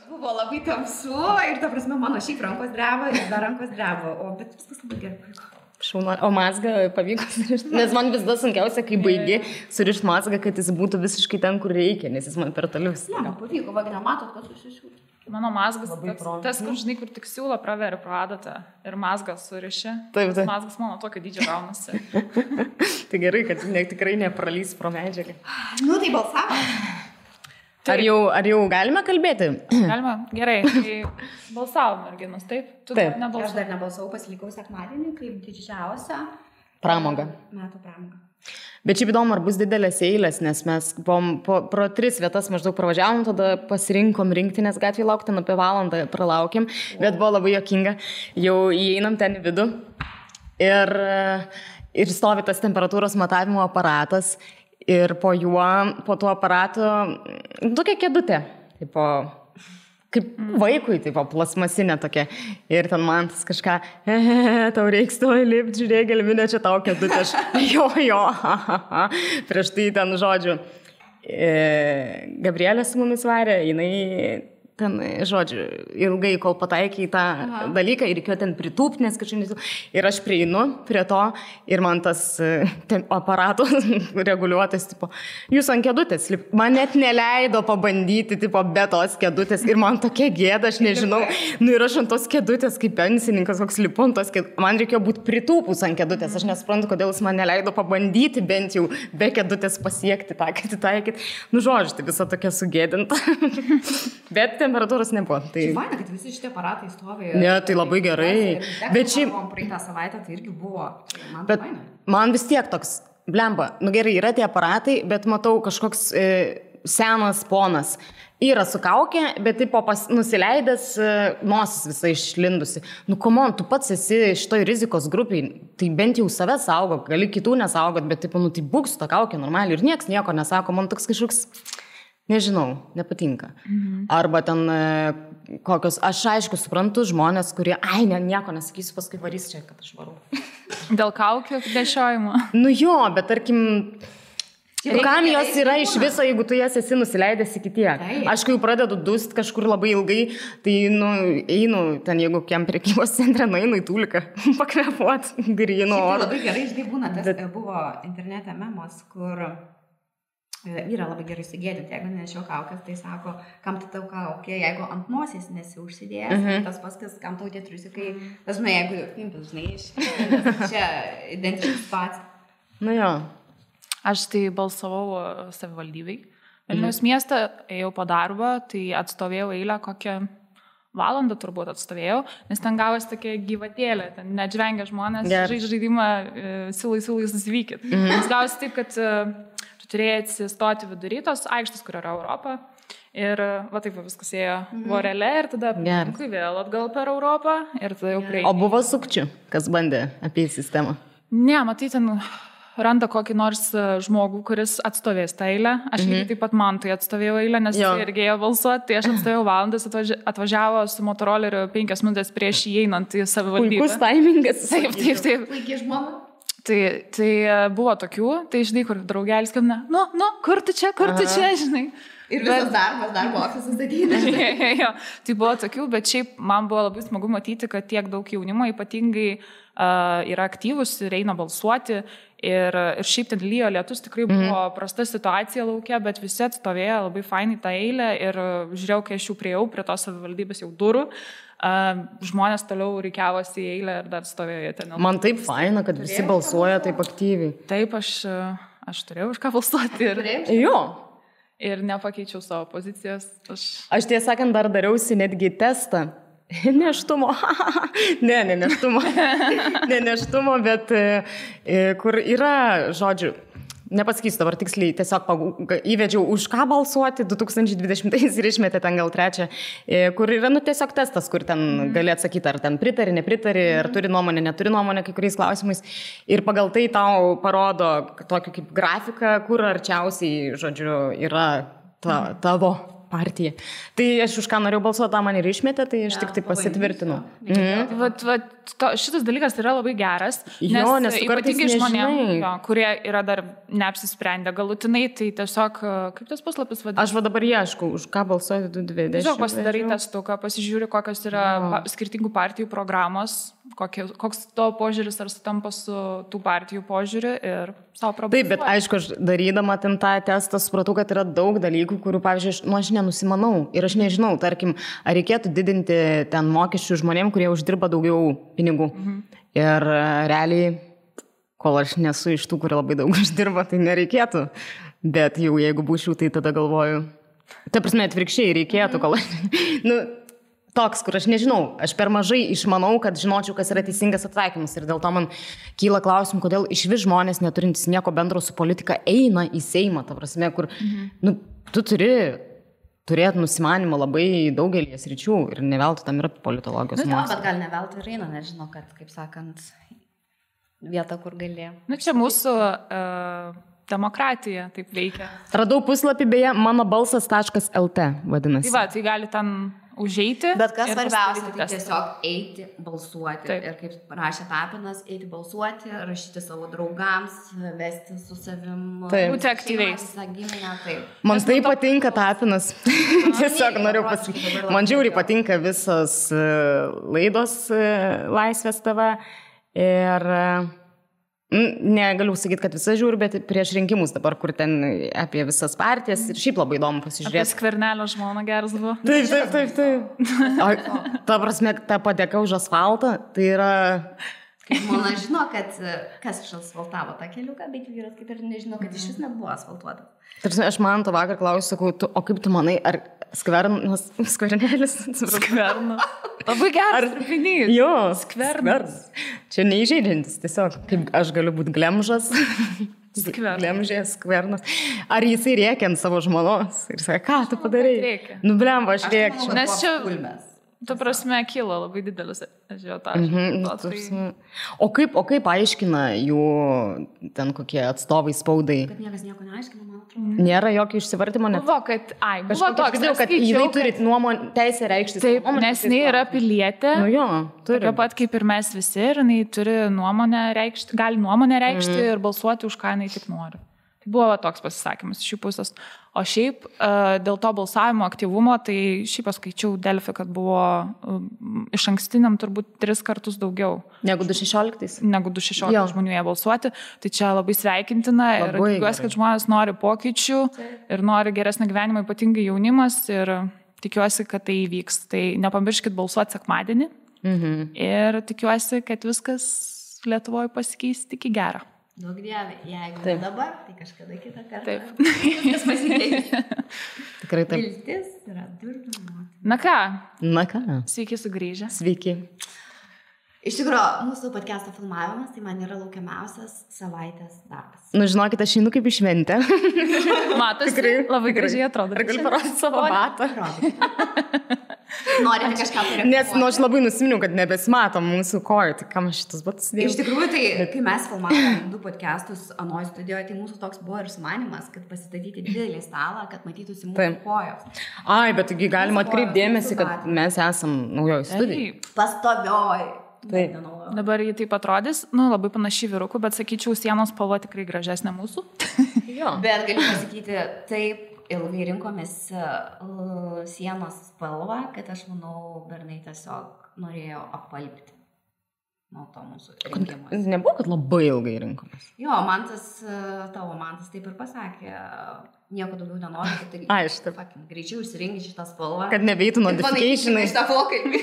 Buvo labai tamsu ir, ta prasme, mano šiaip rankos dreba ir dar rankos dreba, bet viskas labai gerai. Šauna, o mazgą pavyko surišti, nes man vis dar sunkiausia, kai baigi surišti mazgą, kad jis būtų visiškai ten, kur reikia, nes jis man per toli vis. Ne, pavyko, va, nematot, kas susišiūti. Mano mazgas tas, kur žinai, kur tik siūlo praveri pro adatą ir mazgas suriši. Taip. Mazgas mano tokio dydžio gaunasi. Tai gerai, kad tikrai nepralys pro medžiagą. Nu, tai balsavo. Ar jau galime kalbėti? Galima, gerai. Tai balsavo merginos, taip? Taip. Aš dar nebalsavau, pasilikau sekmadienį, kaip didžiausia pramoga. Metų pramoga. Bet šiaip įdomu, ar bus didelės eilės, nes mes pro 3 vietas maždaug pravažiavom, tada pasirinkom rinktinės gatvėje laukti, apie valandą pralaukėm, bet buvo labai juokinga. Jau įeinam ten į vidų ir stovi tas temperatūros matavimo aparatas. Ir po tuo aparatu, tokia kėdutė, kaip vaikui, plasmasinė tokia. Ir ten man tas kažką, tau reiks to įlipti, žiūrėk, gelminė čia tau kėdutė. Jo, prieš tai ten žodžiu. Gabrielė su mumis varė, jinai ten, žodžiu, ilgai, kol pataikė į tą dalyką ir reikėjo ten pritūpti, nes kažkaip ir aš prieinu prie to ir man tas aparatų reguliuotas, jūs ant kėdutės, man net neleido pabandyti, be tos kėdutės ir man tokia gėda, aš nežinau, ir aš ant tos kėdutės, kaip pensininkas, koks lipu ant tos kėdutės, man reikėjo būti pritūpus ant kėdutės, aš nesuprantu, kodėl jis man neleido pabandyti bent jau be kėdutės pasiekti tą, kad įtaikyti, žodžiu, tai visa tokia sugėdinta, bet temperatūros nebuvo. Tai faina, kad visi šitie aparatai stovi. Ne, tai labai gerai. Bet šiaip praeitą savaitę tai irgi buvo. Bet man vis tiek toks, blemba, gerai, yra tie aparatai, bet matau kažkoks senas ponas. Yra su kaukė, bet nusileidęs nosis visai išlindusi. Come on, tu pats esi šitoj rizikos grupiai, tai bent jau save saugok, gali kitų nesaugot, bet tai būk su ta kaukė normaliai ir nieks nieko nesako, man toks kažkoks nežinau, nepatinka. Arba ten kokios, aš aišku suprantu žmonės, kurie, nieko nesakysiu, paskui varys čia, kad aš varau. Dėl kaukių nešiojimo. Jo, bet tarkim, kam jos yra iš viso, jeigu tu jas esi nusileidęs iki tiek. Aš kai jau pradedu dust kažkur labai ilgai, tai einu ten, jeigu kiam prekybos centre, einu į Tuliką pakvepuot gryno oro. Labai gerai, žinai, būna, tas buvo internete memos, kur vyra labai gerai sugėdinti, jeigu nešiau kaukės, tai sako, kam tu tau kaukė, jeigu ant nosies nesi užsidėjęs, tas paskas, kam tau tie triusikai, tas, jeigu pimpis, žinai, čia identiškas pats. Jo. Aš tai balsavau savivaldybei. Vilniaus miestą ėjau po darbo, tai atstovėjau eilę kokią valandą turbūt atstovėjau, nes ten gavosi tokia gyvatėlė, ten neatžvengia žmonės, žaidimą siūlai susivykit. Nes gavosi taip, kad turėjai atsistoti vidury tos aikštės, kur yra Europa. Ir va taip viskas ėjo vorelė ir tada vėl atgal per Europą ir tada jau prie. O buvo sukčių, kas bandė apie sistemą? Ne, matai, ten randa kokį nors žmogų, kuris atstovės tą eilę. Aš lygiai taip pat man tai atstovėjau eilę, nes jis irgi ėjo balsuoti. Tai aš atstovėjau valandas, atvažiavo su motoroleriu 5 minutės prieš įeinant į savivaldybę. Puikus taimingas. Taip. Laikė žmona. Tai buvo tokių, tai žinai, kur draugelis skambina, kur tu čia, žinai. Ir visas darbo ofisas ateina. Jo, tai buvo tokių, bet šiaip man buvo labai smagu matyti, kad tiek daug jaunimo ypatingai yra aktyvus ir eina balsuoti. Ir šiaip ten lyjo lietus, tikrai buvo prasta situacija laukia, bet visi atstovėjo labai fainai tą eilę ir žiūrėjau, kai aš jau priejau prie tos savivaldybės jau durų. Žmonės toliau reikiavosi į eilę ir dar stovėjo ten. Man taip faina, kad visi balsuoja taip aktyviai. Taip, aš turėjau už ką balsuoti. Ir nepakeičiau savo pozicijos. Aš tiesą sakant, dar dariausi netgi testą. Neštumo. Ne neštumo, bet kur yra, žodžiu, nepasakysiu dabar tiksliai, tiesiog įvedžiau už ką balsuoti 2020 ir išmetė ten gal 3, kur yra tiesiog testas, kur ten gali atsakyti, ar ten pritari, nepritari, ar turi nuomonę, neturi nuomonę kai kuriais klausimais. Ir pagal tai tau parodo tokį kaip grafiką, kur arčiausiai, žodžiu, yra tavo partija. Tai aš už ką norėjau balsuoti, tą man ir išmetė, tai aš tik tai pasitvirtinu. Šitas dalykas yra labai geras, nes ypatingai žmonėms, kurie yra dar neapsisprendę galutinai, tai tiesiog, kaip tas puslapis vadinasi? Aš dabar ieškau, už ką balsuoti 2020. Tiesiog pasidarai testuką, pasižiūri, kokios yra skirtingų partijų programos, koks to požiūris ar sutampa su tų partijų požiūriu ir savo problemų. Taip, bet aišku, aš darydama ten tą testą supratau, kad yra daug dalykų, kurių, pavyzdžiui, aš nenusimanau ir aš nežinau, tarkim, ar reikėtų didinti ten mokesčių žmonėm, kurie uždirba daugiau pinigų. Ir realiai, kol aš nesu iš tų, kurie labai daug uždirba, tai nereikėtų. Bet jau jeigu būčiau, tai tada galvoju. Ta prasme, atvirkščiai reikėtų, kol aš... Toks, kur aš nežinau, aš per mažai išmanau, kad žinočiau, kas yra teisingas atsakymas. Ir dėl to man kyla klausimų, kodėl išvis žmonės neturintys nieko bendro su politika eina į Seimą, ta prasme, kur tu turi turėti nusimanimą labai daugelį sričių ir neveltui tam yra politologijos mokslas. Bet gal neveltui ir eina, nežinau, kad, kaip sakant, vieta, kur gali. Čia mūsų demokratija taip veikia. Radau puslapį, beje, manobalsas.lt vadinasi. Tai gali ten užeiti. Bet kas svarbiausia, tai tiesiog eiti balsuoti. Taip. Ir kaip rašė Tapinas, eiti balsuoti, rašyti savo draugams, vesti su savim. Būti aktyviais. Man tai patinka Tapinas. Tiesiog noriu pasakyti. Man žiauriai patinka visas laidos Laisvės TV. Ir negaliu sakyti, kad visą žiūriu, bet prieš rinkimus dabar, kur ten apie visas partijas ir šiaip labai įdomu pasižiūrėti. Apie Skvernelio žmoną geras buvo. Taip. Ta prasme, ta padėka už asfaltą, tai yra... Žmona žino, kad kas išasfaltavo tą keliuką, bet vyras kaip ir nežino, kad iš vis nebuvo asfaltuota. Tarsi, aš man to vakar klausiu, sakau, o kaip tu manai, ar Skvernelis? Skvernas. Labai geras trupinys. Jo, Skvernas. Čia neįžeidžiantis, tiesiog, kaip aš galiu būti glemžas. Skvernas. Skvernas. Ar jisai rėkia ant savo žmonos ir sako, ką tu padarai? Blemba, aš rėkčiau. Nes čia... Tu prasme, kilo labai didelis ažiotažas. O kaip aiškina jų ten kokie atstovai spaudai? Kad niekas nieko neaiškina, man atrodo. Nėra jokio išsivartimo net? Buvo, toks, kad jinai turi teisę reikšti. Taip, nes jinai yra pilietė. Nu jo, turi. Tokia pat kaip ir mes visi, ir jinai turi nuomonę reikšti, gali nuomonę reikšti ir balsuoti už ką jinai tik nori. Buvo toks pasisakymas iš jų pusės. O šiaip dėl to balsavimo aktyvumo, tai šiaip paskaičiau Delfi, kad buvo iš ankstiniam turbūt 3 kartus daugiau. Negu 2016? Negu 2016 žmonių jie balsuoti. Tai čia labai sveikintina ir tikiuosi, kad žmonės nori pokyčių ir nori geresnį gyvenimą, ypatingai jaunimas, ir tikiuosi, kad tai įvyks. Tai nepamirškit balsuoti sekmadienį ir tikiuosi, kad viskas Lietuvoje pasikeis tik į gerą. Daug dievė, jeigu taip. Dabar, tai kažkada kitą kartą. Taip. Viskas pasikeis. Tikrai taip. Viltis yra durnių. Na ką? Sveiki sugrįžę. Sveiki. Iš tikrųjų, mūsų podcast'o filmavimas, tai man yra laukiamiausias savaitės darbas. Nu, žinokit, aš einu kaip į šventę. Matosi, labai gražiai atrodo. Ar galiu parodyti savo batą? Norite kažką turėti. Nes aš labai nusiminiau, kad nebesimatom mūsų kojų, tai kam šitas batas dėjau? Iš tikrųjų, tai kai mes filmavom 2 podcastus Anoj studijoje, tai mūsų toks buvo ir sumanimas, kad pasistatyti didelį stalą, kad matytųsi mūsų kojos. Ai, bet taigi galima atkreipti dėmesį, kad mes esam naujoj studijai. Pastovioj. Taip. Dabar jį taip atrodys, labai panašiai vyrukų, bet sakyčiau, sienos spalva tikrai gražesnė mūsų. Bet galiu pasakyti, taip. Ilgai rinkomės sienos spalvą, kad aš manau, bernai tiesiog norėjo apalpti nuo to mūsų rinkimas. Nebuvo, kad labai ilgai rinkomės. Jo, tavo mantas taip ir pasakė, nieko daugiau nenori, kad tai greičiau išsirinki šitą spalvą. Kad nebeitų notificationai. Šitą pokalbį.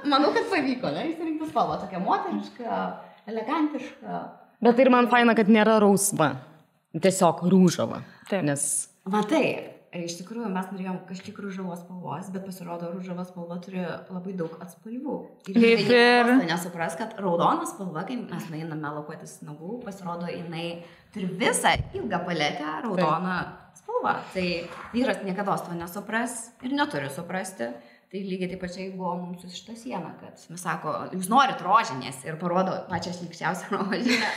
Manau, kad pavyko, ne? Išsirinkti spalvą, tokia moteriška, elegantiška. Bet ir man faina, kad nėra rausva. Tiesiog rūžava. Taip. Nes... Matai, iš tikrųjų mes norėjom kažkiek rūžavos spalvos, bet pasirodo, rūžavos spalva turi labai daug atspalvių. Ir nesupras, kad raudona spalva, kai mes einame lakuotis nagų, pasirodo, jinai turi visą ilgą paletę raudoną spalvą. Tai vyras niekada to nesupras ir neturi suprasti. Tai lygiai taip pačiai buvo mums su šitą sieną, kad mes sako, jūs norit rožinės ir parodo pačią šlykščiausią rožinę.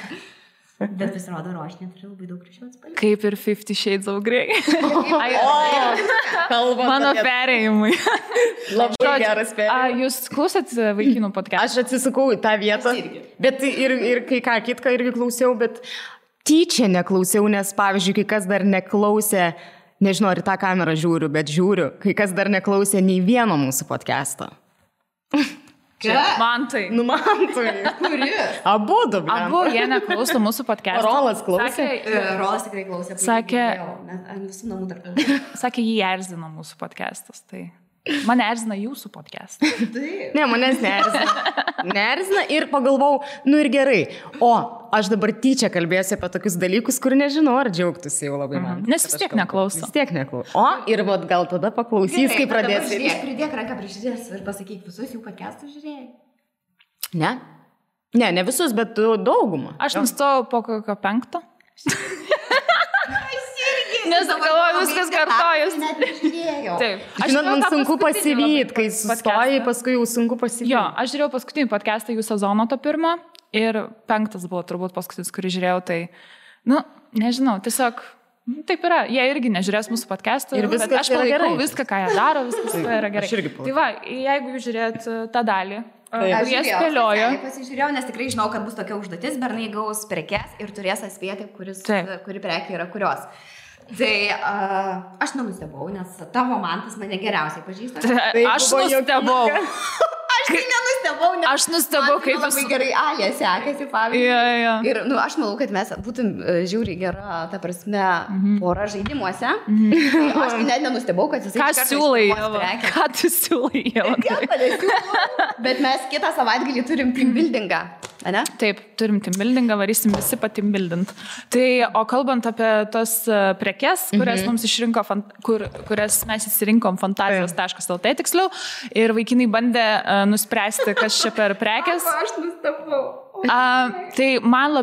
Bet pasirodo, rožinė turi labai daug ryšių atspalvių. Kaip ir 50 Shades of Grey. Kalbant Mano apie- perėjimai. Labai geras perėjimas. Jūs klausėt vaikinų podcast'ą? Aš atsisukau į tą vietą, bet ir kai ką kitką irgi klausiau, bet tyčia neklausiau, nes pavyzdžiui, kai kas dar neklausė, nežinau, ar į tą kamerą žiūriu, bet žiūriu, kai kas dar neklausė nei vieno mūsų podcast'o. Man tai. Nu, man tai. Kuri? Abudu, Abu jie neklauso mūsų podcast'o. Rolas klausė. Rolas tikrai klausė. Sakė- Ant visų namų dar klausė. Sakė, jį erzino mūsų podcast'as. Tai mane erzina jūsų podcast'as. Taip. Ne, manęs neerzina. Neerzina ir pagalvojau, nu ir gerai. O aš dabar tyčia kalbėsiu apie tokius dalykus, kur nežinau, ar džiaugtųsi jau labai man. Nes vis tiek neklauso. Vis tiek neklauso. O ir vat, gal tada paklausys, kai pradės. Pridėk ranką prie širdies ir pasakyk, visus jų podcastus žiūrėjai. Ne? Ne visus, bet daugumą. Aš nustojau po kokio 5. Nes galvoju, viskas kartojas. Net nežiūrėjau. Taip. Žinot, man žiūrėjau tą sunku paskutinį pasivyti, labai kai podcastą. sustoji, paskui jau sunku pasivyti. Jo, aš žiūrėjau paskutinį podcastą jų sezono to pirmo ir 5 buvo turbūt paskutinis, kurį žiūrėjau, tai, nu, nežinau, tiesiog taip yra. Jie irgi nežiūrės mūsų podcastą. Ir viskas aš yra palaikau gerai. viską, ką jie daro, viskas yra gerai. Aš irgi palaikau. Tai va, jeigu jūs žiūrėt tą dalį, Aš jie spėliojo. Pasižiūrėjau, nes tikrai žinau, kad bus tokia užduotis, bernai gaus prekes ir turės atspėti, kuri prekė yra kurios. Tai aš nenustebau, nes tavo mantas mane geriausiai pažįsta. Aš buvo nustebau. Aš tai nenustebau, nes Aš nustebau, kaip labai jūs- gerai Alė sekėsi, pavyzdžiui. Jo. Ir aš manau, kad mes būtum žiūri gera, ta prasme, pora žaidimuose. Tai aš tai net nenustebau, kad jisai Ką iš karto siūlai, išsinuomos Ieva? prekę. Ką tu siūlai, Ieva? Nieko nesiūlau. Bet mes kitą savaitgalį turim team buildingą, ane? Taip, turim teambuildingą, varysim visi pateambuildint. Tai, o kalbant apie tas prekes, kurias mums išrinko, kurias mes įsirinkom fantazijos.lt tiksliau, ir vaikinai bandė nuspręsti, kas čia per prekes. Aš nustebau. Tai mane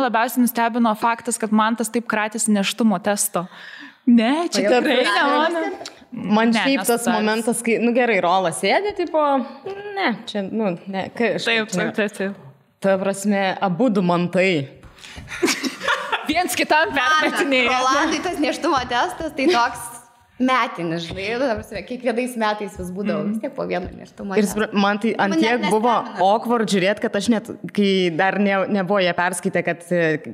labiausiai nustebino faktas, kad man tas taip kratėsi neštumo testo. Ne, čia tikrai ne mano. Man Ne, šiaip tas nesutaris. momentas, kai, nu gerai, Rolas sėdė, tipo, ne, čia, nu, ne, kai aš. Taip. Ta prasme, abudu man tai. Viens kitam permetinėja. Rolandai tas neštumo testas, tai toks metinis, žinai, ta prasme, kiekvienais metais vis būdavo vis tiek po vieną neštumo Ir testą. man tai ant Mane tiek buvo nestebina. awkward žiūrėti, kad aš net, kai dar nebuvo jie perskaitę, kad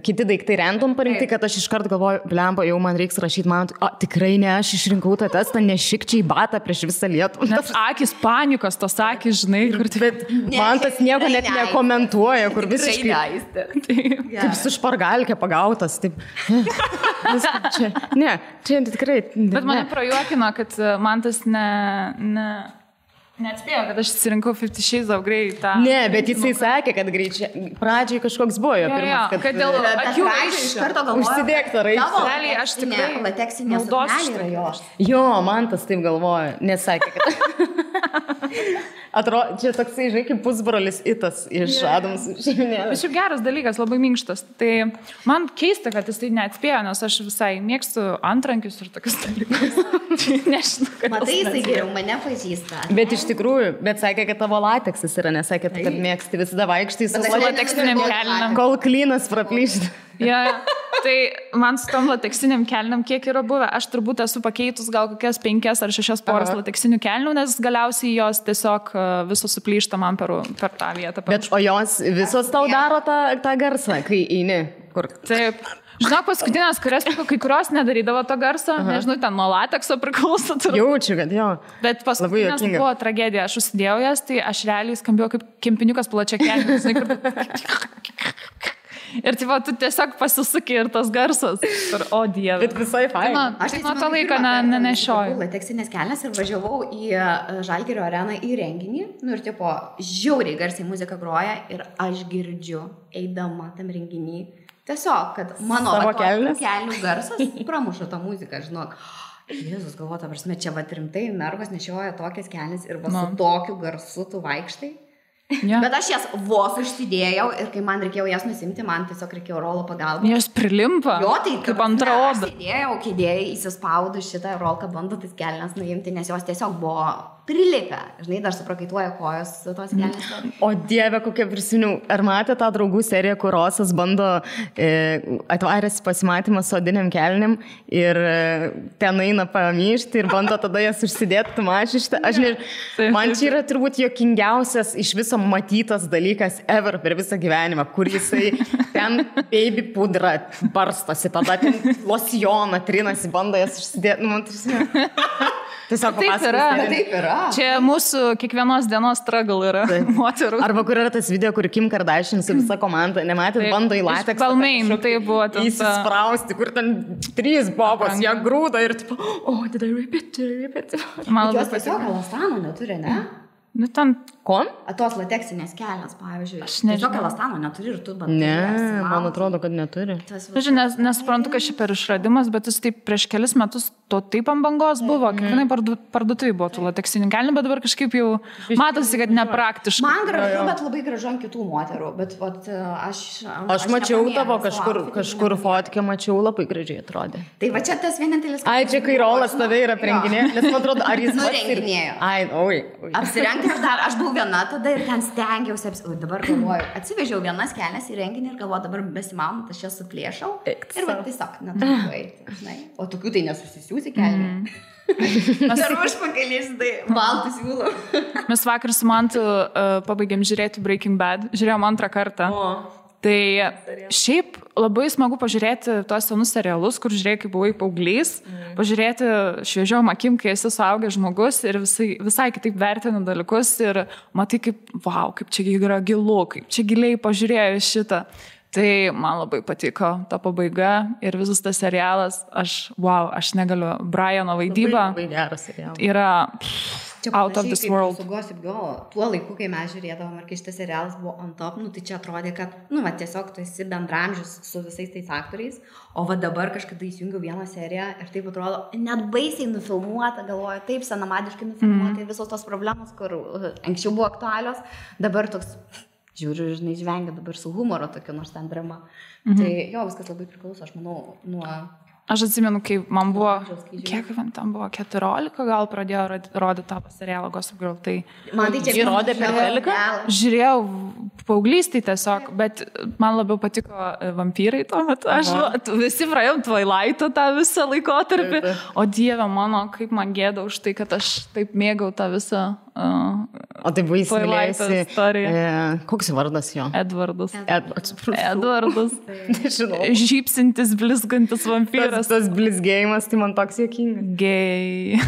kiti daiktai random parinkti, kad aš iškart galvoju, blemba, jau man reiks rašyti, man, tikrai ne, aš išrinkau tą testą, nešikčiai batą prieš visą Lietuvą. Nes akis panikos, tos akis, žinai, kur Bet man tas nieko net tikrai nekomentuoja, kur Tikrai visiškai neaistė. kaip su špargalkė pagautas. Taip. Viskas čia. Ne, čia tikrai. Bet mane ne. prajuokino, kad man tas neatspėjo, kad aš atsirinkau 50 Shades of Grey. Ne, bet jisai sakė, kad greičiai. Pradžiai kažkoks buvo jo Jo, pirmas, kad dėl Bet akių pradžioj iš karto galvoju, Užsidėk tą raištį. tavo Realiai aš tikrai lateksinė naudosiu suknelė yra šitą. jos. Jo, man tas taip galvoja, nesakė, kad... Atrodo, čia toksai, žinai, kaip pusbrolis Itas iš Adams šeiminės. Bet šiaip geras dalykas, labai minkštas. Tai man keista, kad jis tai neatspėjo, nes aš visai mėgstu antrankius ir tokius dalykus. Nežinau, kad Matai, jisai geriau mane pažįsta. Bet iš tikrųjų, bet sakė, kad tavo lateksas yra, nesakė, kad mėgsti visada vaikštai su Bet Su aš lateksiniam nenustebau, kelnėm. kol klynas praplyšti. Ja, tai man su tom lateksiniam kelniam kiek yra buvę, aš turbūt esu pakeitus gal kokias 5 ar 6 poras lateksinių kelnių, nes galiausiai jos tiesiog visos suplyšta man per tą vietą. Bet o jos visos tau daro tą garsą, kai eini. Kur? Taip. Žinok, paskutinės, kai kurios nedarydavo to garso, nežinau, ten nuo latekso priklauso. Jaučiu, kad jo. Bet paskutinės juokinga. buvo tragedija, aš užsidėjau jas, tai aš realiai skambėjau kaip kempiniukas plačia kelnių. Ir tipo, tu tiesiog pasisuki ir tas garsas. Ir, o dieve. Bet visai fain. Aš nuo to laiko nenešioju. Lateksinės kelnes ir važiavau į Žalgirio areną į renginį. Nu ir tipo, žiauriai garsiai muzika groja ir aš girdžiu, eidama tam renginį. Tiesiog, kad mano Savo kelnes? kelnių garsas pramuša tą muziką, žinok. Jėzus, galvoju, ta prasme, čia va rimtai mergos nešioja tokias kelnes ir va su tokiu garsu tu vaikštai. Ja. Bet aš jas vos užsidėjau ir kai man reikėjo jas nusimti, man tiesiog reikėjo Rolo pagalbą. Jos prilimpa. Jo, tai kaip antra oda. Sėdėjau, kėdėjai, įsispaudu šitą rolką, bando tas kelnes nuimti, nes jos tiesiog buvo prilipę. Žinai, dar suprakaituoja kojos tos kelnes. O Dieve, kokia prisiminiau. Ar matė tą draugų seriją, kur Rosas bando atvaręs pasimatymą su odiniam kelnim ir ten eina pamyšti ir bando tada jas užsidėti, tu mačiai šitą. Aš nežinau, man čia yra turbūt juokingiausias iš viso matytas dalykas ever per visą gyvenimą, kur jisai ten baby pudrą barstosi, tada ten losjoną trinasi, bando jas užsidėti. Nu, man tiesiog taip yra. Čia mūsų kiekvienos dienos struggle yra moterų. Arba kur yra tas video, kur Kim Kardashian su visa komanda, nematėt, bando į lateksą. Balmain, tai buvo ten. Įsisprausti, kur ten 3 bobos, jie grūda ir tipo, did I rip it? Man jos tiesiog elastano neturi, ne? Nu, ten... Ko? Tos lateksinės kelnes, pavyzdžiui. Aš nežinau. Tiesiog elastano neturi ir tu bandai. Ne, man atrodo, kad neturi. Nesuprantu, kad ši per išradimas, bet jis taip prieš kelis metus to taip ant bangos buvo. Kiekvienai parduotuvai buvo tų lateksinių kelnių, bet dabar kažkaip jau matosi, kad nepraktiškai. Man gražu, bet labai gražu ant kitų moterų. Bet aš mačiau tavo kažkur fotkę, mačiau labai gražiai atrodė. Tai va čia tas vienintelis... Ai, čia kai Rolas tave yra aprenginė, nes man atrodo, ar jis nurenginėjo. Ai, Apsirengti aš buvau viena tada ir ten stengiausi, dabar galvoju, atsivežiau vienas kelnes į renginį ir galvoju, dabar besimaunant, aš jas suplėšau ir va tiesiog neturiu eiti. O tokių tai nesusisiūsi kelnių. Ar užpakalys, tai baltus siūlau. Mes vakar su Mantu pabaigėm žiūrėti Breaking Bad, žiūrėjom 2 kartą. Tai šiaip labai smagu pažiūrėti tuos senus serialus, kur žiūrėjai, kaip buvai paauglys, pažiūrėti šviežiom akim, kai esi suaugęs žmogus ir visai kitaip vertini dalykus ir matai, kaip čia yra gilu, kaip čia giliai pažiūrėjai šitą. Tai man labai patiko ta pabaiga ir visas tas serialas, aš negaliu, Briano vaidyba labai geras serialas. Yra out of this world. Su Gossip Girl, tuo laiku, kai mes žiūrėdavom, ir kai šitas serialas buvo on top, tai čia atrodė, kad, tiesiog tu esi bendramžius su visais tais aktoriais, o dabar kažkada įsijungiau vieną seriją ir taip atrodo, net baisiai nufilmuota, galvoju, taip senamadiškai nufilmuota, visos tos problemos, kur anksčiau buvo aktualios, dabar toks... Žiūriu, žinai, žvengia dabar su humoro tokia nors ten drama. Tai viskas labai priklauso, aš manau, nuo... Aš atsimenu, kai man buvo, kiek man tam buvo, 14 gal pradėjo rodyti tą serialą Gossip Girl, tai... Man tai čia rodė per teliką? Žiūrėjau paauglystėj tiesiog, bet man labiau patiko vampyrai tuo metu. Visi praėjom Twilight'o tą visą laikotarpį, o Dieve mano, kaip man gėda už tai, kad aš taip mėgau tą visą o tai buvo įsimylėjusi koks vardas jo? Edvardas. Nežinau. Žypsintis, blizgantis vampyras. Tas blizgėjimas, tai man toks juokingas. Gei.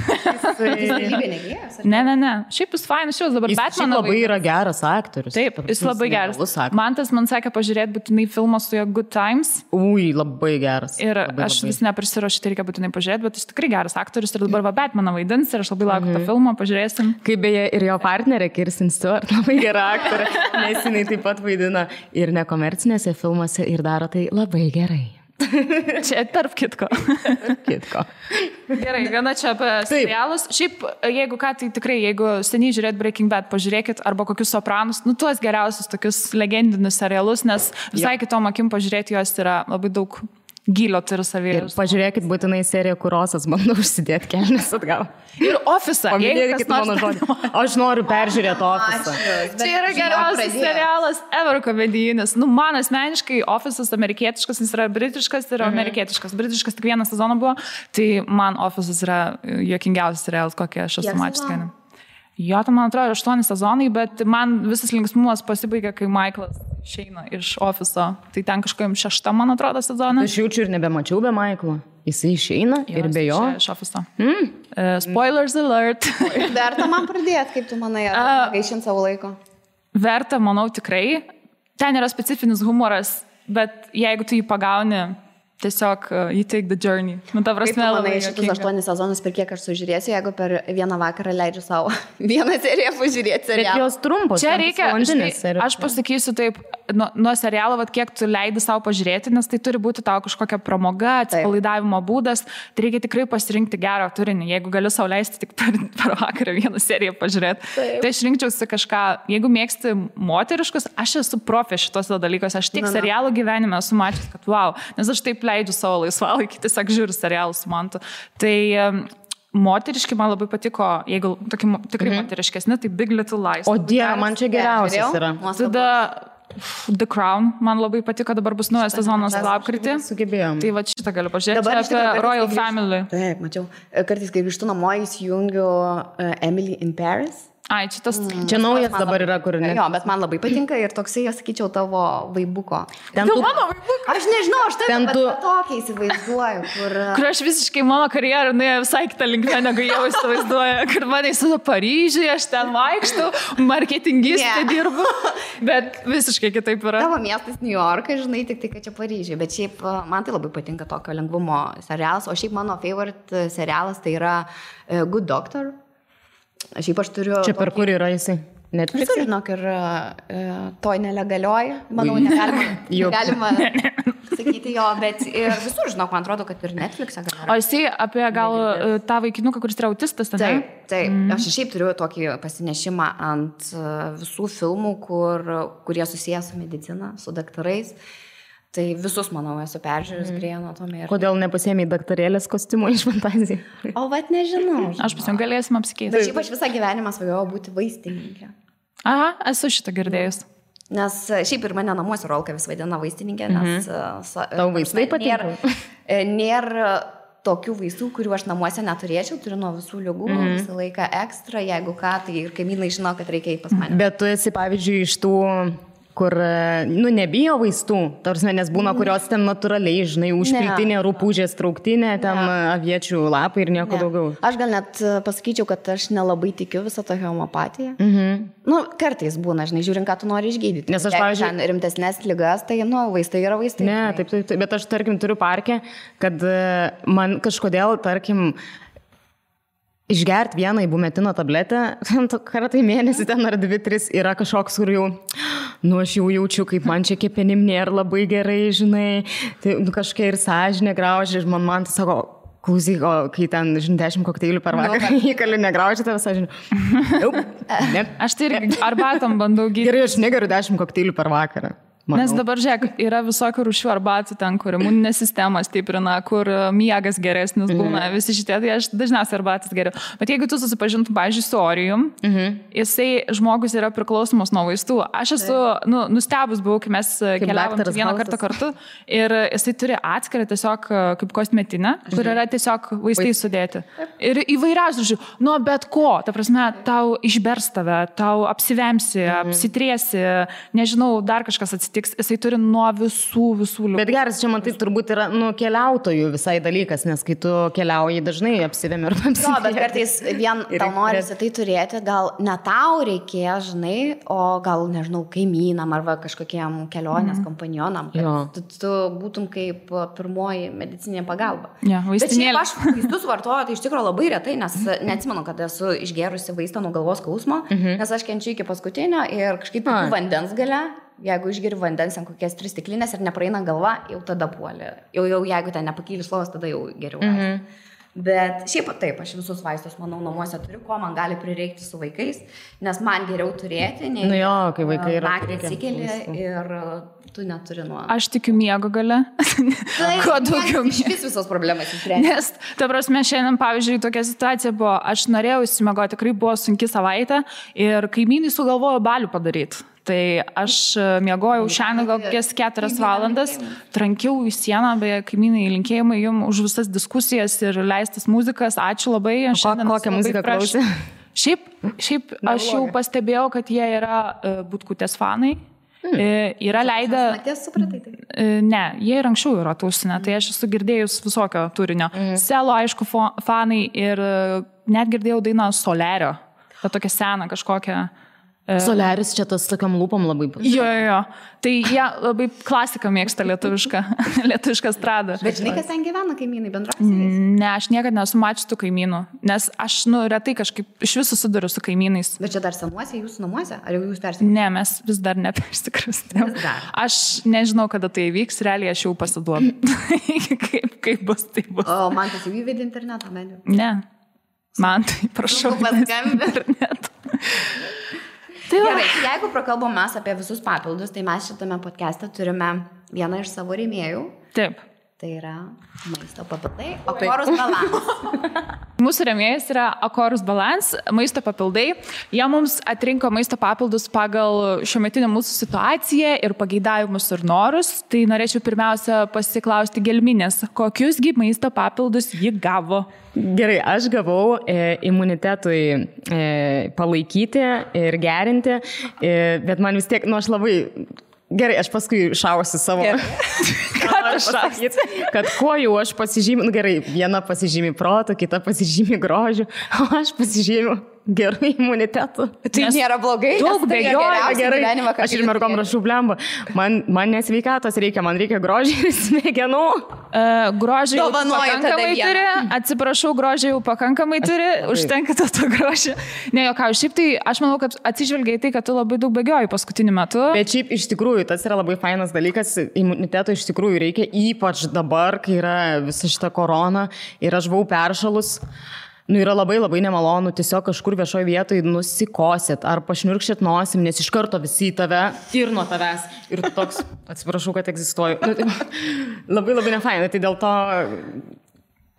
Jis Ne. Šiaip jis fainas, šios dabar Batman labai yra geras aktorius. Taip, jis labai geras. Mantas man sakė pažiūrėti būtinai filmą su jo Good Times. Labai geras. Ir aš vis neprisiruošiu, tai reikia būtinai pažiūrėti, bet jis tikrai geras aktorius ir dabar Batmaną vaidins ir aš labai laukiu tą filmą, pažiūrėsim. Kaip beje ir jo partnerė Kirsten Stewart, labai gera aktorė, nes jinai taip pat vaidina ir nekomercinėse filmuose ir daro tai labai gerai. Čia tarp kitko. Gerai, viena čia apie serialus. Šiaip, jeigu ką, tai tikrai, jeigu seniai žiūrėt Breaking Bad, pažiūrėkit arba kokius Sopranus, tuos geriausius tokius legendinius serialus, nes visai kitom akim pažiūrėti juos yra labai daug gylio turi savyje. Ir pažiūrėkit būtinai seriją, kur Rosas bando užsidėti kelnes atgal. Ir Office'ą. Paminėkit mano žodį. Aš noriu peržiūrėti Office'ą. Čia yra geriausias serialas ever komedijinis. Man asmeniškai Office'as amerikietiškas, jis yra britiškas ir amerikietiškas. Britiškas tik vieną sezoną buvo, tai man Office'as yra juokingiausias serialas, kokią aš esu mačius. Jo, tai man atrodo 8 sezonai, bet man visas linksmumas pasibaigia, kai Michaelas išeina iš Office'o. Tai ten kažkojim 6, man atrodo, sezoną. Aš jaučiu ir nebemačiau be Michaelo. Jis išeina ir be jo. Iš Office'o. Spoilers alert. Verta man pradėti, kaip tu manai, gaišint savo laiko? Verta, manau, tikrai. Ten yra specifinis humoras, bet jeigu tu jį pagauni, tiesiog you take the journey. Ta prasme, kaip tu manai, šitus 8 sezonus per kiek aš sužiūrėsiu, jeigu per vieną vakarą leidžiu savo vieną seriją pažiūrėti serialą. Bet jos trumpos. Čia reikia, aš pasakysiu taip, nuo serialo, kiek tu leidi savo pažiūrėti, nes tai turi būti tau kažkokia pramoga, atsipalaidavimo būdas, tai reikia tikrai pasirinkti gerą turinį. Jeigu gali sau leisti tik per vakarą vieną seriją pažiūrėti, tai aš rinkčiausi kažką, jeigu mėgsti moteriškus, aš esu profė šitose dalykuose, aš tik serialų gyvenime esu mačius, kad wow, nes aš taip leidžiu savo laisvalaikį, tiesiog žiūriu serialus su Mantu. Tai moteriški man labai patiko, jeigu tokie tikrai moteriškesni, tai Big Little Lies. O Dieve, man čia geriausias yra. Tada The Crown man labai patiko, dabar bus naujas sezonas lapkritį. Sugebėjom. Tai va šitą galiu pažiūrėti. Čia apie Royal Family. Taip, mačiau. Kartais, kai grįžtu namo, įsijungiu Emily in Paris. Ai, šitas... Čia naujas dabar yra, kur ne. Jo, bet man labai patinka ir toksai, aš sakyčiau, tavo vaibuko. Mano vaibuko. Aš nežinau, aš taip tokia įsivaizduoju, kur aš visiškai mano karjerą nuėjo visai kitą linkmę, negu jau įsivaizduoju, kur mane įsida Paryžiuje, aš ten vaikštų, marketingistė dirbu, bet visiškai kitaip yra. Tavo miestas New Yorkas, žinai, tik tai, kad čia Paryžiuje, bet šiaip man tai labai patinka tokio lengvumo serialas, o šiaip mano favorite serialas tai yra Good Doctor. Šiaip aš turiu... Čia per kur yra jisai? Netflix? Visur, žinok, ir toj nelegalioj, manau, negalima sakyti jo, bet ir visur, žinok, man atrodo, kad ir Netflix'e galima. O jisai apie gal tą vaikinuką, kuris yra autistas, tada? Taip. Aš šiaip turiu tokį pasinešimą ant visų filmų, kurie susijęs su medicina, su daktarais. Tai visus, manau, esu peržiūrėjus Grey Anatomy. Kodėl nepasėmė daktarėlės kostiumo iš Fantazijų? O vat nežinau. Aš pasim galėsim apsikeisti. Bet šiaip aš visą gyvenimą svajojau būti vaistininkė. Aha, esu šitą girdėjus. Nes šiaip ir mane namuose Rolka vis vadina vaistininkė, nes... Tau vaistai patinka? Nėra tokių vaistų, kurių aš namuose neturėčiau, turiu nuo visų ligų, visą laiką ekstra, jeigu ką, tai ir kaimynai žino, kad reikia eiti pas mane. Bet tu esi, pavyzdžiui, iš tų... kur, nebijo vaistų, tarsi, nes būna, kurios ten natūraliai, žinai, užpiltinė, rupūžės trauktinė, ten aviečių lapai ir nieko daugiau. Aš gal net pasakyčiau, kad aš nelabai tikiu visą tą homeopatiją. Nu, kartais būna, žinai, žiūrint, ką tu nori išgydyti. Nes aš, pavyzdžiui, rimtesnės ligas, tai, vaistai yra vaistai. Ne, taip, bet aš, tarkim, turiu parkę, kad man kažkodėl, tarkim, išgerti vieną ibumetino tabletę, kartą į mėnesį ten ar 2-3 yra kažkoks, kur jau, aš jau jaučiu, kaip man čia kepenim nėra labai gerai, žinai, tai kažkai ir sąžinė graužia, ir man tai sako, klausyk, kai ten, žinai, 10 kokteilių per vakarą įkali negraužia tave sąžinė. Aš tai ir arbatom bandau gydyti. Gerai, aš negeriu 10 kokteilių per vakarą. Manau. Nes dabar, žiūrėk, yra visokių rūšių arbatų ten, kur imuninė sistema stiprina, kur miegas geresnis būna, visi šitie, tai aš dažniausiai arbatas geriu. Bet jeigu tu susipažintum, pavyzdžiui, su Orijum, jisai žmogus yra priklausomas nuo vaistų. Aš esu, nustebus buvau, kai mes keliavom vieną kartą kartu ir jisai turi atskirą tiesiog kaip kosmetinę, kur yra tiesiog vaistai sudėti. Ir įvairiausių rūšių, bet ko, ta prasme, tau išbers tave, tau apsivemsi, apsitriesi, nežinau, dar kažkas atsitiks. Jisai turi nuo visų liūkų. Bet geras, čia man tai turbūt yra keliautojų visai dalykas, nes kai tu keliauji dažnai apsivemi ir apsivemi. Bet kartais vien tau norisi tai turėti, gal ne tau reikės, žinai, o gal, nežinau, kaimynam arba kažkokiem kelionės kompanionam, kad tu būtum kaip pirmoji medicinė pagalba. Bet šiaip aš vaistus vartoju, tai iš tikrųjų labai retai, nes neatsimenu, kad esu išgerusi vaistą nuo galvos skausmo, nes aš kenčiu iki paskutinio ir kažkaip vandens gale. Jeigu išgeri vandens ant kokias 3 stiklinės ir nepraeina galva, jau tada puolė. Jau jeigu ten nepakyli slovas, tada jau geriau. Bet šiaip taip, aš visus vaistus, manau, namuose turiu, ko man gali prireikti su vaikais, nes man geriau turėti, nei kai vaikai yra. Naktį atsikeli ir tu neturi nuo... Aš tikiu miego gale. Kuo daugiau miego. Iš vis visos problemas įsprendė. Nes, ta prasme, šiandien, pavyzdžiui, tokia situacija buvo, aš norėjau įsimegoti, tikrai buvo sunki savaitė ir kaimynai sugalvojo balių padaryti. Tai aš miegojau šiandien gal kokias 4 valandas, trankiau į sieną, beje, kaimynai, linkėjimai jums už visas diskusijas ir leistas muzikas. Ačiū labai. Kokią muziką klausė? Šiaip aš jau pastebėjau, kad jie yra Butkutės fanai. Yra leidę... Ne, jie ir anksčiau yra tausinę, tai aš esu girdėjus visokio turinio. Selo, aišku, fanai ir net girdėjau dainą Solerio. Ta tokia sena kažkokia... Soleris čia tas tokiam lūpom labai bus. Jo. Tai jie labai klasiką mėgsta lietuvišką stradą. Bet žinai, kas ten gyvena kaimynai bendrausiais? Ne, aš niekada nesu mačius tų kaimynų, nes aš retai kažkaip iš viso susiduriu su kaimynais. Bet čia dar senuose jūsų namuose? Ar jau jūs persikrustėte? Ne, mes vis dar nepersikrustėm. Aš nežinau, kada tai vyks, realiai aš jau pasiduodu. kaip bus, tai bus. O man tas jau įvedė internetą, medžiu? Ne, man tai prašau. Internetu. Gerai, jeigu prakalbom mes apie visus papildus, tai mes šitame podcast'e turime vieną iš savo rėmėjų. Taip. Tai yra maisto papildai, Akorus Balance. Mūsų rėmėjas yra Akorus Balance, maisto papildai. Jie mums atrinko maisto papildus pagal šiuometinę mūsų situaciją ir pageidavimus ir norus. Tai norėčiau pirmiausia pasiklausti Gelminės, kokiusgi maisto papildus ji gavo? Gerai, aš gavau imunitetui palaikyti ir gerinti, bet man vis tiek, aš labai... Gerai, aš paskui šausiu savo. Ką aš sakyti? Kad kuo jau aš pasižymiu, gerai, viena pasižymi proto, kita pasižymi grožiu, o aš pasižymiu gerų imunitetų. Tai nėra blogai. Daug bėgioja, gerai. Aš ir mergom rašau blemba. Man nesveikatos reikia, man reikia grožį ir smegenų. Grožį jau pakankamai turi. Atsiprašau, grožį jau pakankamai turi. Užtenka to grožį. Ne, jokau, šiaip tai aš manau, kad atsižvelgiai tai, kad tu labai daug bėgioji paskutiniu metu. Bet šiaip iš tikrųjų, tas yra labai fainas dalykas. Imuniteto iš tikrųjų reikia, ypač dabar, kai yra visa šita korona ir aš buvau peršalus. Yra labai nemalonu tiesiog kažkur viešoje vietoje nusikosėt ar pašniurkšėt nosim, nes iš karto visi į tave ir nuo tavęs. Ir toks, atsiprašau, kad egzistuoju. Labai nefainai, tai dėl to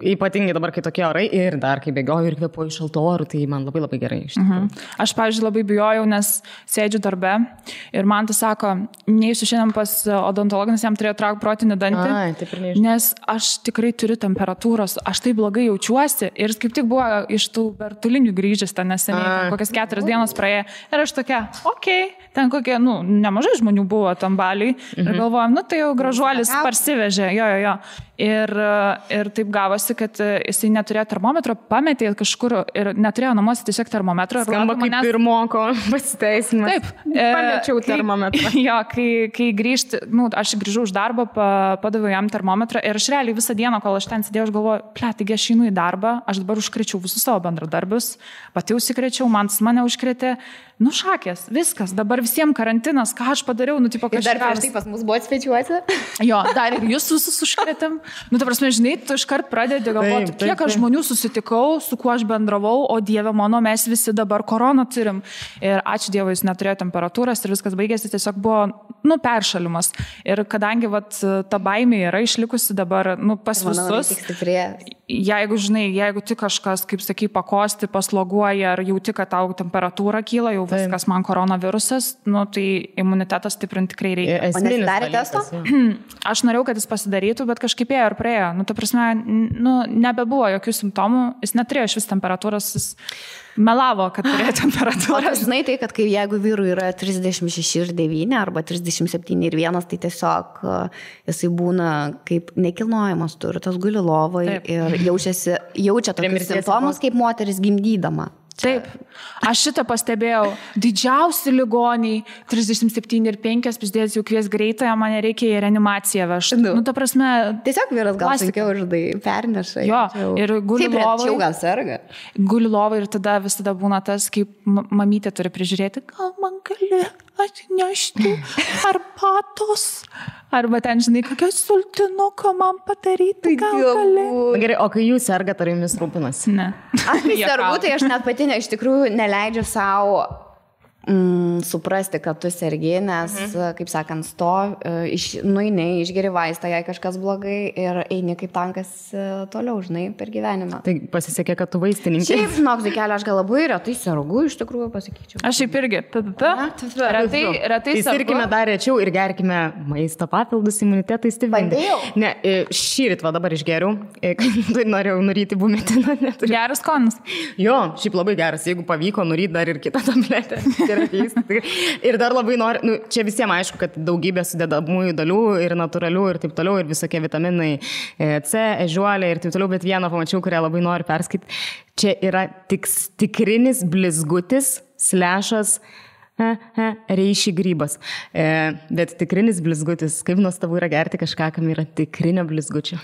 ypatingai dabar, kai tokie orai ir dar kai bėgioju ir kvėpuoju šaltų orų, tai man labai gerai. Aš, pavyzdžiui, labai bijojau, nes sėdžiu darbe ir man tas sako, neįsiu šiandien pas odontologą, nes jam turėjo traukti protinį dantį, nes aš tikrai turiu temperatūros, aš tai blogai jaučiuosi ir kaip tik buvo iš tų bertulinių grįžęs ten neseniai, kokias 4 dienos praėjo ir aš tokia, ten kokie, nemažai žmonių buvo tam baliui ir galvojom, tai jau gražuolis parsivežė, jo. Ir taip gavosi, kad jisai neturėjo termometro, pametė kažkur ir neturėjo namuose tiesiog termometro. Skamba kaip pirmoko pasiteisimas. Taip. Pamečiau termometrą. Jo, kai grįžti, aš grįžau už darbą, padaviau jam termometrą ir aš realiai visą dieną, kol aš ten sėdėjau, aš galvoju, taigi aš einu į darbą, aš dabar užkrečiau visus savo bendradarbius, pati užsikrečiau, mane užkrėtė. Šakės, viskas, dabar visiems karantinas, ką aš padariau, kažkas. Ir dar prieš tai pas mus buvo svečiuoti. Jo, dar ir jūs visus užkrėtėm. Ta prasme, žinai, tu iškart pradedi galvoti, kiek aš žmonių susitikau, su kuo aš bendravau, o Dieve mano, mes visi dabar koroną turim. Ir ačiū Dievui, jis neturėjo temperatūros ir viskas baigėsi, tiesiog buvo, peršalimas. Ir kadangi, ta baimė yra išlikusi dabar, pas visus, jeigu tik kažkas, kaip sakai, pakosti, pasloguoja, ar jauti, kad tau temperatūra kyla, jau viskas man koronavirusas, tai imunitetas stiprinti tikrai reikia. O nesidarė testo? Aš norėjau, kad jis pasidarytų, bet kažkaip ėjo ir praėjo. Ta prasme, nebebuvo jokių simptomų, jis neturėjo iš vis temperatūros, jis melavo, kad turėjo temperatūrą. Žinai tai, kad jeigu vyrui yra 36,9 arba 37,1, tai tiesiog jisai būna kaip nekilnojamas turtas, guli lovoje ir jaučia tokius simptomus kaip moteris gimdydama. Taip, aš šitą pastebėjau. Didžiausi ligoniai, 37,5, pizdės jau kvies greitąją, man reikia į reanimaciją vežti. Ta prasme... Tiesiog vyras gal sunkiau perneša. Jo, ir guli lovai. Gal serga. Guli lovai ir tada visada būna tas, kaip mamytė turi prižiūrėti, gal man gali atnešti arbatos. Arba ten, žinai, kokią sultinuką man padaryti, gal gali. Gerai, o kai jūs sergat, ar jumis rūpinasi? Ne. Aš kai sergu, tai aš net pati iš tikrųjų neleidžiu savo suprasti, kad tu sergi, nes, kaip sakant, nueini, išgeri vaistą, jei kažkas blogai ir eini kaip tankas toliau, žinai, per gyvenimą. Tai pasisekė, kad tu vaistininkė. Šiaip, žinok, Zikelė, aš gal labai retai sergu, iš tikrųjų pasakyčiau. Aš šiaip irgi. Retai sergu. Sirkime dar rečiau ir gerkime maisto papildus imunitetui stiprinti. Ne, šįryt dabar išgeriau, kai norėjau nuryti bumetiną. Geras skonis. Jo, šiaip labai geras, jeigu pavyko nuryti dar ir kitą tabletę. Ir dar labai noriu, čia visiems aišku, kad daugybė sudedamųjų dalių ir natūralių ir taip toliau, ir visokie vitaminai C, ežiuolė ir taip toliau, bet vieną pamačiau, kurią labai noriu perskaityti. Čia yra tikrinis blizgutis / reiši grybas. Bet tikrinis blizgutis, kaip nuostabu yra gerti kažką, kam yra tikrinio blizgučio.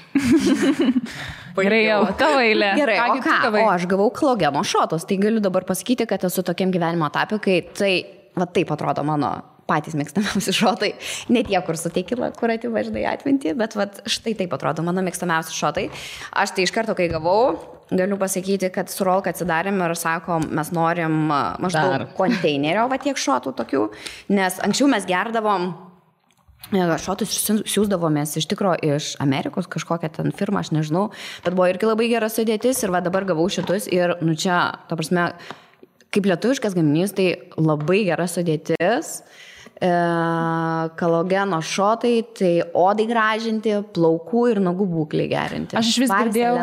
Gerai, jau, tavo eilė. Gerai, o ką? O aš gavau klogeno šotus, tai galiu dabar pasakyti, kad esu tokiam gyvenimo etape, kai taip atrodo mano patys mėgstamiausi šotai. Ne tie, kur su tequila, kur ativaždai atminti, bet štai taip atrodo mano mėgstamiausi šotai. Aš tai iš karto, kai gavau, galiu pasakyti, kad su Rolka atsidarėm ir sako, mes norim maždaug konteinerio tiek šotų tokių, nes anksčiau mes gerdavom šotus siūsdavomės iš tikro iš Amerikos, kažkokią ten firmą, aš nežinau, bet buvo irgi labai gera sudėtis ir va dabar gavau šitus ir, nu čia, ta prasme, kaip lietuviškas gaminys, tai labai gera sudėtis, kolageno šotai, tai odai gražinti, plaukų ir nagų būklį gerinti. Aš iš vis girdėjau,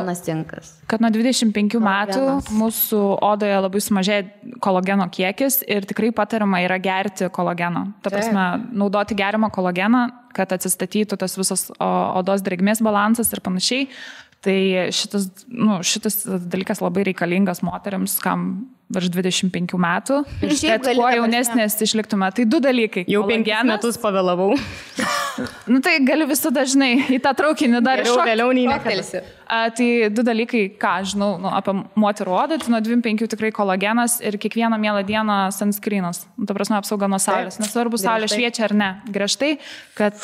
kad nuo 25 metų mūsų odoje labai sumažėja kolageno kiekis ir tikrai patariama yra gerti kolageno. Ta prasme, naudoti geriamą kolageną, kad atsistatytų tas visas odos drėgmės balansas ir panašiai. Tai šitas dalykas labai reikalingas moteriams, kam virš 25 metų. Ir kad kuo jaunesnės išliktume. Tai 2 dalykai. Jau 5 metus pavėlavau. Nu tai galiu visą dažnai į tą traukinį dar iššokti. Vėliau nei nekalsi. Tai 2 dalykai, ką žinau apie moterų odą, tai nuo 25 tikrai kolagenas ir kiekvieną mielą dieną sunscreenas. Ta prasme, apsauga nuo saulės. Nesvarbu, saulė šviečia ar ne. Griežtai, kad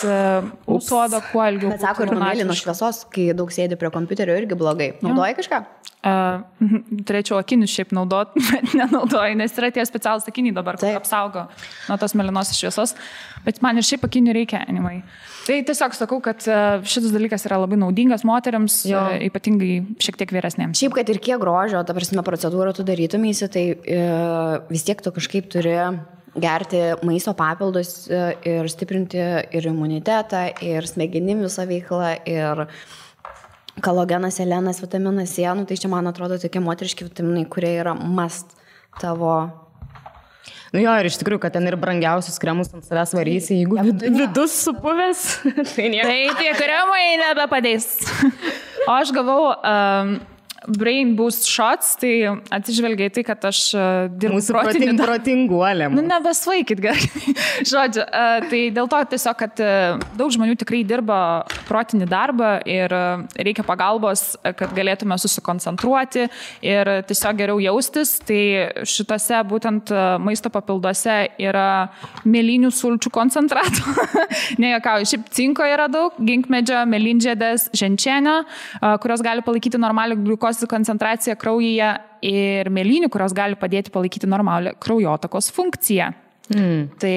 mūsų oda kuo ilgiau. Bet sako, ir nuo mėlynos šviesos, kai daug sėdi prie kompiuterio, irgi blogai. Naudoji kažką? Turėčiau akinius šiaip naudot, bet nenaudoju, nes yra tie specialūs akiniai dabar, kur apsaugo nuo tos mėlynos šviesos. Bet man ir šiaip akinių reikia, anyway. Tai tiesiog sakau, kad šitas dalykas yra labai naudingas moteriams, ypatingai šiek tiek vyresnėms. Šiaip, kad ir kiek grožio, ta prasme, procedūrą tu darytumėsi, tai vis tiek tu kažkaip turi gerti maisto papildus ir stiprinti ir imunitetą, ir smegenim visą veiklą, ir kolagenas, selenas, vitaminas C, nu, tai čia man atrodo tokie moteriški vitaminai, kurie yra must tavo. Nu jo, ir iš tikrųjų, kad ten ir brangiausius kremus ant savęs varysi, jeigu vidus supuvęs, tai nieko. Tai tie kremai nebepadės. O aš gavau Brain Boost Shots, tai atsižvelgiai tai, kad aš dirbu protinguolėm. Nu, nebesvaikit gerai. Žodžiu, tai dėl to tiesiog, kad daug žmonių tikrai dirba protinį darbą ir reikia pagalbos, kad galėtume susikoncentruoti ir tiesiog geriau jaustis. Tai šitose būtent maisto papilduose yra mėlynių sulčių koncentratų. Nejuokauju, šiaip cinko yra daug, ginkmedžio, mėlynžiedės, ženčienio, kurios gali palaikyti normalią gliukos koncentraciją kraujyje ir mėlynių, kurios gali padėti palaikyti normalią kraujotakos funkciją. Tai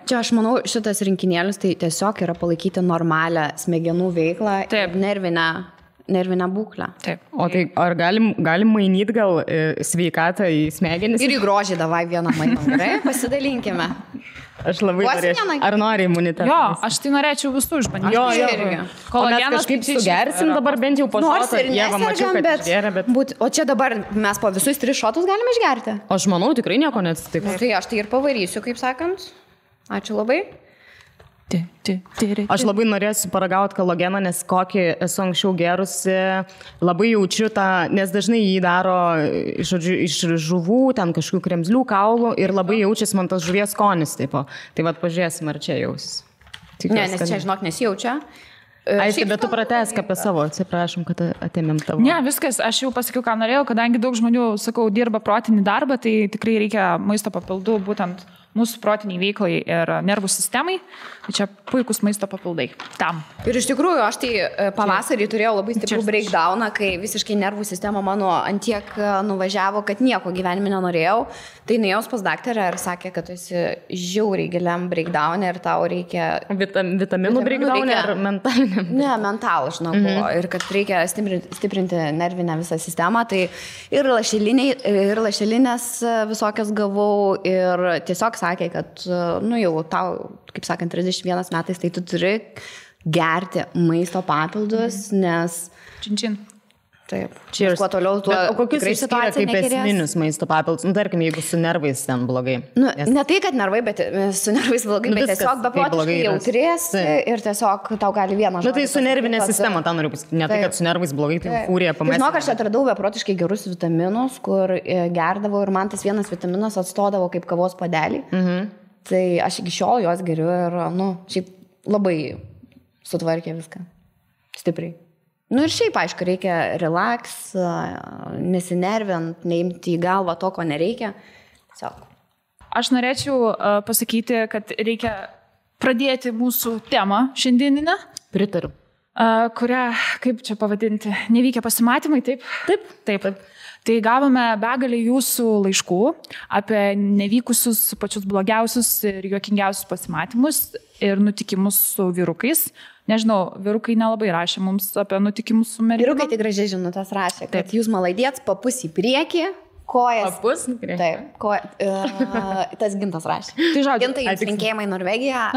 čia aš manau, šitas rinkinėlis tai tiesiog yra palaikyti normalią smegenų veiklą ir nervinę būklę. Taip. O tai ar galim mainyti gal sveikatą į smegenis? Ir į grožį davai vieną mainą, gerai? Pasidalinkime. Aš labai norėčiau. Ar nori imunitetą? Jo, aš tai norėčiau visų išbandyti. Jo. Kolagenas kažkaip sugersim dabar bent jau po šoto. Nors ir nesergam, bet... O čia dabar mes po visus 3 šotus galime išgerti? Aš manau, tikrai nieko neatsitiks. Tai aš tai ir pavarysiu, kaip sakant. Ačiū labai. Aš labai norėsiu paragauti kolageną, nes kokį esu anksčiau gerusi, labai jaučiu tą, nes dažnai jį daro žodžiu, iš žuvų, ten kažkokių kremzlių, kaulų ir labai jaučiasi man tas žuvies skonis. Taip, tai vat pažiūrėsim, ar čia jaus. Ne, nes čia, žinok, nesijaučia. Aišku, bet tu pratesk apie savo, atsiprašom, kad atėmėm tavo. Ne, viskas, aš jau pasakiau, ką norėjau, kadangi daug žmonių, sakau, dirba protinį darbą, tai tikrai reikia maisto papildų būtent mūsų protiniai veiklai ir nervų sistemai. Tai čia puikus maisto papildai. Tam. Ir iš tikrųjų, aš tai pavasarį turėjau labai stiprų breakdowną, kai visiškai nervų sistema mano antiek nuvažiavo, kad nieko gyvenime nenorėjau. Tai nuėjau pas daktarę ir sakė, kad tu esi žiauriai giliam breakdown'e ir tau reikia... Vitaminų breakdown'e ar mentaliniam? Ne, mentalų, žinau, ir kad reikia stiprinti nervinę visą sistemą. Tai ir lašelinės visokias gavau ir tiesiog sakė, kad, nu jau tau, kaip sakant, 31 metais, tai tu turi gerti maisto papildus, nes... Čin. Taip. Cheers. Kuo toliau, tuo o kokius išskiria kaip esminius maisto papildus? Nu, tarkim, jeigu su nervais ten blogai. Nu, ne tai, kad nervai, bet su nervais blogai, bet tiesiog beprotiškai jautrės ir tiesiog tau gali vieną žodį. Nu, tai su nervinė sistema, tą noriu pasakyti. Ne tai, kad su nervais blogai, tai fūrija pamesti. Žinok, aš atradau beprotiškai gerus vitaminus, kur gerdavau ir man tas vienas vitaminas atstodavo kaip kavos padelį. Tai aš iki šiol juos geriu ir, nu, šiaip labai sutvarkė viską. Stipriai. Nu ir šiaip, aišku, reikia relax, nesinervint, neimti į galvą to, ko nereikia. Tiesiog. Aš norėčiau pasakyti, kad reikia pradėti mūsų temą šiandieninę. Pritariu. Kurią, kaip čia pavadinti, nevykę pasimatymai, taip? Taip. Tai gavome begalį jūsų laiškų apie nevykusius pačius blogiausius ir juokingiausius pasimatymus ir nutikimus su vyrukais. Nežinau, vyrukai nelabai rašė mums apie nutikimus su merginom. Vyrukai tik gražiai žinutės rašė, kad jūs malaidėts papus į priekį. Kojas. Papus? Taip, tas Gintas rašė. Tai žodžiu, Gintai, jums linkėjimai Norvegija.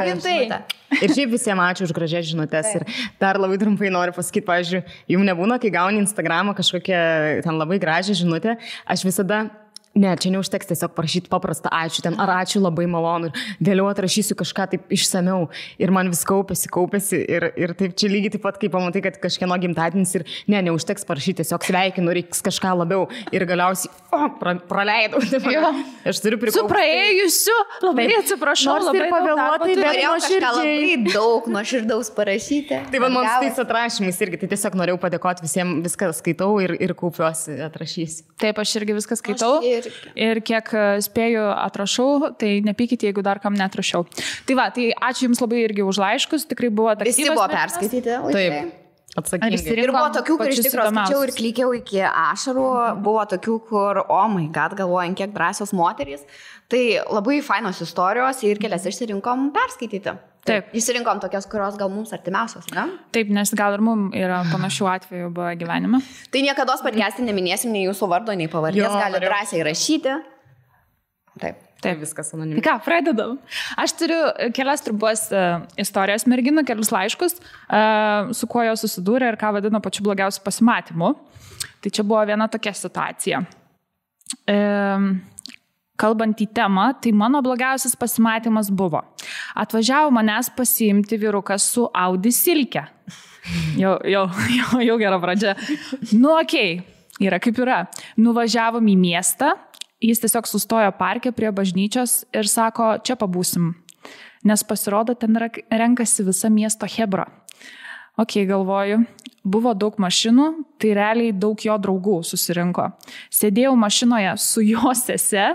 Gintai. Ir šiaip visiems ačiū už gražias žinutės. Ir dar labai trumpai noriu pasakyti, pavyzdžiui, jums nebūna, kai gauni Instagramą kažkokią ten labai gražią žinutę, aš visada... Ne, čia neužteks tiesiog parašyti paprastą ačiū ten, ar ačiū labai malonu ir vėliau atrašysiu kažką taip išsameu ir man vis kaupėsi ir taip čia lygiai taip pat, kai pamatai, kad kažkieno gimtadienis ir neužteks parašyti, tiesiog sveikinu, reiks kažką labiau ir galiausiai praleidau. Aš turiu prikaupti. Su praėjusiu, labai atsiprašau, labai pavėluotai, bet labai daug nuoširdaus parašyti. Tai man su tais atrašymais irgi, tai tiesiog norėjau padėkoti visiems, viską skaitau ir kaupiuosi, atrašysiu. Taip, aš irgi viską skaitau. Ir kiek spėju atrašau, tai nepykite, jeigu dar kam neatrašiau. Tai va, tai ačiū Jums labai irgi už laiškus, tikrai buvo aktyvas. Visi buvo perskaityti. Taip, atsakingai. Ir buvo tokių, kur iš tikrųjų skaičiau ir klykiau iki ašarų, buvo tokių, kur, oh my god, galvojant, kiek drąsios moterys. Tai labai fainos istorijos ir kelias išsirinkom perskaityti. Taip. Išsirinkom tokias, kurios gal mums artimiausios, ne? Taip, nes gal ir mums yra panašių atvejų buvo gyvenime. Tai niekada podcast'e neminėsim nei jūsų vardo, nei pavardės, gali drąsiai rašyti. Taip, viskas anonimiškai. Tai ką, pradedam. Aš turiu kelias trumpas istorijas merginų, kelius laiškus, su kuo jos susidūrė ir ką vadino pačiu blogiausiu pasimatymu. Tai čia buvo viena tokia situacija. Kalbant į temą, tai mano blogiausias pasimatymas buvo. Atvažiavo manęs pasiimti vyrukas su Audi silke. Jau gera pradžia. Okei, yra kaip yra. Nuvažiavom į miestą, jis tiesiog sustojo parke prie bažnyčios ir sako, čia pabūsim. Nes pasirodo, ten renkasi visa miesto hebra. Galvoju, buvo daug mašinų, tai realiai daug jo draugų susirinko. Sėdėjau mašinoje su jo sese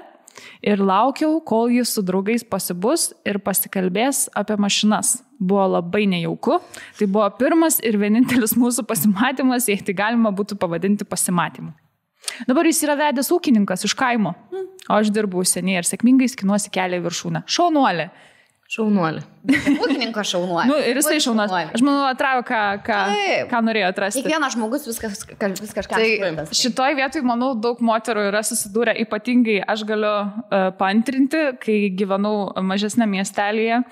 ir laukiau, kol jis su draugais pasibus ir pasikalbės apie mašinas. Buvo labai nejauku. Tai buvo pirmas ir vienintelis mūsų pasimatymas, jei tai galima būtų pavadinti pasimatymu. Dabar jis yra vedęs ūkininkas iš kaimo, o aš dirbu užsienyje ir sėkmingai skinuosi kelią į viršūnę. Šaunuolė. Ūkininko šaunuolė. Ir jisai šaunuolė. Aš manau, atrado, ką norėjo atrasti. Kiekvienas žmogus vis kažką. Tai šitoj vietoj, manau, daug moterų yra susidūrę, ypatingai aš galiu paantrinti, kai gyvenau mažesnė miestelėje,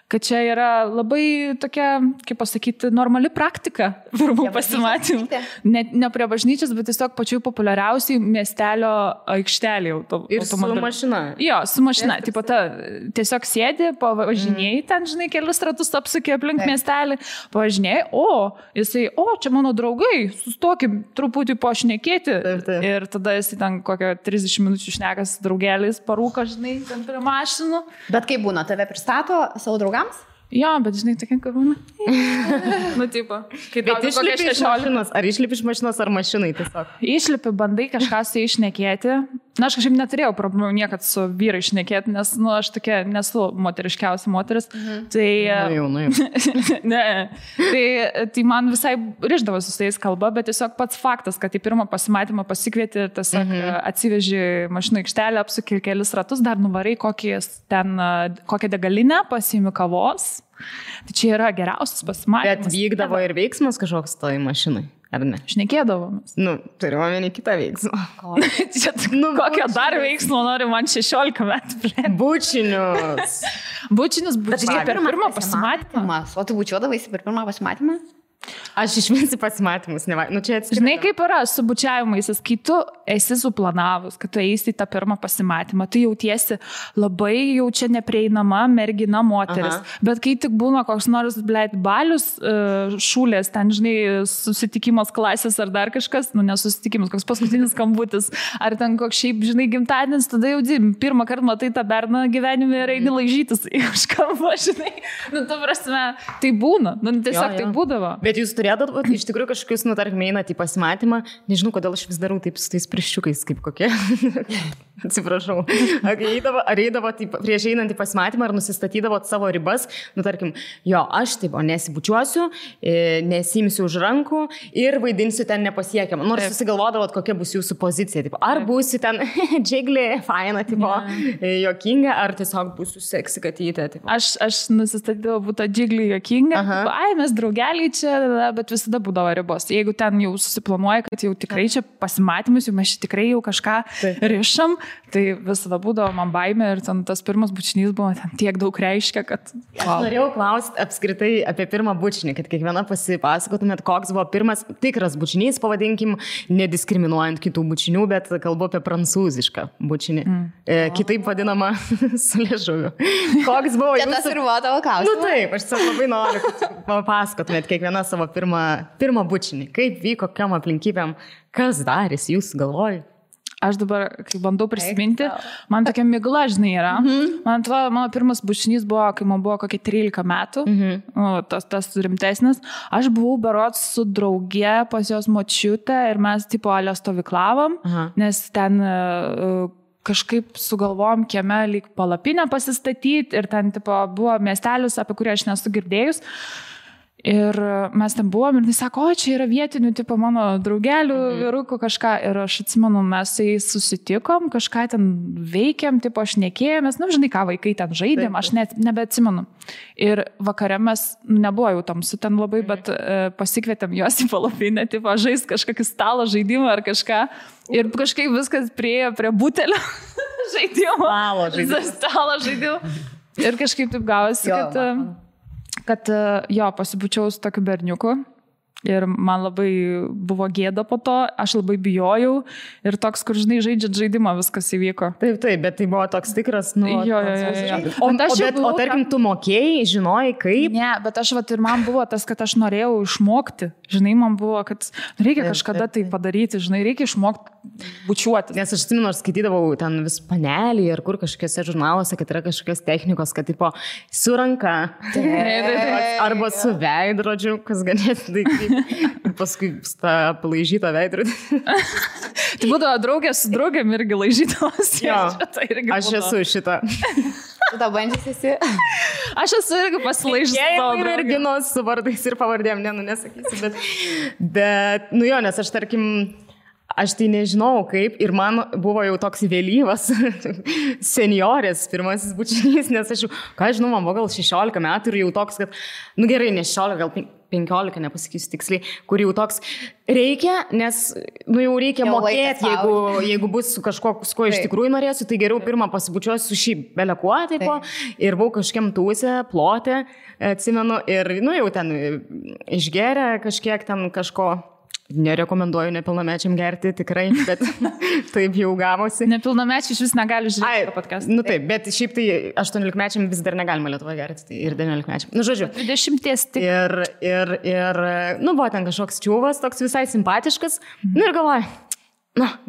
kad čia yra labai tokia, kaip pasakyti, normali praktika verbų pasimatymų. Ne prie bažnyčios, bet tiesiog pačių populiariausiai miestelio aikštelė. Ir su mašina. Jo, su mašina. Tiesiog sėdi, pavažinėjai ten, žinai, kelius ratus apsukė aplink miestelį, pavažinėjai, jisai, čia mano draugai, sustokim truputį pašnekėti. Ir tada jisai ten kokią 30 minučių šnekas draugeliais parūko, žinai, ten prie mašinų. Bet kaip būna, tave pristato savo draugams? Jo, bet žinai, tokia karūna. Tipo. Bet išlipi iš mašinos, ar išlipi iš mašinos, ar mašinai tiesiog? Išlipi, bandai kažką su jais šnekėti. Na, aš kažkaip neturėjau problemų niekad su vyrai šnekėti, nes, aš tokia nesu moteriškiausia moteris. Tai... Tai man visai rišdavosi su jais kalba, bet tiesiog pats faktas, kad į pirmą pasimatymą pasikvieti ir tiesiog atsiveži mašinų aikštelę, apsuki kelis ratus, dar nuvarai kokią degalinę, pasiimi kavos. Tai čia yra geriausias pasimatymas. Bet vykdavo ir veiksmas kažkoks toj mašinai, ar ne? Šnekėdavomės. Turiu omeny kitą veiksmą. Kokio dar veiksmo nori man 16 metų? Bučinius. Bučinius per pirmą pasimatymą. O tu bučiuodavaisi per pirmą pasimatymą? Aš išminsi pasimatymus, čia atskirti. Žinai, kaip yra su bučiavimais, kai tu esi suplanavus, kad tu eisi į tą pirmą pasimatymą, tu jautiesi labai jau čia neprieinama mergina moteris. Bet kai tik būna koks nors, balius, šūlės, ten, žinai, susitikimas klasės ar dar kažkas, nesusitikimas, koks paskutinis skambutis, ar ten koks šiaip, žinai, gimtadienis, tada jau pirmą kartą matai tą berną gyvenime ir eini laižytis iš kalbą, žinai. Ta prasme, tai būna, tiesiog tai būdavo. Bet jūs turėdavote iš tikrųjų kažkokius, tarkim, einat į pasimatymą, nežinau, kodėl aš vis darau taip su tais pirščiukais, kaip kokie. atsiprašau, ar eidavo prieš einant į pasimatymą, ar nusistatydavo savo ribas, tarkim, jo, aš taip, nesibučiuosiu, nesimsiu už rankų ir vaidinsiu ten nepasiekiamą. Nors susigalvodavot, kokia bus jūsų pozicija. Tipo, ar būsi ten džiglį, faina, tipo, jokinga, ar tiesiog būsiu seksi katytė. Tipo. Aš nusistatydavau būti džiglį jokinga. Mes draugeliai čia, bet visada būdavo ribos. Jeigu ten jau susiplanuoja, kad jau tikrai čia pasimatymus, jau mes čia tikrai jau kažką rišam, tai visada būdavo man baimė ir ten tas pirmas bučinys buvo ten tiek daug reiškia, kad... Aš norėjau klausti apskritai apie pirmą bučinį, kad kiekviena pasipasakotumėt, koks buvo pirmas tikras bučinys, pavadinkim, nediskriminuojant kitų bučinių, bet kalbu apie prancūzišką bučinį. Kitaip vadinama su liežuviu. Koks buvo jūsų... Tas ir buvo tavo klausimas. Taip, aš labai noriu, kad papasakotumėt kiekviena savo pirmą bučinį. Kaip vyko, kokiam aplinkybėm, kas darys jūsų galvoj? Aš dabar, kai bandau prisiminti, man tokia migla, žinai, yra. Man atrodo, mano pirmas bučinys buvo, kai man buvo kokie 13 metų, tas rimtesnis. Aš buvau berods su drauge pas jos močiutę ir mes tipo alio stovyklavom, nes ten kažkaip sugalvojom kieme lyg palapinę pasistatyti ir ten tipo buvo miestelis, apie kurį aš nesu girdėjus. Ir mes ten buvom ir jis sako, čia yra vietinių, tipo mano draugelių, vyrukų kažką. Ir aš atsimenu, mes su jais susitikom, kažką ten veikėm, tipo aš nekėjomės, žinai ką, vaikai ten žaidėm, aš nebeatsimenu. Ir vakare mes, nebuvo jau tamsu ten labai, bet pasikvietėm juos į palapinę, tipo žaist kažkokį stalo žaidimą ar kažką. Ir kažkaip viskas priejo prie butelio žaidimo. Stalo žaidimo. Ir kažkaip taip gavosi, kad jo, pasibučiau su tokiu berniuku ir man labai buvo gėda po to, aš labai bijojau ir toks, kur žinai, žaidžiat žaidimą, viskas įvyko. Taip, bet tai buvo toks tikras, Jo. O tarkim, tu mokėjai, žinojai kaip? Ne, bet aš ir man buvo tas, kad aš norėjau išmokti, žinai, man buvo, kad reikia kažkada tai padaryti, žinai, reikia išmokti bučiuoti. Nes aš atsimenu, aš skaitydavau ten vis panelį ir kur kažkokiuose žurnaluose, kad yra kažkokios technikos, kad tipo su ranka arba su veidrodžiu, kas ganėtinai ir paskui tą palaižytą veidrodį. Tai būdavo draugė su draugėm irgi laižydamas. Aš esu šitą. Tu tą bandžius esi? Aš esu irgi pasilaižęs savo draugę. Merginos su vardais ir pavardėm, nesakysiu, bet, jo, nes aš tarkim, aš tai nežinau kaip ir man buvo jau toks vėlyvas seniorės pirmasis bučinys, nes aš jau, ką žinau, man buvo gal 16 metų ir jau toks, kad, gerai, ne 16, gal 15, nepasakysiu tiksliai, kur jau toks reikia, nes, jau reikia mokėti, jeigu bus su kažko, su ko iš tikrųjų norėsiu, tai geriau pirmą pasibučiuosiu su šį belekuo, ir buvau kažkiam tūsę, plotę, atsimenu, ir, jau ten išgeria kažkiek ten kažko. Nerekomenduoju nepilnamečiam gerti, tikrai, bet taip jau gavosi. Nepilnamečiai iš vis negali žiūrėti podcastą. Taip, bet šiaip tai 18-mečiam vis dar negalima Lietuvoje gerti, tai ir 19-mečiam. Žodžiu. 20 tik. Ir, buvo ten kažkoks čiūvas, toks visai simpatiškas. Ir galvoju,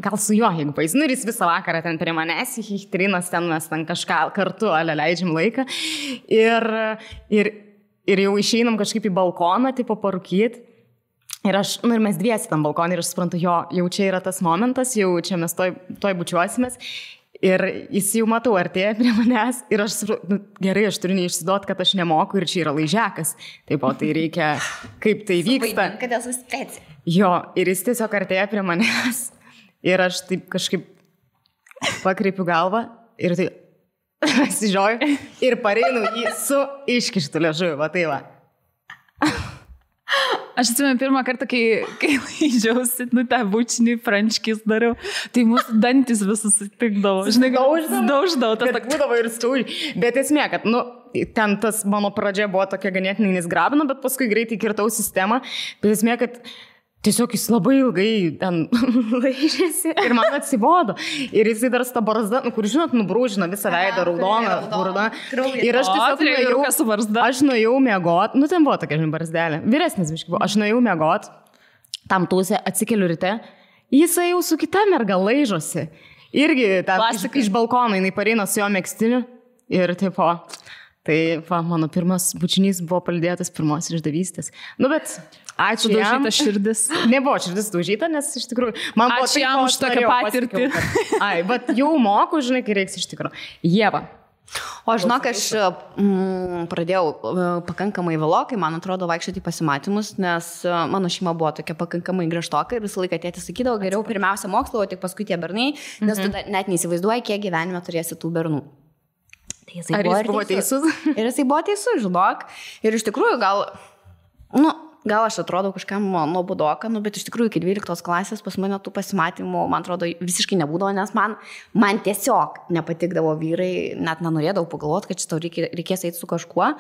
gal su juo, jeigu paės. Ir jis visą vakarą ten prie manęs, trinas ten, mes ten kažką kartu leidžiam laiką. Ir jau išeinam kažkaip į balkoną, tipo parūkyti. Ir mes dviesi tam balkonį ir aš suprantu, jau čia yra tas momentas, jau čia mes toj bučiuosimės. Ir jis jau matau, artėja prie manęs ir aš suprantu, gerai, aš turiu neišsiduoti, kad aš nemoku ir čia yra laižiakas. Taip, o tai reikia, kaip tai vyksta. Kad esu speci. Jo, ir jis tiesiog artėja prie manęs ir aš taip kažkaip pakreipiu galvą ir tai pasižioju ir pareinu jį su iškištu liežuviu, va tai va. Aš atsimenu pirmą kartą, kai laižiausi, tą bučinį frančkis dariau, tai mūsų dantis visus sutikdavo. Žinai, dauždavo. Tas būdavo ir stūri. Bet esmė, kad, ten tas mano pradžia buvo tokia ganėtinai nesgrabina, bet paskui greitai kirtau sistemą. Bet esmė, kad tiesiog jis labai ilgai ten laižėsi ir man atsibodo. Ir jisai dar tą barzdą, kur žinot, nubrūžino visą veidą, raudoną burną. Ir aš tiesiog nuėjau miegot, ten buvo tokia barzdelė, vyresnis biškai buvo, aš nuėjau miegot, tam tūsė, atsikeliu ryte, jisai jau su kita merga laižosi. Irgi iš balkono, jinai pareina su jo megstiniu ir tipo... Tai mano pirmas bučinys buvo palydėtas pirmos išdavystės. Bet Ačiū jam. Sudaužyta širdis. Nebuvo širdis daužyta, nes iš tikrųjų... Ačiū jam už tokią patirtį. Ai, bet jau moku, žinai, kai reiks iš tikrųjų. Ieva. O žinok, aš pradėjau pakankamai vėlokai, man atrodo, vaikščioti pasimatymus, nes mano šeima buvo tokia pakankamai griežtoka ir visą laiką tėtis sakydavo, geriau pirmiausia mokslo, o tik paskui tie bernai, nes tu net neįsivaizduoji, kiek gyvenime turėsi tų bernų. Tai Ar jis buvo teisus? Ir jisai buvo teisus, žinok. Ir iš tikrųjų gal aš atrodau kažkam nuobodoka, bet iš tikrųjų iki 12 klasės pas mane tų pasimatymų, man atrodo, visiškai nebūdavo, nes man tiesiog nepatikdavo vyrai, net nenorėdavau pagalvoti, kad šitą reikės eiti su kažkuo,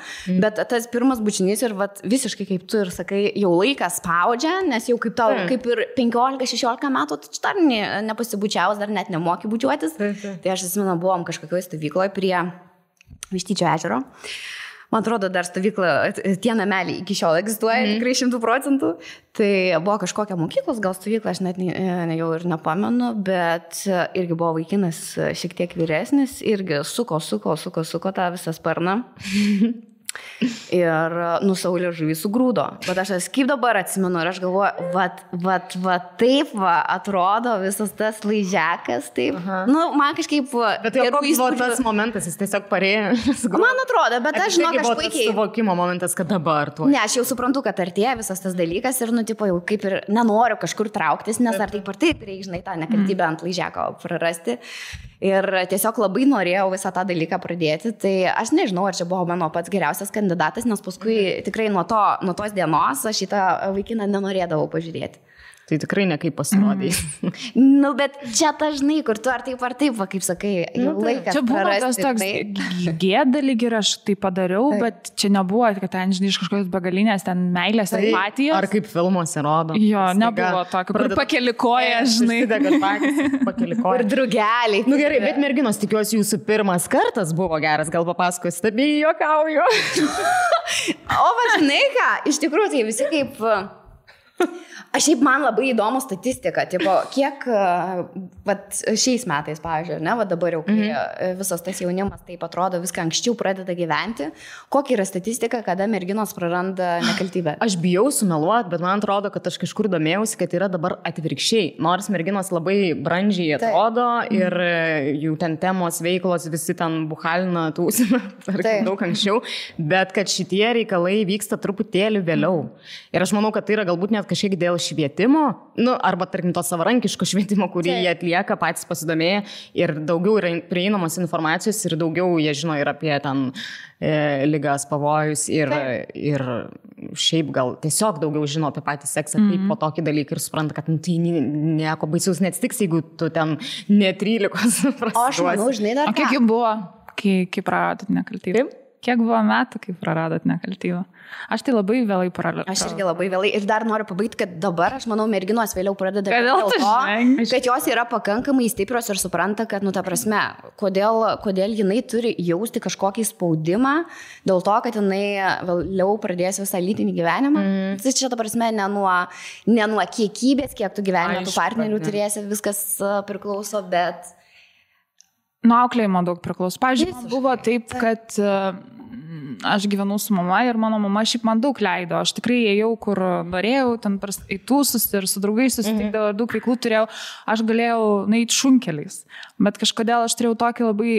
bet tas pirmas bučinys ir visiškai kaip tu ir sakai, jau laikas spaudžia, nes jau kaip tau, kaip ir 15-16 metų, tu dar nepasibučiavus, dar net nemoki bučiuotis. Tai aš atsimenu, buvom kažkokioje stovykloje prie Vištyčio ežero. Man atrodo, dar stovykla, tie nameliai iki šiol egzistuoja, tikrai 100%. Tai buvo kažkokia mokyklos, gal stovykla, aš net jau ir nepamenu, bet irgi buvo vaikinas šiek tiek vyresnis, irgi suko tą visą sparną. Ir nusaulė žuvį sugrūdo. Bet aš kaip dabar atsimenu ir aš galvoju, taip atrodo visas tas laižiakas, taip. Man kažkaip... Bet jau koks buvo tas momentas, jis tiesiog parėjo. Man atrodo, bet aš žinok, aš puikiai... Tas suvokimo momentas, kad dabar tuo. Ne, aš jau suprantu, kad artėja visas tas dalykas ir, jau kaip ir nenoriu kažkur trauktis, nes ar taip reikia, žinai, tą nekaltybę ant laižiako prarasti. Ir tiesiog labai norėjau visą tą dalyką pradėti, tai aš nežinau, ar čia buvo mano pats geriausias kandidatas, nes paskui tikrai nuo tos dienos aš šitą vaikiną nenorėdavau pažiūrėti. Tai tikrai nekaip pasirodai. Bet čia dažnai, kur tu ar taip, kaip sakai, jau laikas čia buvo prarasti. Tas toks gėda lyg ir aš tai padariau, bet čia nebuvo, kad ten, žinai, iš kažkokios begalinės ten meilės empatijos. Ar kaip filmuose rodo. Jo, nebuvo tokio, kur pakeli koją, žinai. Pakeli koją. Ir drugeliai. Gerai, bet merginos, tikiuosi, jūsų pirmas kartas buvo geras, gal papasakos, tabi juokauju. O žinai ką, iš tikrųjų tai visi kaip... Aš šiaip man labai įdomu statistika, kiek šiais metais, pavyzdžiui, dabar jau, kai visas tas jaunimas taip atrodo, viską anksčiau pradeda gyventi, kokia yra statistika, kada merginos praranda nekaltybę? Aš bijau sumeluoti, bet man atrodo, kad aš kažkur domėjausi, kad yra dabar atvirkščiai. Nors merginos labai brandžiai atrodo ir jų ten temos, veiklos, visi ten buhalina, tūsina, daug anksčiau, bet kad šitie reikalai vyksta truputėlį vėliau. Ir aš manau, kad tai yra galbūt net kažkiek dėl švietimo, arba tarkim to savarankiško švietimo, kurį jie atlieka, patys pasidomėję ir daugiau yra prieinamos informacijos ir daugiau jie žino ir apie ten ligas, pavojus ir šiaip gal tiesiog daugiau žino apie patį seksą kaip po tokį dalyką ir supranta, kad tai nieko baisaus neatsitiks, jeigu tu ten ne 13 prasiduosi. O aš manau, žinai, dar ką. O kiek jų buvo, kai praradot nekaltybę? Kiek buvo metų, kai praradot nekaltybę? Aš tai labai vėlai praradau. Aš irgi labai vėlai. Ir dar noriu pabaigti, kad dabar, aš manau, merginos vėliau pradeda dėl to, kad jos yra pakankamai stiprios ir supranta, kad, ta prasme, kodėl jinai turi jausti kažkokį spaudimą, dėl to, kad jinai vėliau pradės visą lytinį gyvenimą. Tai čia, ta prasme, ne nuo kiekybės, kiek tu gyvenime tų partnerių turėsi, viskas priklauso, bet... Nuo auklėjimo daug priklauso. Pavyzdžiui, buvo taip, kad aš gyvenau su mama ir mano mama šiaip man daug leido. Aš tikrai ėjau, kur norėjau, ten į tūsus ir su draugais susitikdavau ir daug veiklų turėjau. Aš galėjau nueiti šunkeliais. Bet kažkodėl aš turėjau tokį labai,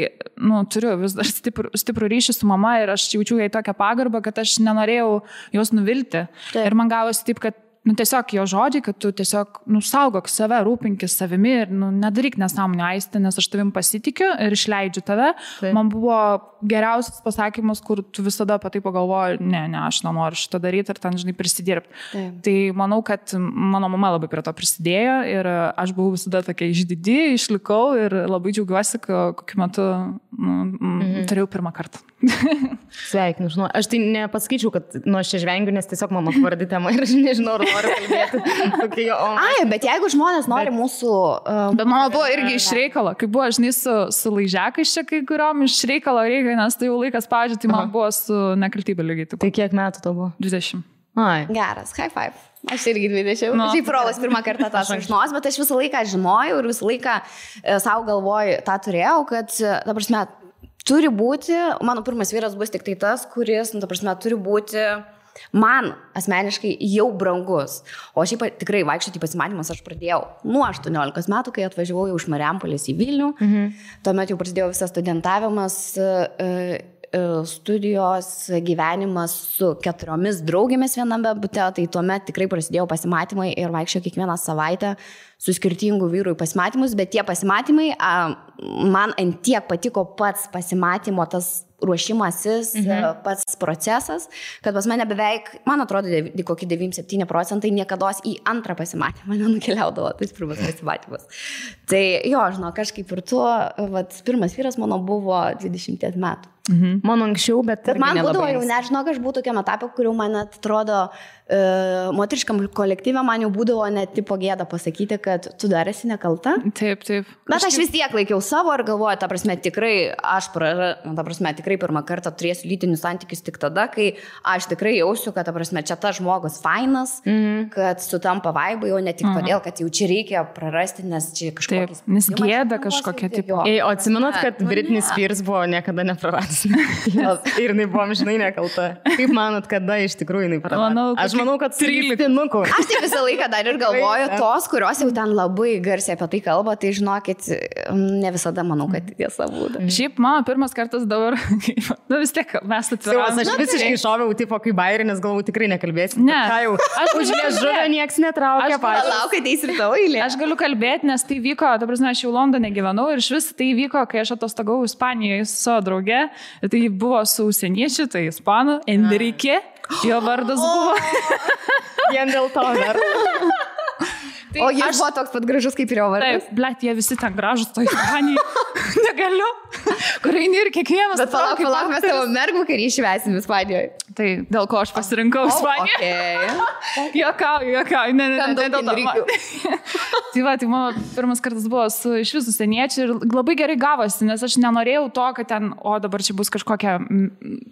turiu vis dar stiprų ryšį su mama ir aš jaučiu jai tokią pagarbą, kad aš nenorėjau jos nuvilti. Ir man gavosi taip, kad tiesiog jo žodžiai, kad tu tiesiog saugok save, rūpinkis savimi ir nedaryk nesąmonę Aiste, nes aš tavim pasitikiu ir išleidžiu tave. Taip. Man buvo geriausias pasakymas, kur tu visada apie tai pagalvoji, ne, aš nenoriu šitą daryti ir ten, žinai, prisidirbti. Taip. Tai manau, kad mano mama labai prie to prisidėjo ir aš buvau visada tokia išdidi, išlikau ir labai džiaugiuosi, kokiu metu turėjau pirmą kartą. Sveikinu, žinau. Aš tai nepasakyčiau, kad aš čia žvengiu, nes tiesiog mano svardi tema ir aš nežinau, ar noriu kalbėti. Bet jeigu žmonės nori mūsų... Bet mano buvo irgi iš reikalo, kai buvo, žinai, su laižiakais čia kai kuriuom iš reikalo reikia, nes tai jau laikas pavyzdžiui, tai man buvo su nekaltybė lygiai. Tai kiek metų to buvo? 20. Geras, high five. Aš irgi 20. Šiaip Rolas pirmą kartą tą sužinos, bet aš visą laiką žinojau ir visą laiką savo galvoju tą turėjau, kad, ta prasme, turi būti, mano pirmas vyras bus tik tai tas, kuris, ta prasme, turi būti man asmeniškai jau brangus. O šiaip tikrai vaikščioti pasimatymus aš pradėjau nuo 18 metų, kai atvažiavau jau iš Marijampolės į Vilnių. Tuomet jau prasidėjo visas studentavimas, studijos, gyvenimas su 4 draugėmis viename bute, tai tuomet tikrai prasidėjo pasimatymai ir vaikščiau kiekvieną savaitę su skirtingų vyrų į pasimatymus, bet tie pasimatymai, man ant tiek patiko pats pasimatymo, tas ruošimasis, pats procesas, kad pas mane beveik, man atrodo, kokie 97% niekados į antrą pasimatymą nenukeliaudavo, tais pirmas pasimatymas. Tai jo, žinau, kažkaip ir tuo, pirmas vyras mano buvo 20 metų. Man anksčiau, bet man būdavo jau, nežinau, aš buvau tokiam etapė, kuriuo man atrodo, moteriškam kolektyve man jau būdavo net tipo gėda pasakyti, kad tu dar esi nekalta. Taip. Bet aš vis tiek laikiau savo ir galvoju, ta prasme, tikrai tikrai pirmą kartą turėsiu lytinius santykius tik tada, kai aš tikrai jausiu, kad, ta prasme, čia tas žmogus fainas, kad sutampa vaibai, o ne tik todėl, kad jau čia reikia prarasti, nes čia kažkokiais... Nes gėda kažkokia tipo. O atsimenat, kad Britney Spears buvo niekada nepraradęs ir jinai buvo amžinai nekalta. Kaip manot, kada iš tikrųjų jinai praradė? Aš manau, kad 13. Aš tai visą laiką dar ir galvoju, tos, kurios jau ten labai garsiai apie tai kalba, tai žinokit, ne visada manau, kad tiesa būtų. Šiaip mano pirmas kartas dabar, vis tiek mes atviram. Aš visiškai šoviau, tipo, kaip bairinis, galvau, tikrai nekalbėsiu. Ne, aš už liežuvę nieks netraukia. Laukai, tai ir tavo eilė. Aš galiu kalbėti, nes tai vyko, ta prasme, aš jau Londone gyvenau ir iš vis tai vyko, kai aš atostogavau Ispanijoje su savo drauge. Tai buvo su užsieniečiu, tai ispanų, Enrique, jo vardas buvo. Vien dėl to dar. Tai o jis buvo toks pat gražus kaip ir jo vardas. Taip, blet, jie visi ten gražus, to Ispanijai. Negaliu. Kur eini ir kiekvienas. Bet palauk, mes tavo mergų karį išvesim Ispanijoje. Tai dėl ko aš pasirinkau Ispaniją. Juokauju. Ne, dėl to. Tai mano pirmas kartas buvo su iš visų užsieniečių ir labai gerai gavosi, nes aš nenorėjau to, kad ten, dabar čia bus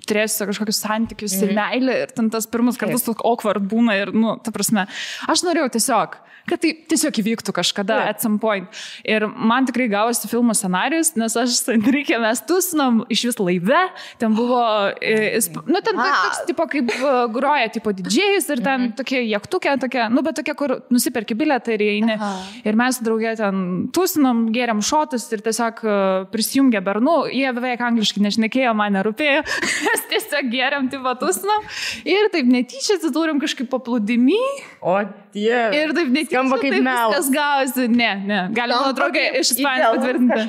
turėsiu kažkokius santykius ir meilę ir ten tas pirmas kartas toks awkward būna ir, ta prasme, aš norėjau tiesiog, kad tai tiesiog įvyktų kažkada at some point. Ir man tikrai gavosi filmo scenarijus, nes aš su Enrique mes tusinom iš vis laive, ten buvo, ten toks tipo kaip groja tipo didžėjus ir ten tokie jachtukė, bet tokie, kur nusiperki bilietą ir eini. Ir mes draugė ten tusinom, gėrėm šotus ir tiesiog prisijungė bernų, jie beveik angliškai nešnekėjo, man nerūpėjo, mes tiesiog gėrėm tipo tusinom ir taip netyčia atsidūrėm kažkaip paplūdimy. O tie. Ir taip netyčia. Skamba kaip melas. Viskas gavosi. Ne. Galima draugė iš Ispanijos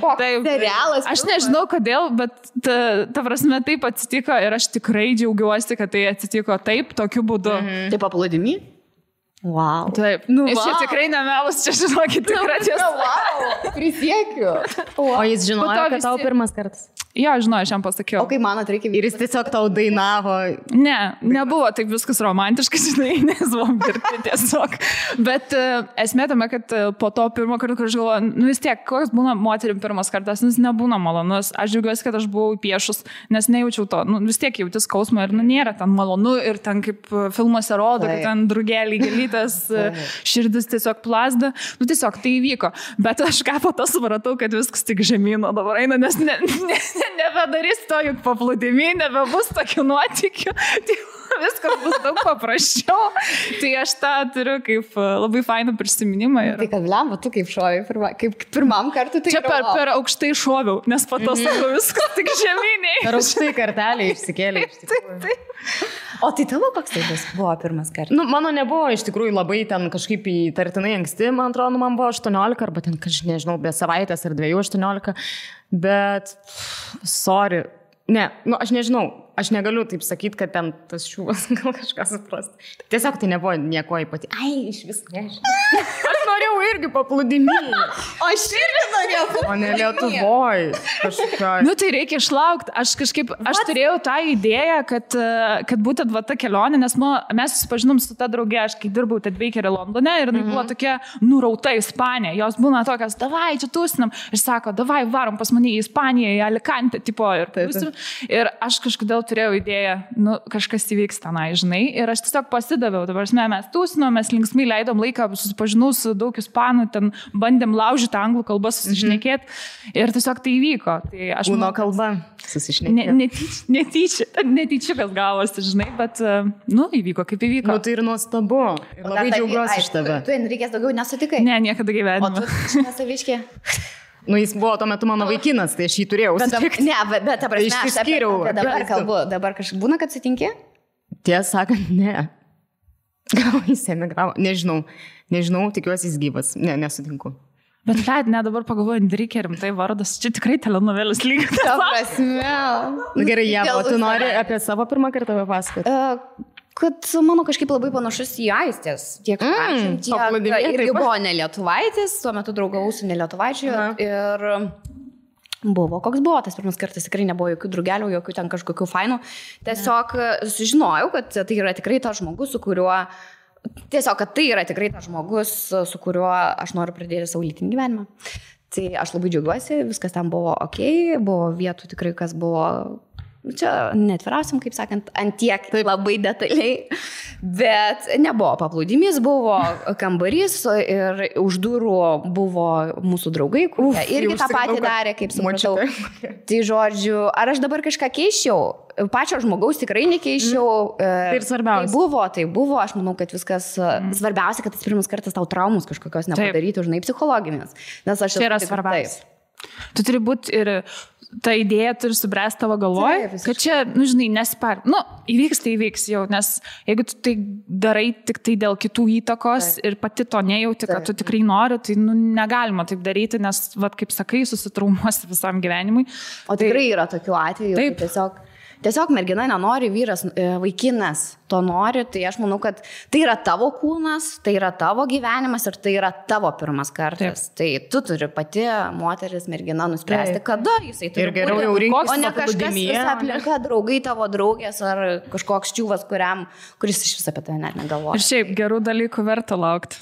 patvirtinti. Serialas. Aš nežinau kodėl, bet ta prasme taip atsitiko ir aš tikrai džiaugiuosi, kad tai atsitiko taip, tokiu būdu. Taip paplūdimy? Wow. Taip. Čia tikrai nemelas, čia žinokit, tikrai tiesa. Wow. Prisiekiu. O jis žinojo, kad tau pirmas kartas? Jo, žinau, aš jam pasakiau. O kai manot, reikia... Ir jis tiesiog tau dainavo. Ne, nebuvo taip viskas romantiškai, žinai, nes buvom dirbti tiesiog. Bet esmė tame, kad po to pirmo karto, kur aš galvoju, vis tiek, koks būna moterim pirmas kartas, nes nebūna malonus. Aš džiaugiuosi, kad aš buvau piešus, nes nejaučiau to. Vis tiek jauti skausmą ir nėra ten malonu ir ten kaip filmuose rodo, kad ten drugeliai gelytas, širdis tiesiog plazda. Tiesiog tai įvyko. Bet aš ką po to supratau, kad viskas tik žemyno dabar eina, nes nebedarys to juk paplūdimy, nebebus tokių nuotykių, tai viskas bus daug paprasčiau. Tai aš tą turiu kaip labai fainą prisiminimą. Tai kad lemba, tu kaip šovai, kaip pirmam kartu tai... Čia per aukštai šoviau, nes po to sako viskas tik žemyniai. Per aukštai kartelį išsikėlė. O tai tavo koks tai buvo pirmas kartas? Mano nebuvo iš tikrųjų labai ten kažkaip įtartinai anksti, man atrodo, man buvo 18 arba ten, nežinau, be savaitės ar 2-18, bet sorry, ne, aš nežinau, aš negaliu taip sakyti, kad ten tas šūvas gal kažką suprast. Tiesiog tai nebuvo nieko ypatingo. Ai, iš vis nežinau. Aš norėjau irgi paplūdimy. O aš irgi norėjau. O ne Lietuvoj. Tai reikia išlaukti. Aš turėjau tą idėją, kad būtent va ta kelionė, nes mes susipažinom su ta draugė, aš kai dirbau Tedbakerį Londone ir buvo tokia nurauta Ispanija. Jos būna tokios, davai, čia tusinam. Aš sako, davai, varom pas mane į Ispaniją, į Alicante, tipo. Ir aš kažkodėl turėjau idėją, kažkas įvyks tenai, žinai, ir aš tiesiog pasidaviau, dabar mes tūsinom, mes linksmai leidom laiką, susipažinau su daug ispanų, ten bandėm laužyti anglų kalbą, susišnekėti ir tiesiog tai įvyko. Tai aš Kūno kalba susišnekėti. Netyčia kas gavosi, žinai, bet, įvyko kaip įvyko. Tai ir nuostabu. Ir labai džiaugiuosi iš tave. Tu Enrikės daugiau nesutikai? Ne, niekada gyvenime. O tu nesaviškė? Jis buvo tuo metu mano vaikinas, tai aš jį turėjau. Bet ta prasme, aš išsiskyriau. Dabar kalbu, dabar kažkaip būna, kad sutinki? Tiesą sakant, ne. Gal jis emigravo, nežinau, tikiuosi jis gyvas, nesutinku. Bet dabar pagalvoju, Enrikė rimtai vardas, čia tikrai telenovelis lygiai. Ta prasme. Gerai, Jeva, tu nori apie savo pirmą kartą papasakoti? Kad mano kažkaip labai panašus į Aistės, tiek irgi buvo ne lietuvaitis, tuo metu draugavau su ne lietuvaičiu ir buvo, koks buvo tas pirmas kartas, tikrai nebuvo jokių drugelių, jokių ten kažkokių fainų, tiesiog sužinojau, kad tai yra tikrai tas žmogus, su kuriuo aš noriu pradėti savo lytinį gyvenimą. Tai aš labai džiaugiuosi, viskas ten buvo okei, buvo vietų tikrai, kas buvo... Čia netviriausiam, kaip sakant, antiek labai detaliai, bet nebuvo paplūdimys, buvo kambarys ir už durų buvo mūsų draugai, kurie irgi tą patį darė, kaip supratau. Tai žodžiu, ar aš dabar kažką keiščiau? Pačio žmogaus tikrai nekeiščiau. Tai ir svarbiausia. Tai buvo, aš manau, kad viskas svarbiausia, kad tas pirmas kartas tau traumus kažkokios nepadarytų, žinai, psichologinės. Nes aš čia yra svarbiausia. Tu turi būti ir ta idėja turi subręsti tavo galvoj, kad čia, žinai, nespar. Įvyks, tai įvyks jau, nes jeigu tu tai darai tik tai dėl kitų įtakos ir pati to nejauti, kad tu tikrai nori, tai negalima taip daryti, nes, kaip sakai, susitraumuosi visam gyvenimui. O tikrai yra tokių atvejų, kad tiesiog mergina nenori, vyras, vaikinas to nori, tai aš manau, kad tai yra tavo kūnas, tai yra tavo gyvenimas ir tai yra tavo pirmas kartas. Tai tu turi pati, moteris, mergina, nuspręsti, kada jisai turi būti. Geriau jau rinktis, o ne kažkas visą aplinką, draugai tavo draugės ar kažkoks čiūvas, kuris iš visą apie tai net negalvoja. Ir šiaip gerų dalykų verta laukti.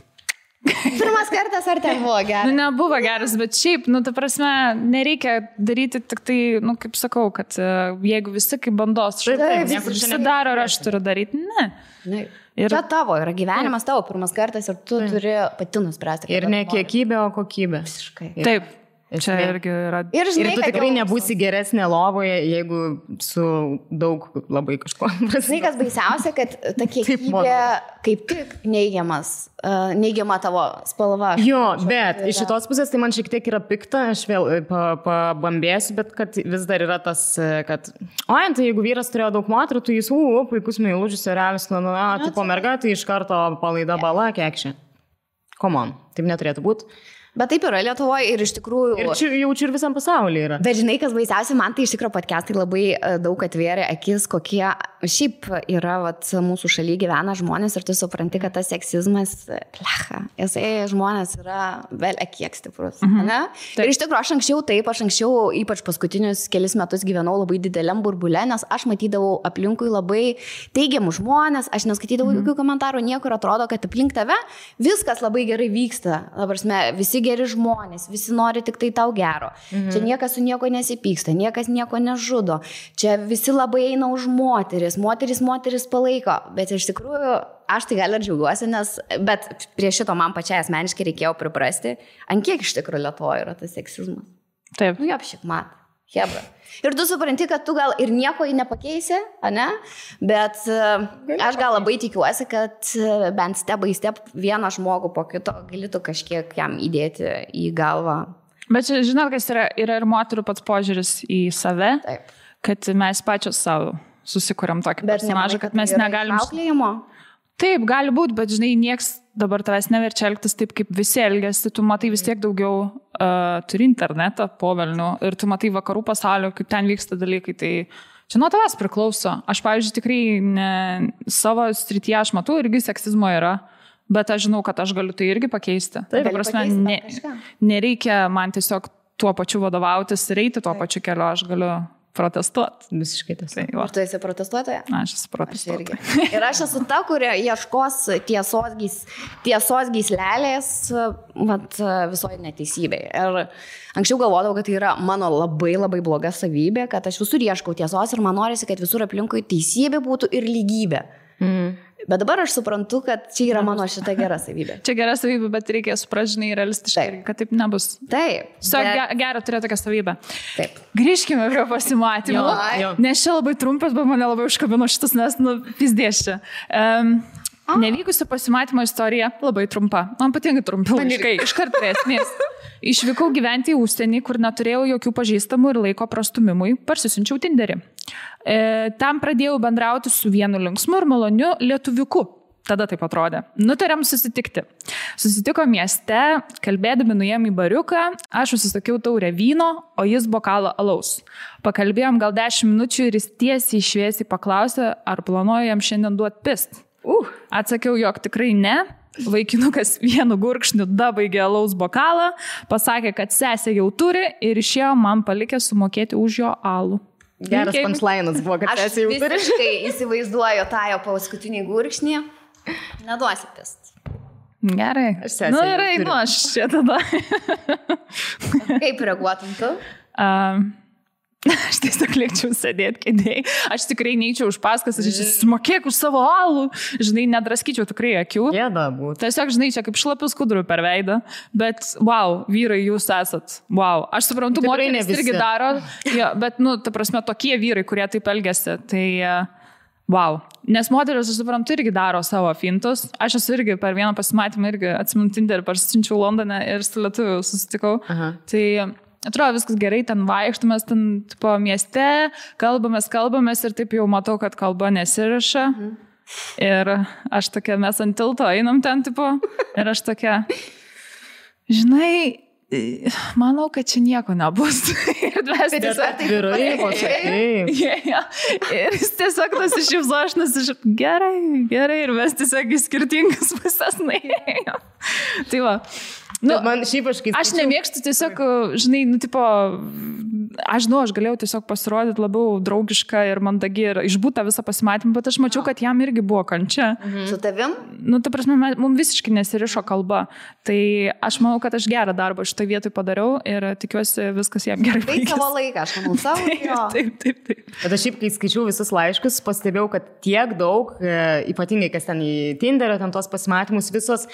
Pirmas kartas ar ten buvo geras? Nebuvo geras, bet šiaip, ta prasme, nereikia daryti tik tai, kaip sakau, kad jeigu visi kaip bandos visi daro, ar aš turiu daryti, ne. Čia tavo yra gyvenimas, tavo pirmas kartas ir tu turi pati nuspręsti. Ir ne kiekybė, o kokybė. Visiškai. Taip. Čia irgi yra. Ir tu tikrai nebūsi geresnė lovoje, jeigu su daug labai kažko. Žinai, kas baisiausia, kad ta kiekybė kaip tik neigiama tavo spalva. Jo, bet iš šitos pusės tai man šiek tiek yra pikta, aš vėl pabambėsiu, bet kad vis dar yra tas, kad tai jeigu vyras turėjo daug moterų, tai jis, puikus meilužis, realis, tipo merga, tai iš karto palaida bala, kekšė. Come on, taip neturėtų būti. Bet taip yra Lietuvoje ir iš tikrųjų... Ir jaučiu ir visam pasaulyje yra. Bet žinai, kas baisiausia, man tai iš tikrųjų podcastai labai daug atvėrė akis, kokie šiaip yra mūsų šalyje gyvena žmonės ir tu supranti, kad tas seksizmas, žmonės yra vėl kiek stiprus. Ir iš tikrųjų aš anksčiau, ypač paskutinius kelis metus gyvenau labai dideliam burbule, nes aš matydavau aplinkui labai teigiamų žmonės, aš neskaitydavau jokių komentarų, niekur atrodo, kad aplink tave viskas labai gerai vyksta. Visi geri žmonės, visi nori tik tai tau gero. Čia niekas su nieko nesipyksta, niekas nieko nežudo. Čia visi labai eina už moteris palaiko. Bet iš tikrųjų, aš tai gal ir džiaugiuosi, bet prie šito man pačiai asmeniškai reikėjo priprasti, ant kiek iš tikrųjų Lietuvoje yra tas seksizmas. Taip. Apšik mat. Hebra. Ir tu supranti, kad tu gal ir nieko nepakeisi, ne? Bet aš gal labai tikiuosi, kad bent step by step vieną žmogų po kito galėtų kažkiek jam įdėti į galvą. Bet čia, žinot, kas yra ir moterų pats požiūris į save, kad mes pačios savo susikuriam tokį personažą, kad mes negalim... Auklėjimo? Taip, gali būti, bet žinai, nieks dabar tavęs neverčia elgtis taip, kaip visi elgiasi, tu matai vis tiek daugiau turi internetą po velnių ir tu matai vakarų pasaulio, kaip ten vyksta dalykai, tai čia nuo tavęs priklauso. Aš, pavyzdžiui, tikrai savo srityje aš matau, irgi seksizmo yra, bet aš žinau, kad aš galiu tai irgi pakeisti. Taip, prasme, nereikia man tiesiog tuo pačiu vadovautis ir eiti tuo pačiu keliu, aš galiu protestuoti. Visiškai tas. Tai, Ar tu esi protestuotoja? aš esu protestuotoja. Ir aš esu ta, kurie ieškos tiesos gyslelės visoje neteisybėje. Ir anksčiau galvodavau, kad tai yra mano labai labai bloga savybė, kad aš visur ieškau tiesos ir man norisi, kad visur aplinkui teisybė būtų ir lygybė. Bet dabar aš suprantu, kad čia yra mano šita gera savybė. Čia gera savybė, bet reikia supražinai realistiškai, kad taip nebus. Taip. Gera turėti tokią savybę. Taip. Grįžkime prie pasimatymų. Jo. Nes čia labai trumpas, bet mane labai užkabino šitas, nes, pizdės čia. Nevykusi pasimatymo istorija labai trumpa. Man patinka trumpi laiškai. Iškart prie esmės. Išvykau gyventi į užsienį, kur neturėjau jokių pažįstamų ir laiko prastumimui. Parsisiunčiau Tinderį. Tam pradėjau bendrauti su vienu linksmu ir maloniu lietuviuku. Tada taip atrodė. Nutarėm susitikti. Susitiko mieste, kalbėdami nuėjom į bariuką, aš užsisakiau taurę vyno, o jis bokalą alaus. Pakalbėjom gal 10 minučių ir jis tiesiai šviesiai paklausė, ar planuoju jam šiandien duoti pist. Atsakiau, jog tikrai ne. Vaikinukas vienu gurkšniu dabaigė alaus bokalą, pasakė, kad sesė jau turi ir išėjo man palikė sumokėti už jo alų. Geras punchline'as buvo, kad sesė jau turi. Aš visiškai įsivaizduoju tą jo paskutinį gurkšnį. Neduosi pist. Gerai. Aš čia tada. Kaip reaguotum tu? Aš tiesiog liekčiau sėdėti kėdėjai. Aš tikrai neįčiau už paskas, aš sumokėk už savo alų. Žinai, nedraskyčiau tikrai akių. Gėda būtų. Tiesiog, žinai, čia kaip šlapius kudrų per veidą. Bet, wow, vyrai, jūs esat. Wow. Aš suprantu, moteris irgi daro. Jo, bet, ta prasme, tokie vyrai, kurie taip elgiasi. Tai, wow. Nes moteris, aš suprantu, irgi daro savo fintus. Aš esu irgi per vieną pasimatymą irgi atsimenu Tinderį, parsiunčiau Londone ir su lietuviu susitikau. Aha. Tai atrodo, viskas gerai, ten vaikštumės, ten tipo mieste, kalbamės ir taip jau matau, kad kalba nesiriša. Ir aš tokia, mes ant tilto einam ten, tipo, ir aš tokia, žinai, manau, kad čia nieko nebus. Ir mes tiesiog Vyrai, ir jis tiesiog nusišypso, aš nusišypso, gerai, ir mes tiesiog į skirtingas pusės nuėjom. Tai va. Man šiaip aš nemėgstu tiesiog, žinai, tipo, aš galėjau tiesiog pasirodyti labiau draugišką ir mandagi ir išbūtą visą pasimatymą, bet aš mačiau, kad jam irgi buvo kančia. Su tavim? Ta prasme, mums visiškai nesirišo kalba. Tai aš manau, kad aš gerą darbą šitą vietoj padariau ir tikiuosi viskas jam gerai baigės. Tai savo laiką, aš manau, savo. Taip. Bet aš šiaip, kai skaičiau visus laiškus, pastebėjau, kad tiek daug, ypatingai kas ten į Tinderio, ten tos pasimatymus visos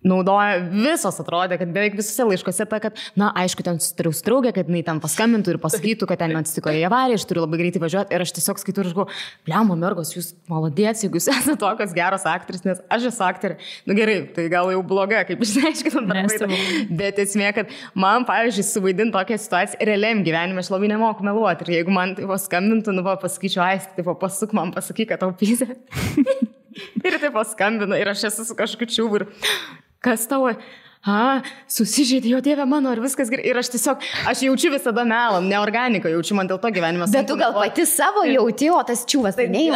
naudoja, visos atrodė, kad beveik visose laiškose ta, kad, aišku, ten susitariau su draugė, kad jinai ten paskambintų ir pasakytų, kad ten atsitiko į avariją, aš turiu labai greitai važiuoti ir aš tiesiog skaitau ir žinau, blemba mergos, jūs malodėts, jeigu jūs esate tokios geros aktorės, nes aš esu aktorė. Gerai, tai gal jau bloga, kaip išsiaiškinam darbai. Bet esmė, kad man, pavyzdžiui, suvaidinti tokią situaciją realiam gyvenime, aš labai nemoku meluoti. Ir jeigu man tai paskambintų, pasakyčiau, Aisti, pasuk man, pasakyk, kad tau pyzė. Ir tai paskambino ir aš esu su kažkokiu čiūbu ir kas tavo, susižeidė, jo Dieve mano, ir viskas gerai. Ir aš tiesiog, aš jaučiu visada melą, neorganiką jaučiu, man dėl to gyvenimas. Bet tu gal pati savo jauti, o tas čiūvas tai ne.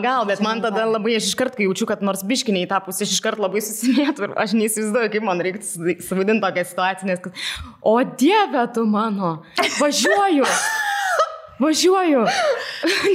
Gal, bet man tada labai, aš iškart, kai jaučiu, kad nors biškiniai tą pusę, aš iškart labai susimėtų ir aš neįsivaizduoju, kaip man reiktų suvaidinti tokią situaciją, nes kad, o Dieve tu mano, važiuoju.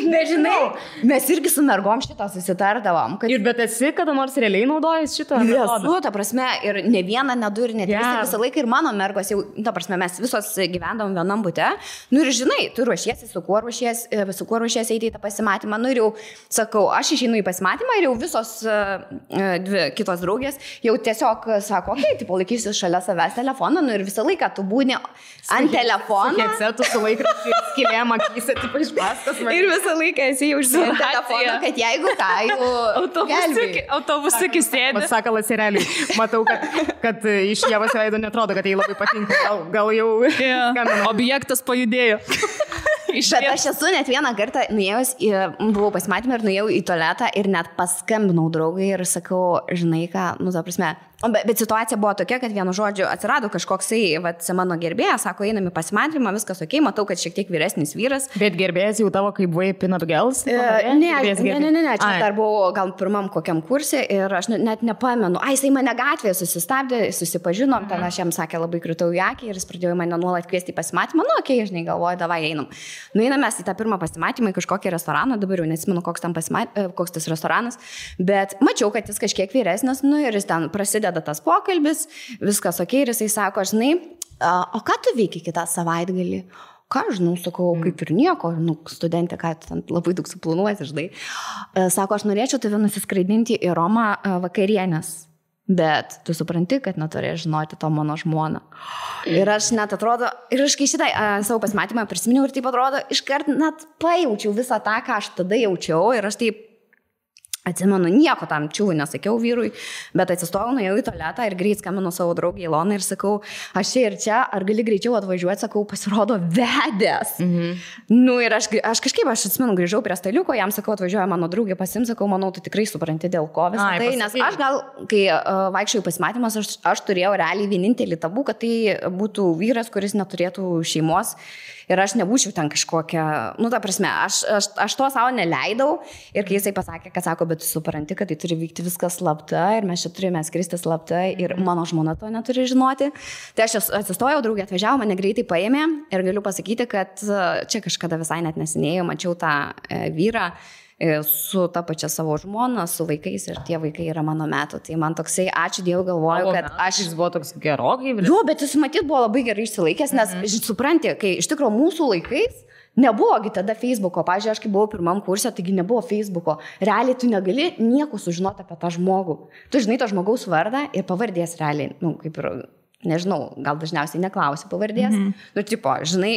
Nežinau, mes irgi su mergom šitą susitardavom. Ir bet esi kada nors realiai naudojęs šitą? Esu, ta prasme, ir ne vieną, ne du, ir ne tris, visą laiką ir mano mergos jau, ta prasme, mes visos gyvendavom vienam bute. Ir žinai, tu ruošiesi, su kuo ruošiesi eiti į tą pasimatymą. Ir jau sakau, aš išeinu į pasimatymą ir jau visos dvi kitos draugės jau tiesiog sako, okei, tai palaikysiu šalia savęs telefoną. Ir visą laiką tu būni ant telefono. Headsetų su laikraščiu skilėm akyse, tipo iš paskas. Ir visą laiką esi jau užsienį telefoną, kad jeigu ką, jau autobusiukai sėdi. Sakalas ir realiai. Matau, kad iš Ievos veido netrodo, kad jai labai patinka. Gal jau objektas pajudėjo. Bet aš esu net vieną kartą nuėjus, buvau pasimatymą ir nuėjau į tualetą ir net paskambinau draugai ir sakau, žinai ką, ta prasme, Bet situacija buvo tokia, kad vienu žodžiu atsirado kažkoksai, mano gerbėjas, sako, einam į pasimatymą, viskas ok, matau, kad šiek tiek vyresnis vyras. Bet gerbėjas jau tavo kaip buvai Peanut Girls? Ne, čia dar buvau gal pirmam kokiam kursė ir aš net nepamenu. Jisai mane gatvėje susistabdė, susipažinom, ten aš jam sakė, labai kritau į akį ir jis pradėjo mane nuolat kviesti į pasimatymą. Okay, žinai, galvoju, davai einam. Nueinam mes į tą pirmą pasimatymą į kažkokį restoraną, dabar jau nesimenu, koks tas restoranas, bet mačiau, kad jis kažkiek vyresnis, ir jis ten prasideda tas pokalbis, viskas ok, ir jisai sako, žinai, o ką tu veiki kitą savaitgalį? Ką, žinau, sakau, kaip ir nieko, studentė, ką tu ten labai daug suplanuosi, žinai. Sako, aš norėčiau tave nusiskraidinti į Romą vakarienės, bet tu supranti, kad neturėjai žinoti to mano žmoną. Ir aš net atrodo, ir aš kai šitą savo pasimatymą prisiminiau ir taip atrodo, iškart net pajaučiau visą tą, ką aš tada jaučiau ir aš taip atsimenu, nieko tam čiūvui nesakiau vyrui, bet atsistojau, nuėjau į tualetą ir greit skambinu savo draugį Iloną ir sakau, aš čia ir čia, ar gali greičiau atvažiuoti, sakau, pasirodo vedęs. Ir aš kažkaip, aš atsimenu, grįžau prie staliuko, jam sakau, atvažiuoja mano draugė pasims, sakau, manau, tu tikrai supranti dėl ko visą tai, nes aš gal, kai vaikščiau pasimatymas, aš turėjau realiai vienintelį tabų, kad tai būtų vyras, kuris neturėtų šeimos. Ir aš nebūčiau ten kažkokia, ta prasme, aš to savo neleidau ir kai jisai pasakė, kad sako, bet tu supranti, kad tai turi vykti viskas slapta ir mes čia turime skristi slapta ir mano žmona to neturi žinoti. Tai aš atsistojau, draugė atvažiavo, mane greitai paėmė ir galiu pasakyti, kad čia kažkada visai net nesinėjau, mačiau tą vyrą su ta pačia savo žmona, su vaikais ir tie vaikai yra mano metų. Tai man toksai, ačiū Dievui, galvoju, kad jis buvo toks gerokai. Jo, bet jis matyt buvo labai gerai išsilaikęs, nes supranti, kai iš tikrųjų mūsų laikais nebuvogi tada Facebooko. Pavyzdžiui, aš kai buvau pirmam kurse, taigi nebuvo Facebooko. Realiai tu negali nieko sužinoti apie tą žmogų. Tu žinai to žmogaus vardą ir pavardės realiai, kaip ir nežinau, gal dažniausiai neklausi pavardės. Žinai,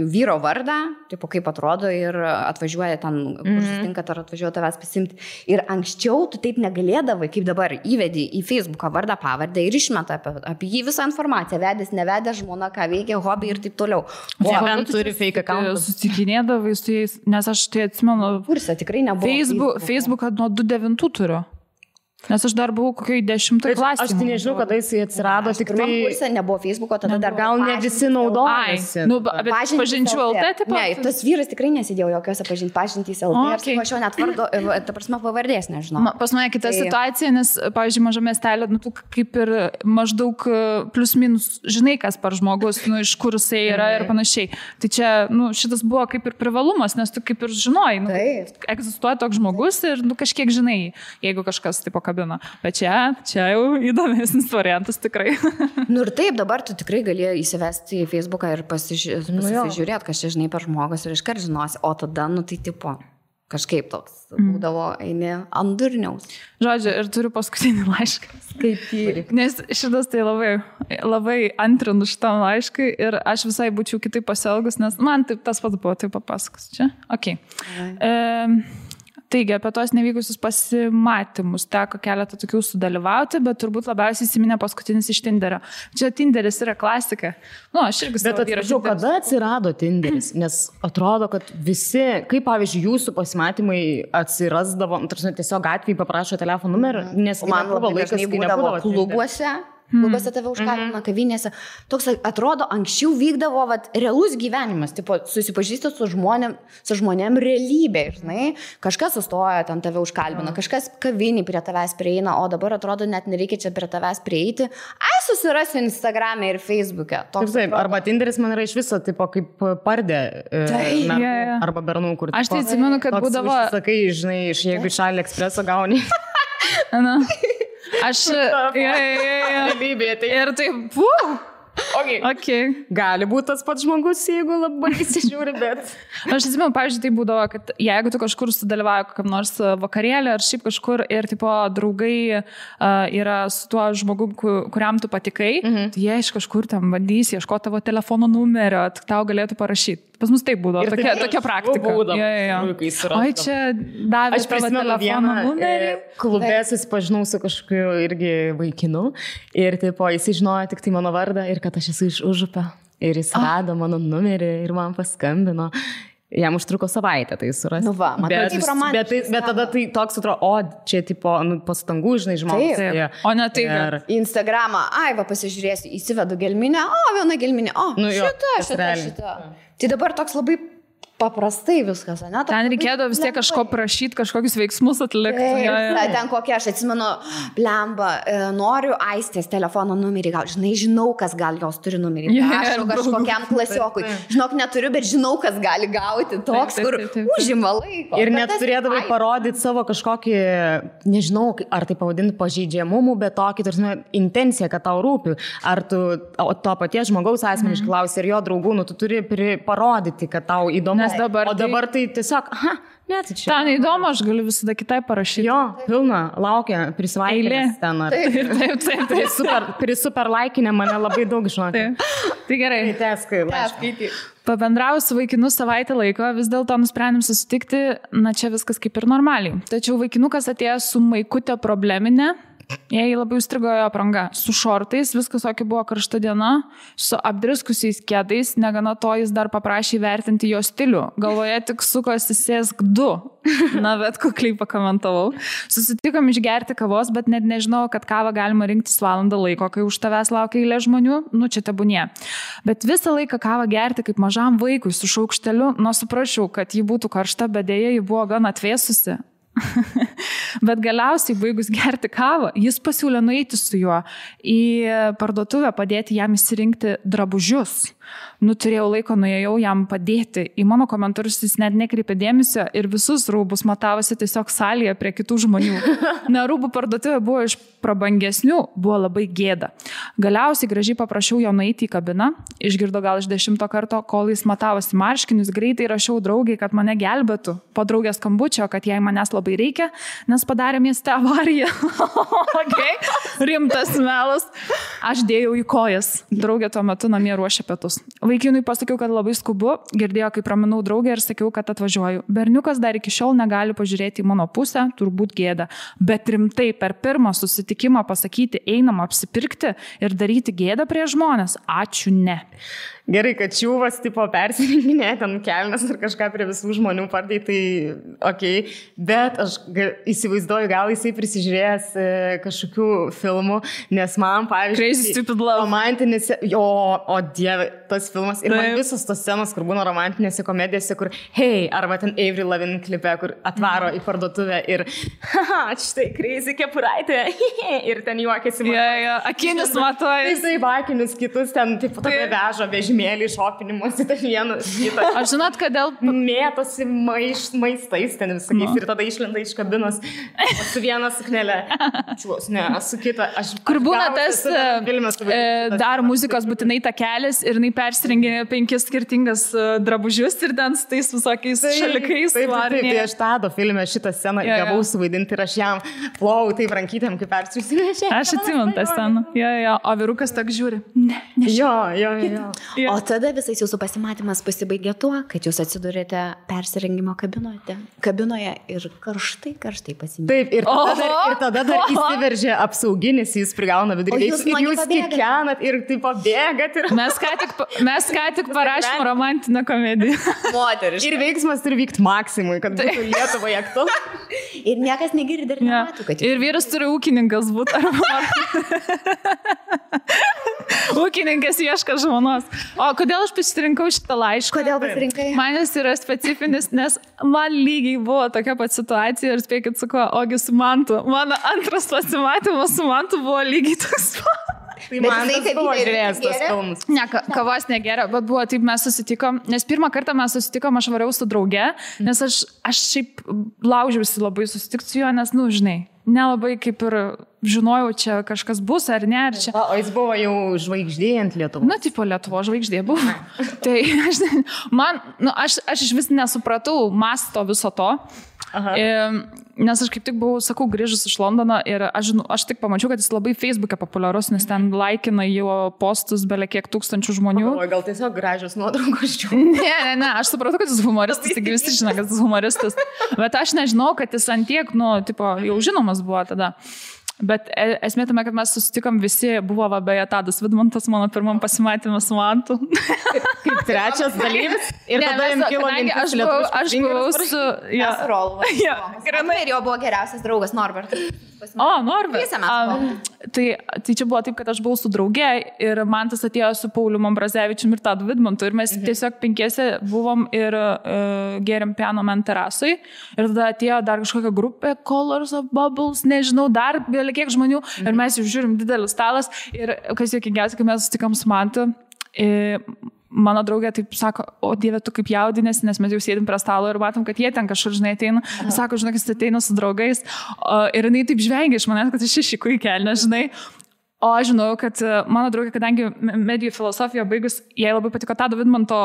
vyro vardą, kaip atrodo ir atvažiuoja ten, kur susitinkat, ar atvažiuoja tavęs pasimti. Ir anksčiau tu taip negalėdavai, kaip dabar įvedi į Facebooką vardą, pavardę ir išmeta apie jį visą informaciją. Vedęs, nevedęs, žmona, ką veikia, hobį ir taip toliau. O turi fake account. Susitikinėdavai su jais, nes aš tai atsimenu. Kursą tikrai nebuvo. Facebooką nuo 2009 turiu. Nes aš dar buvau kokiai 10 klasėje. Aš tai nežinau, kada jis atsirado, tik tai... Kursė nebuvo Facebooko, tada dar gal ne visi naudojasi. Bet pažinčių LT, taip pat? Ne, tas vyras tikrai nesidėjo jokiose pažintys LT. Ir aš jau net vardo, ta prasme, pavardės nežinau. Pas mane kita situacija, nes, pavyzdžiui, mažame miestelė, tu kaip ir maždaug plus minus žinai, kas par žmogus, iš kur jisai yra ir panašiai. Tai čia, šitas buvo kaip ir privalumas, nes tu kaip ir žinoj, egzistuoja toks žmogus ir kažkiek žinai, jeigu kažkas taip bet čia jau įdomesnis variantas tikrai. Ir taip, dabar tu tikrai gali įsivesti į Facebooką ir pasižiūrėti, kas čia žinai per žmogus ir iškart žinosi, o tada, tai tipo, kažkaip toks būdavo eini ant durniaus. Žodžiu, ir turiu paskutinį laišką. Skaityk. Nes šitas tai labai antrinu šitam laiškui ir aš visai būčiau kitaip pasielgus, nes man taip tas pats buvo, taip papasakos. Čia? Ok. Taigi, apie tos nevykusius pasimatymus teko keletą tokių sudalyvauti, bet turbūt labiausiai įsiminė paskutinis iš Tinderio. Čia Tinderis yra klasika. Aš irgi savo vyrą. Bet kada atsirado Tinderis? Nes atrodo, kad visi, kaip pavyzdžiui, jūsų pasimatymai atsirasdavo, tiesiog gatvėje paprašo telefono numerį, nes man labai laikas, kai nebūdavo klubuose. Klubose tave užkalbina, kavinėse. Toks atrodo, anksčiau vykdavo realus gyvenimas, tipo, susipažįsti su žmonėm realybė, žinai. Kažkas sustoja, ten tave užkalbina, kažkas kavinį prie tavęs prieina, o dabar atrodo, net nereikia čia prie tavęs prieiti. Susirasiu Instagram'e ir Facebook'e. Taip, arba Tinderis man yra iš viso, tipo, kaip pardė arba bernų, kur... Aš tai atsimenu, kad būdavo... Sakai, žinai, jeigu iš AliExpresso gauni... Aš... Realybė, tai... Ir taip, Okay. Gali būti tas pats žmogus, jeigu labai įsižiūri, bet... Aš atsimenu, pavyzdžiui, tai būdavo, kad jeigu tu kažkur sudalyvauji kokiam nors vakarėlį ar šiaip kažkur ir tipo draugai yra su tuo žmogum, kuriam tu patikai, tai jie iš kažkur tam bandys ieškoti tavo telefono numerio, tau galėtų parašyti. Pas mus taip būdavo, tokia praktika. Oi, čia davė tavo telefono numerį. Klube susipažinau su kažkokiu irgi vaikinu ir tipo, jis žinojo tik tai mano vardą ir kad aš esu iš Užupio. Ir jis rado mano numerį ir man paskambino. Jam užtruko savaitę tai surasti. Nu va, matai, kaip romantiškai. Bet tada tai toks atrodo, čia tipo, pastangų, žinai, žmogus. O ne tai. Instagramą, va, pasižiūrėsiu, įsivedu gelminę, viena gelminė, šita. Tai dabar toks labai paprastai viskas, ne? Ten reikėdavo vis tiek kažko prašyti, kažkokius veiksmus atlikti. Ten kokia, aš atsimenu, blemba, noriu Aistės telefono numerį, žinau, kas gal jos turi numerį. Aš kažkokiam klasiokui. Žinok, neturiu, bet žinau, kas gali gauti. Toks, kur užima laiko. Ir net turėdavai parodyti savo kažkokį, nežinau, ar tai pavadinti pažeidžiamumų, bet tokį, tarsi, intenciją, kad tau rūpi. Ar tu to paties žmogaus asmeniškai klausi ir jo draugų, tu turi parodyti, kad tau įdomu. O dabar tai tiesiog, tai čia. Ten įdomu, aš galiu visada kitai parašyti. Jo, pilna, laukia, prisvaikinęs ten. Taip. Super laikinė mane labai daug žinoti. Tai gerai. Skaityti. Pabendrau su vaikinu savaitę laiko, vis dėlto nusprendėm susitikti, čia viskas kaip ir normaliai. Tačiau vaikinukas atėjo su maikutė probleminė. Jai labai užstrigo jo apranga. Su šortais, viskas tokia buvo karšta diena, su apdriskusiais kėdais, negana to jis dar paprašė vertinti jo stilių. Galvoje tik sukosi sėsk 2. Na, bet kukliai pakomentavau. Susitikom išgerti kavos, bet net nežinau, kad kavą galima rinktis valandą laiko, kai už tavęs laukia eilė žmonių, čia tebūnie. Bet visą laiką kavą gerti kaip mažam vaikui su šaukšteliu, suprašiau, kad ji būtų karšta, bet dėja ji buvo gan atvėsusi. Bet galiausiai baigus gerti kavą, jis pasiūlė nueiti su juo į parduotuvę, padėti jam įsirinkti drabužius. Turėjau laiko, nuėjau jam padėti. Į mano komentarus jis net nekreipė dėmesio ir visus rūbus matavosi tiesiog salėje prie kitų žmonių. Rūbų parduotuvė buvo iš prabangesnių, buvo labai gėda. Galiausiai gražiai paprašiau jo nueiti į kabiną, išgirdo gal iš 10 karto, kol jis matavosi marškinius, greitai rašiau draugai, kad mane gelbėtų. Po draugės skambučio, kad jai manęs labai reikia, nes padarė mieste avariją. Okay. Rimtas melas. Aš dėjau į kojas. Draugė tuo metu namie ruošė pietus. Vaikinui pasakiau, kad labai skubu, girdėjo, kaip raminau draugę ir sakiau, kad atvažiuoju. Berniukas dar iki šiol negali pažiūrėti į mano pusę, turbūt gėda. Bet rimtai per pirmą susitikimą pasakyti, einam apsipirkti ir daryti gėdą prie žmonės. Ačiū, ne. Gerai, kad čiūvas tipo persirinkinė, ten kelnes ir kažką prie visų žmonių pardai, tai okei. Bet aš įsivaizduoju, gal jisai prisižiūrėjęs kažkokių filmų, nes man, pavyzdžiui, Crazy Stupid Love. Romantinėse, o dieve, tas filmas. Ir man visos tos scenos, kur būna romantinėse komedijose, kur hei, arba ten Avril Lavigne klipe, kur atvaro į parduotuvę ir štai crazy kepuraitė ir ten juokiasi. Akinis matoja. Jisai akinius kitus ten taip tokia veža vežimėlį šopinimuose, ten vienas kitą. Aš žinot, kodėl mėtosi maistais ten visakiais ir tada išlenda iš kabinos su viena suknelė. Ne, su kita. Kur būna tas dar muzikos būtinai takelis ir jinai persirengė 5 skirtingas drabužius ir ten su tais visokiais šalikais. Taip, aš Tado filme šitą sceną gavau suvaidinti ir aš jam plovau taip rankytėm, kaip persirengė. Aš atsimenu tą sceną. O vyrukas tak žiūri. Ne. Jo. O tada visais jūsų pasimatymas pasibaigė tuo, kad jūs atsidurėte persirengimo kabinoje ir karštai pasimėtėte. Taip, ir tada dar įsiveržė apsauginis, jis prigauna viduriniais ir jūs kikenat ir taip pabėgat. Mes ką tik parašėm romantinę komediją. Moteriškai. Ir veiksmas turi vykti maksimui, kad būtų Lietuvoje aktualu. Ir niekas negirdi ir nemato, kad ir vyras turi ūkininkas būti. Ūkininkas ieško žmonos. O kodėl aš pasirinkau šitą laišką? Kodėl pasirinkai? Man jis yra specifinis, nes man lygiai buvo tokia pat situacija ir spėkit su kuo, ogi su Mantu. Mano antras pasimatymas su Mantu buvo lygiai toks pat. Tai man tas buvo žiūrėjęs tos filmus. Ne, kavos negeria, bet buvo taip, mes susitikom, nes pirmą kartą mes susitikom, aš variau su drauge, nes aš šiaip laužiausi labai susitikti su juo, nes, žinai, nelabai kaip ir žinojau, čia kažkas bus ar ne. Ar čia... O jis buvo jau žvaigždė ant Lietuvos? Tipo Lietuvo žvaigždė buvo. Tai aš iš vis nesupratau masto viso to. Nes aš kaip tik buvau, sakau, grįžus iš Londono ir aš tik pamačiau, kad jis labai Facebook'e populiarus, nes ten laikina jo postus belie kiek tūkstančių žmonių. O gal tiesiog gražios nuotraukos čia? Ne, aš supratau, kad jis humoristas, taigi visi žino, kad jis humoristas. Bet aš nežinau, kad jis antiek, tipo, jau žinomas buvo tada. Bet esmė tame, kad mes susitikom visi, buvo beje Tadas Vidmantas mano pirmam pasimatymą su Mantu. Kaip trečias dalyvis. Ir Ne, tada jums kilo mintis lietuviškas aš buvau su... Ja. Grynai ir jo buvo geriausias draugas Norbertas. O, Norbert. Visą mes buvom. Tai čia buvo taip, kad aš buvau su draugė ir Mantas atėjo su Pauliu Ambrazevičium ir Tadu Vidmantu ir mes tiesiog 5 buvom ir gėrėm piano man terasui ir tada atėjo dar kažkokia grupė Colors of Bubbles, nežinau, dar kiek žmonių ir mes jau žiūrim didelis stalas ir kas juokingiausia, kai mes sutikam su Mantu, mano draugė taip sako, o Dieve, tu kaip jaudinės, nes mes jau sėdim prie stalo ir matom, kad jie ten kažkur, žinai, ateina. Sako, žinai, kad ateina su draugais. Ir jinai taip žvengia iš manęs, kad aš išiku į kelnę, žinai. O aš žinau, kad mano draugė, kadangi medijų filosofiją baigus, jai labai patiko Tado Vidmanto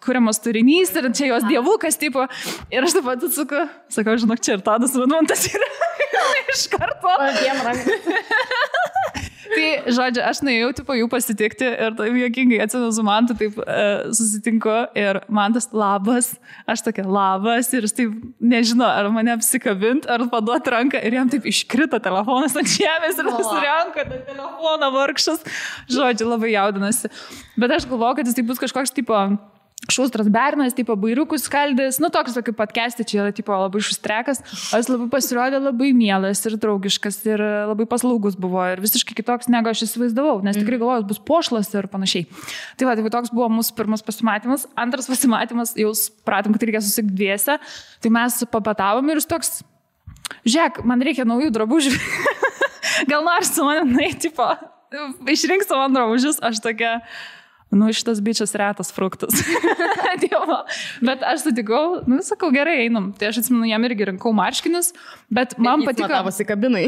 kuriamas turinys ir čia jos dievukas, tipo. Ir aš taip pat atsuku, sakau, žinok, čia ir Tadas Vidmantas yra iš karto. Tai, žodžiu, aš nuėjau, tipo, jų pasitikti ir taip juokingai atsimenu su Mantu, taip susitinku ir Mantas labas, aš tokia labas ir jis taip nežino, ar mane apsikabint, ar paduoti ranką ir jam taip iškrito telefonas ant žemės ir nusirenka tą telefoną vargšas. Žodžiu, labai jaudinasi. Bet aš galvoju, kad jis taip bus kažkoks, tipo, šustras bernas, tipo bairiukus skaldys, nu toks kaip podcast'e, čia yra tipo labai šustrekas, o jis labai pasirodė labai mielas ir draugiškas ir labai paslaugus buvo ir visiškai kitoks, negu aš įsivaizdavau, nes tikrai galvojau, bus pošlas ir panašiai. Tai va, tai toks buvo mūsų pirmas pasimatymas. Antras pasimatymas, jau pratom, kad reikia susitikti dviese, tai mes papatavom ir jis toks, žiūrėk, man reikia naujų drabužių, gal nori su manim, tipo, išrink savo drabužius, aš tokia... Nu, šitas bičias retas fruktas. Bet aš sutikau, nu, sakau, gerai, einam. Tai aš atsimenu, jam irgi rinkau marškinius, bet man patiko... Jis matavosi kabinai.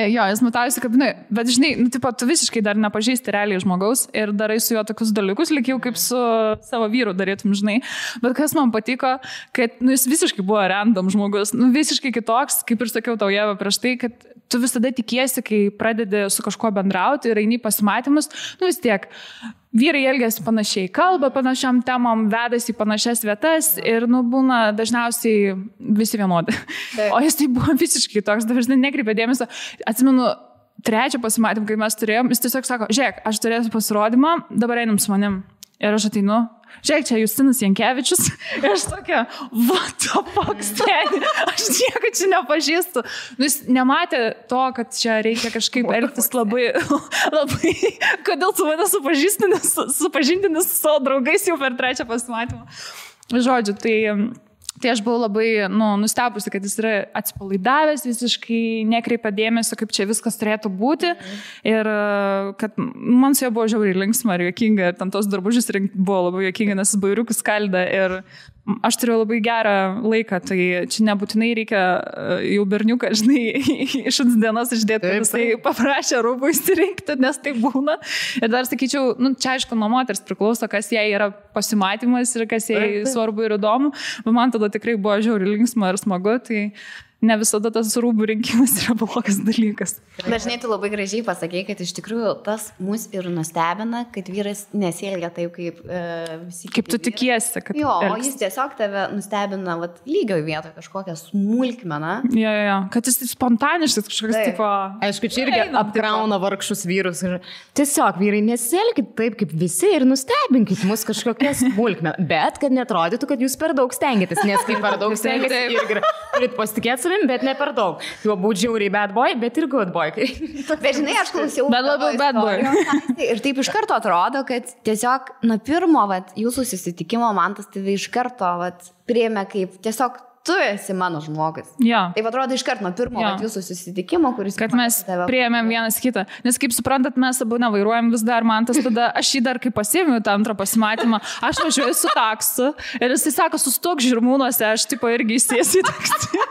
Jo, jis matavosi kabinai. Bet, žinai, nu, tipo, tu visiškai dar nepažįsti realiai žmogaus ir darai su juo tokius dalykus, lyg jau kaip su savo vyru darytum, žinai. Bet kas man patiko, kad, nu, jis visiškai buvo random žmogus, nu, visiškai kitoks, kaip ir sakiau tau, Ieva, prieš tai, kad tu visada tikiesi, kai pradedi su kažkuo bendrauti ir eini pasimatymus, nu, vis tiek... Vyrai elgiasi panašiai, kalba panašiam temam, vedasi į panašias vietas ir, nu, būna dažniausiai visi vienodi. O jis tai buvo visiškai toks, dažnai nekreipė dėmesio. Atsimenu, trečią pasimatymą, kai mes turėjom, jis tiesiog sako, žiūrėk, aš turėsiu pasirodymą, dabar einam su manim. Ir aš ateinu, žiūrėk, čia Justinas Jankevičius. Ir aš tokia, what the fuck, steni, aš nieko čia nepažįstu. Nu, jis nematė to, kad čia reikia kažkaip elgtis labai, kodėl tu mane supažindini su savo draugais jau per trečią pasimatymą. Žodžiu, tai aš buvau labai, nu, nustebusi, kad jis yra atsipalaidavęs, visiškai nekreipia dėmesio, kaip čia viskas turėtų būti. Ir kad man su jo buvo žiauriai linksma ir juokinga, ir ten tos drabužius rinkti buvo labai juokinga, nes jis bairiukus skaldė ir aš turėjau labai gerą laiką, tai čia nebūtinai reikia jau berniuką, žinai, iš dienos išdėti, kad jisai paprašė rūbų įsirinkti, nes tai būna. Ir dar sakyčiau, nu, čia aišku, nuo moters priklauso, kas jai yra pasimatymas ir kas jai svarbu ir įdomu, bet man tada tikrai buvo žiauriai linksma ir smagu, tai ne visada tas rūbų rinkimas yra blogas dalykas. Dažnai tu labai gražiai pasakei, kad iš tikrųjų tas mus ir nustebina, kad vyras nesielgia taip, kaip visi. Kaip tu tikiesi, kad... Jo, o jis tiesiog tave nustebina lygioj vietoje kažkokią smulkmeną. Jo, kad jis spontaniškas kažkoks tipo... Aišku, čia irgi apkrauna vargšus vyrus. Tiesiog vyrai nesielkit taip, kaip visi ir nustebinkit mus kažkokią smulkmeną. Bet kad netrodytų, kad jūs per daug stengiatės, nes kai per daug stengiatės irgi turit pasitikėti, bet ne per daug. Jo būtų žiauriai bad boy, bet ir good boy. Bet žinai, aš klausiau. Bet labai bad boy. Ir taip iš karto atrodo, kad tiesiog nuo pirmo jūsų susitikimo man tas tave iš karto priėmė kaip tiesiog tu esi mano žmogus. Ja. Taip atrodo iš karto nuo pirmo jūsų susitikimo, kuris... Kad mes priėmėm vienas kitą. Nes kaip suprantat, mes abu nevairuojam vis dar, man tas tada, aš jį dar kaip pasiėmiau tą antrą pasimatymą, aš važiuoju su taksu ir jisai sako, sustok Žirmūnuose, aš tipo irgi įsėsiu į taksį.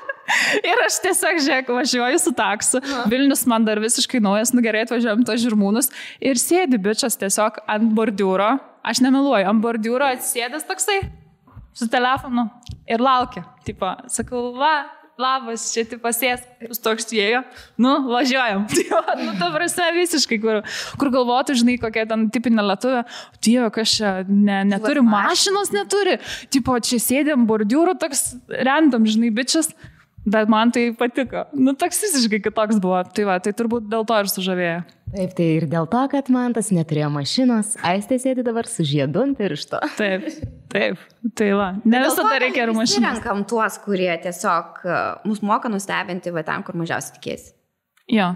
Ir aš tiesiog, žiūrėk, važiuoju su taksu, Vilnius man dar visiškai naujas, nu gerai, atvažiuojam to Žirmūnus ir sėdi bičias tiesiog ant bordiūro, aš nemeluoju, ant bordiūro atsėdęs toksai su telefonu ir laukia, tipo, sakau, labas, čia tipo sės, jūs toks ėjo, nu, važiuojam, nu, ta prasme visiškai, kur galvotų, žinai, kokia ten tipinė lietuvė, Dieve, kas čia neturi, mašinos neturi, tipo, čia sėdėm bordiūro, toks random, žinai, bičias. Bet man tai patiko. Nu, toks visiškai kitoks buvo. Tai va, tai turbūt dėl to ir sužavėjo. Taip, tai ir dėl to, kad man tas neturėjo mašinos, Aistė sėdi dabar su žiedu ant piršto. Taip. Tai va, ne visada reikia ir mašinos. Mes renkam tuos, kurie tiesiog mus moka nustebinti, va ten, kur mažiausiai tikėsi. Jo.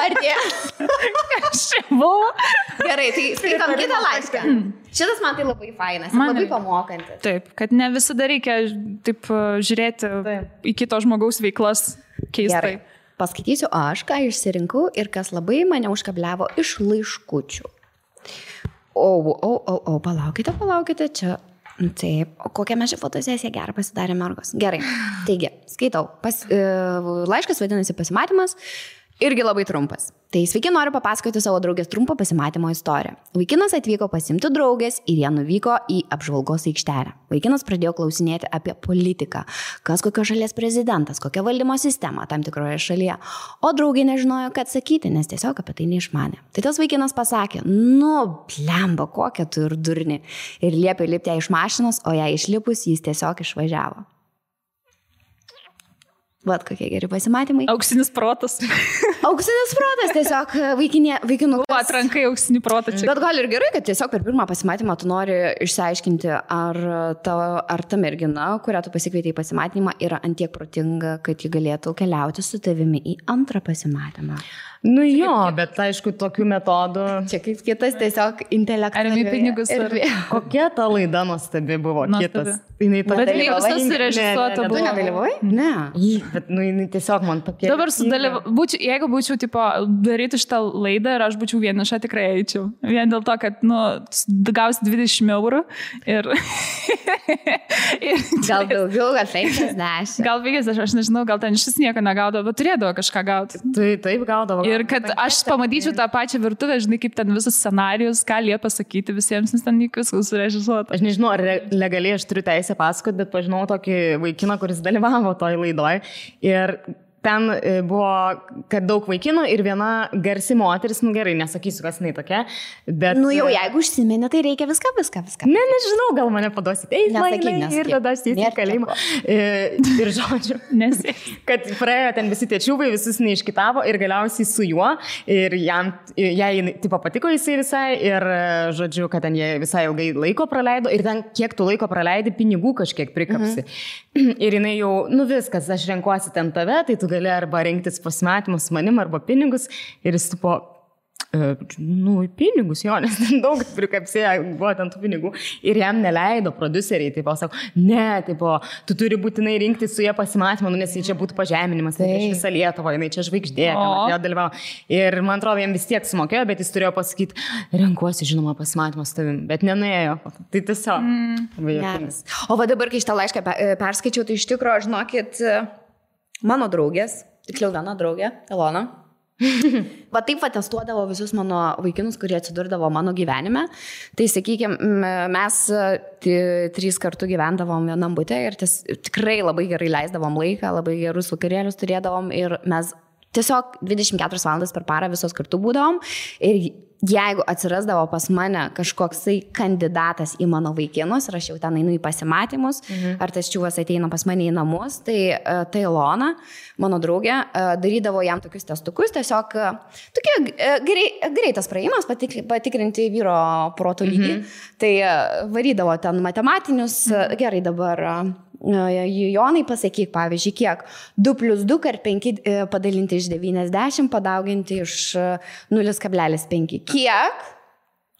Ar tie? Kas čia buvo? Gerai, tai skaitom kitą laišką. Šitas man tai labai fainas, labai pamokantis. Taip, kad ne visada reikia taip žiūrėti į kito žmogaus veiklas keistai. Gerai, paskaitysiu aš, ką išsirinkau ir kas labai mane užkabliavo iš laiškučių. Palaukite, čia... Taip, o kokią mes šią fotosesiją gerą pasidarė mergos. Gerai, taigi, skaitau. Laiškas vadinasi pasimatymas. Irgi labai trumpas. Tai sveiki, noriu papasakoti savo draugės trumpą pasimatymo istoriją. Vaikinas atvyko pasimti draugės ir jie nuvyko į apžvalgos aikštelę. Vaikinas pradėjo klausinėti apie politiką, kas kokios šalies prezidentas, kokia valdymo sistema tam tikroje šalyje. O draugė nežinojo, ką atsakyti, nes tiesiog apie tai neišmanė. Tai tas vaikinas pasakė, blemba, kokia tu ir durni. Ir liepė lipti ją iš mašinos, o ją išlipus jis tiesiog išvažiavo. Vat kokie geri pasimatymai. Auksinis protas. Auksinis protas, tiesiog vaikinų. Atrankai auksinį protą čia. Bet gal ir gerai, kad tiesiog per pirmą pasimatymą tu nori išsiaiškinti, ar ta mergina, kurią tu pasikvietei į pasimatymą, yra antiek protinga, kad ji galėtų keliauti su tavimi į antrą pasimatymą. Nu jo, bet aišku, tokių metodų. Čia kaip kitas tiesiog intelektualiai. Ar pinigus. Kokia ta laida nuostabi buvo? Kitas. Bet jinai visas surežisuota buvo. Tu nedalyvavai? Ne. Bet jinai tiesiog man tokia. Dabar jeigu būčiau daryti šitą laidą ir aš būčiau vieniša, tikrai eičiau. Vien dėl to, kad gausi 20 eurų ir... Gal daugiau, gal 50. Gal 50, aš nežinau, gal ten šis nieko negaudavo, bet turėdavo kažką gauti. Taip gaudavo. Ir kad aš pamatyčiau tą pačią virtuvę, žinai, kaip ten visas scenarijus, ką liepia pasakyti visiems, nes ten viskas surežisuota. Aš nežinau, ar legaliai aš turiu teisę pasakoti, bet pažinau tokį vaikiną, kuris dalyvavo toj laidoj. Ir ten buvo, kad daug vaikinų ir viena garsi moteris, gerai, nesakysiu, kas jinai tokia, bet... Jau jeigu užsiminė, tai reikia viską. Nežinau, gal mane paduosit ir tada aš į kalėjimą. Ir žodžiu, kad praėjo ten visi tie čiūbai, visus neiškitavo ir galiausiai su juo ir jai tipo patiko jisai visai ir žodžiu, kad ten jie visai ilgai laiko praleido ir ten kiek tu laiko praleidi, pinigų kažkiek prikapsi. Ir jinai jau, viskas, aš renkuosi ten tave, tai tu gali arba rinktis pasimatymus su manim, arba pinigus. Ir jis tipo, pinigus jo, nes daug prikapsėjo, buvo ten tų pinigų. Ir jam neleido produceriai, tipo, sako, ne, tipo, tu turi būtinai rinkti su jie pasimatymą, nes čia būtų pažeminimas, tai iš visą Lietuvą, jinai čia žvaigždė, jo dalyvavo. Ir man atrodo, jam vis tiek sumokėjo, bet jis turėjo pasakyti, renkuosi, žinoma, pasimatymą su tavim, bet nenuėjo. Tai tiesiog. O va dabar, kai šitą laišką perskaičiau, tai iš tikrųjų, žinokit, mano draugės, tiksliau viena draugė, Elona, va taip testuodavo visus mano vaikinus, kurie atsidurdavo mano gyvenime. Tai sakykime, mes 3 kartų gyvendavom vienam bute ir tikrai labai gerai leisdavom laiką, labai gerus vakarėlius turėdavom ir mes tiesiog 24 valandas per parą visos kartu būdavom ir jeigu atsirasdavo pas mane kažkoksai kandidatas į mano vaikinus ir aš jau ten einu į pasimatymus, ar tas čiūvas ateina pas mane į namus, tai Ilona, mano draugė, darydavo jam tokius testukus, tiesiog tokie greitas praėjimas, patikrinti vyro proto lygį. Tai varydavo ten matematinius, gerai dabar... Jonai, pasakyk, pavyzdžiui, kiek 2 + 2 ar 5 padalinti iš 90, padauginti iš 0,5. Kiek?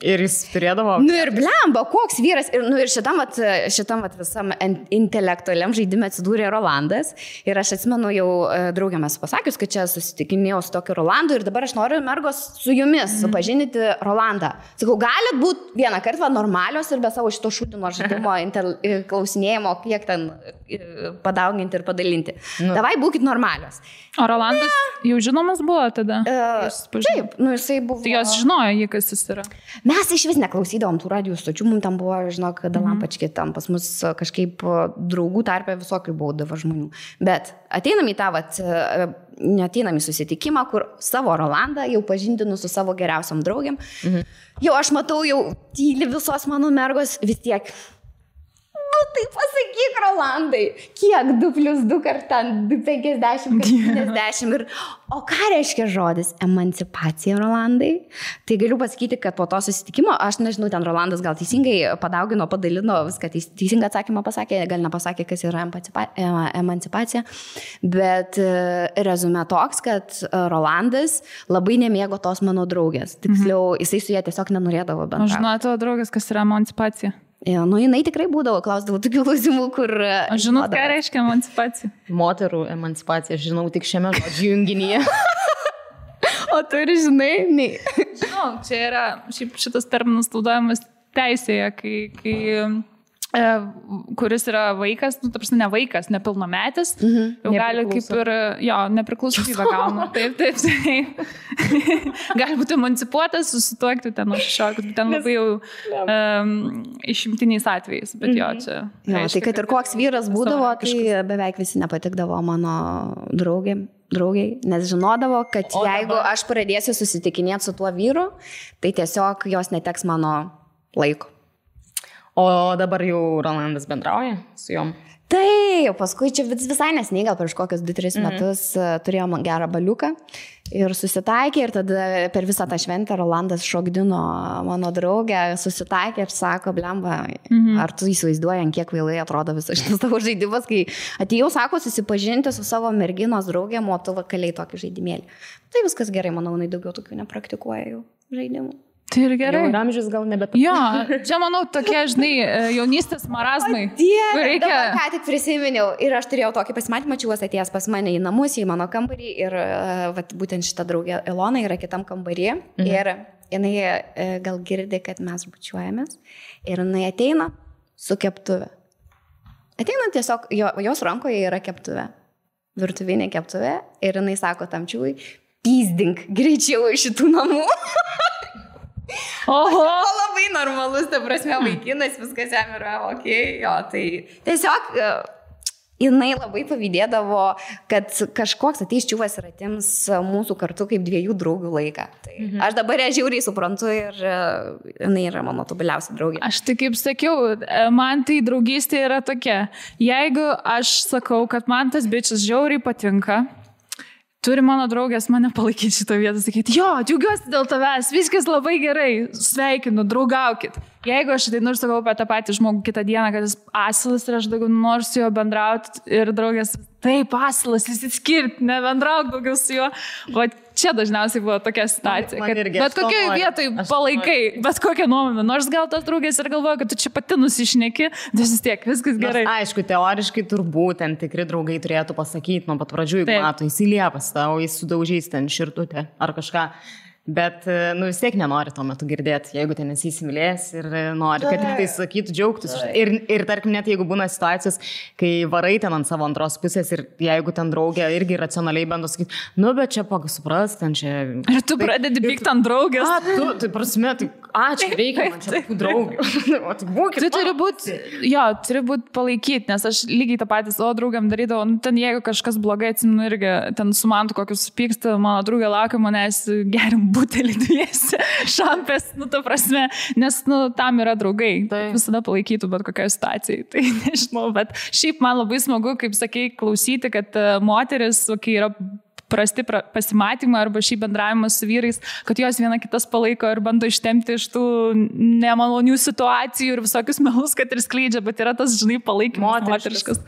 Ir jis turėdavo... Ir blemba, koks vyras. Ir šitam visam intelektualiam žaidime atsidūrė Rolandas. Ir aš atsimenu jau draugiamės pasakius, kad čia susitikinėjau su tokiu Rolandu ir dabar aš noriu mergos su jumis supažinti Rolandą. Sakau, galit būti vieną kartą normalios ir be savo šito šūdino žaidimo klausinėjimo, kiek ten padauginti ir padalinti. Davai, būkit normalios. O Rolandas jau žinomas buvo tada? Taip, jisai buvo. Tai jos žinojo jį, kas jis yra. Mes iš vis neklausydavom tų radijų stočių, mums tam buvo, žinok, Dalampački, tam pas mus kažkaip draugų tarpe visokių būdavo žmonių. Bet ateinam į tą, neateinam į susitikimą, kur savo Rolandą jau pažindinu su savo geriausiam draugiam. Jau aš matau, jau tyli visos mano mergos vis tiek. Tai pasakyk, Rolandai, kiek 2+2 kartą, 50, 50 ir... O ką reiškia žodis emancipacija, Rolandai? Tai galiu pasakyti, kad po to susitikimo, aš nežinau, ten Rolandas gal teisingai padaugino, padalino, viską teisingą atsakymą pasakė, gal nepasakė, kas yra emancipacija, bet rezume toks, kad Rolandas labai nemėgo tos mano draugės. Tiksliau, jisai su ją tiesiog nenorėdavo bendrauti. Aš žinau tavo draugės, kas yra emancipacija. Jinai tikrai būdavo, klausdavo tokių klausimų, kur... Aš žinau, ką reiškia emancipacija. Moterų emancipacija, žinau tik šiame žodžių junginyje. O tu ir žinai? Ne. Žinau, čia yra, šitas terminas naudojamas teisėje, kai kuris yra vaikas, ta prasme ne vaikas, nepilnametis, jau gali kaip ir, nepriklausomybę gauna. Taip. Gali būti emancipuotas, susituokti ten nuo 16, ten labai jau išimtiniais atvejais, bet čia... Tai kad ir koks vyras būdavo, tai beveik visi nepatikdavo mano draugiai, nes žinodavo, kad jeigu aš pradėsiu susitikinėti su tuo vyru, tai tiesiog jos neteks mano laiko. O dabar jau Rolandas bendrauja su jom? Tai, paskui čia visai nesniai, gal prieš kokius 2-3 metus turėjom gerą baliuką ir susitaikė ir tada per visą tą šventę Rolandas šokdino mano draugę, susitaikė ir sako, blemba, ar tu įsivaizduoji, kiek kvailai atrodo visas šitas tavo žaidimas, kai atėjau, sako, susipažinti su savo merginos draugėm, o tu vakaliai tokį žaidimėlį. Tai viskas gerai, manau, jinai daugiau tokių nepраktikuoja jau žaidimų. Tai ir gerai. Jau amžius gal nebet. Jo, čia manau tokie, žinai, jaunystės marazmai. Reikia... Ką tik prisiminiau ir aš turėjau tokį pasimatymą, čiūvas atėjęs pas mane į namus, į mano kambarį ir būtent šita draugė Ilona yra kitam kambarį ir jinai gal girdi, kad mes bučiuojamės ir jinai ateina su keptuve. Ateina tiesiog, jos rankoje yra keptuve, virtuvinė keptuve ir jinai sako tam čiūvai, pyzdink greičiau iš šitų namų. Oho! Labai normalus, ta prasme, vaikinas, viskas jam yra okei, tai tiesiog jinai labai pavydėdavo, kad kažkoks ateis čiūvas ir atims mūsų kartu kaip 2 draugių laiką. Tai aš dabar ją žiauriai suprantu ir jinai yra mano tobuliausia draugė. Aš tai kaip sakiau, man tai draugystė yra tokia, jeigu aš sakau, kad man tas bičias žiauriai patinka, turi mano draugės mane palaikyti šitą vietą, sakyti, jo, džiaugiuosi dėl tavęs, viskas labai gerai, sveikinu, draugaukit. Jeigu aš ateinu ir sakau apie tą patį žmogų kitą dieną, kad jis asilas ir aš daugiau noriu su juo bendrauti ir draugės, taip, asilas, išsiskirti, nebendrauk daugiau su juo. O čia dažniausiai buvo tokia situacija, kad bet kokioje vietoje palaikai, bet kokią nuomonę, nors gal tos draugės ir galvoja, kad tu čia pati nusišneki, vis tiek, viskas gerai. Nors, aišku, teoriškai turbūt ten tikri draugai turėtų pasakyti nuo pat pradžių, jeigu mato, įsiliepas tau, jis sudaužys ten širtutę ar kažką. Bet, vis tiek nenori tuo metu girdėti, jeigu ten esi įsimylėjęs ir nori, kad tik tai sakytų, džiaugtis. Ir tarkim, net jeigu būna situacijos, kai varai ten ant savo antros pusės ir jeigu ten draugė irgi racionaliai bando sakyti, bet čia supras, ten čia... Ir tu pradedi pykti ant draugės. Tai prasme, čia reikia man čia tų draugių. Tu turi būti palaikyti, nes aš lygiai tą patį savo draugiam darydavau, ten jeigu kažkas blogai atsimenu irgi, ten su man kokius pyksta, mano draugė laukia manęs gerim butelį dviesi, šampės, ta prasme, nes, tam yra draugai, visada palaikytų bet kokiai situacijai, tai nežinau, bet šiaip man labai smagu, kaip sakei, klausyti, kad moteris, kai yra prasti pasimatymai arba šį bendravimą su vyrais, kad jos viena kitas palaiko ir bando ištempti iš tų nemalonių situacijų ir visokius melus, kad ir skleidžia, bet yra tas, žinai, palaikymas moteriškas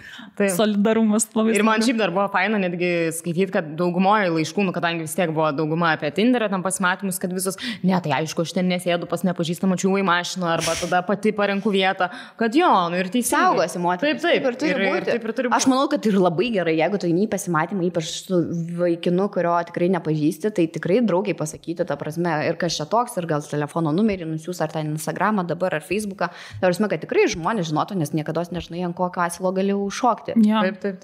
solidarumas. Ir man šiaip dar buvo faina netgi skaityti, kad daugumoje laiškų, kadangi vis tiek buvo dauguma apie Tinderą tam pasimatymus, kad visos, tai aišku, aš ten nesėdu pas nepažįstamą čiūvą į mašiną arba tada pati parenku vietą, kad ir teisingai. Saugosi moteris. Taip, ir turi būti. Aš manau, kad ir labai gerai, jeigu tu eini į pasimatymą, ypač su vaikinu, kurio tikrai nepažįsti, tai tikrai draugiai pasakyti, ta prasme, ir kas čia toks, ir gal telefono numerį nusiūs, ar ten Instagramą dabar, ar Facebooką, ta prasme, kad tikrai žmonės žinotų, nes niekada nežinai, ant kokio asilo gali užšokti. Ja. Taip.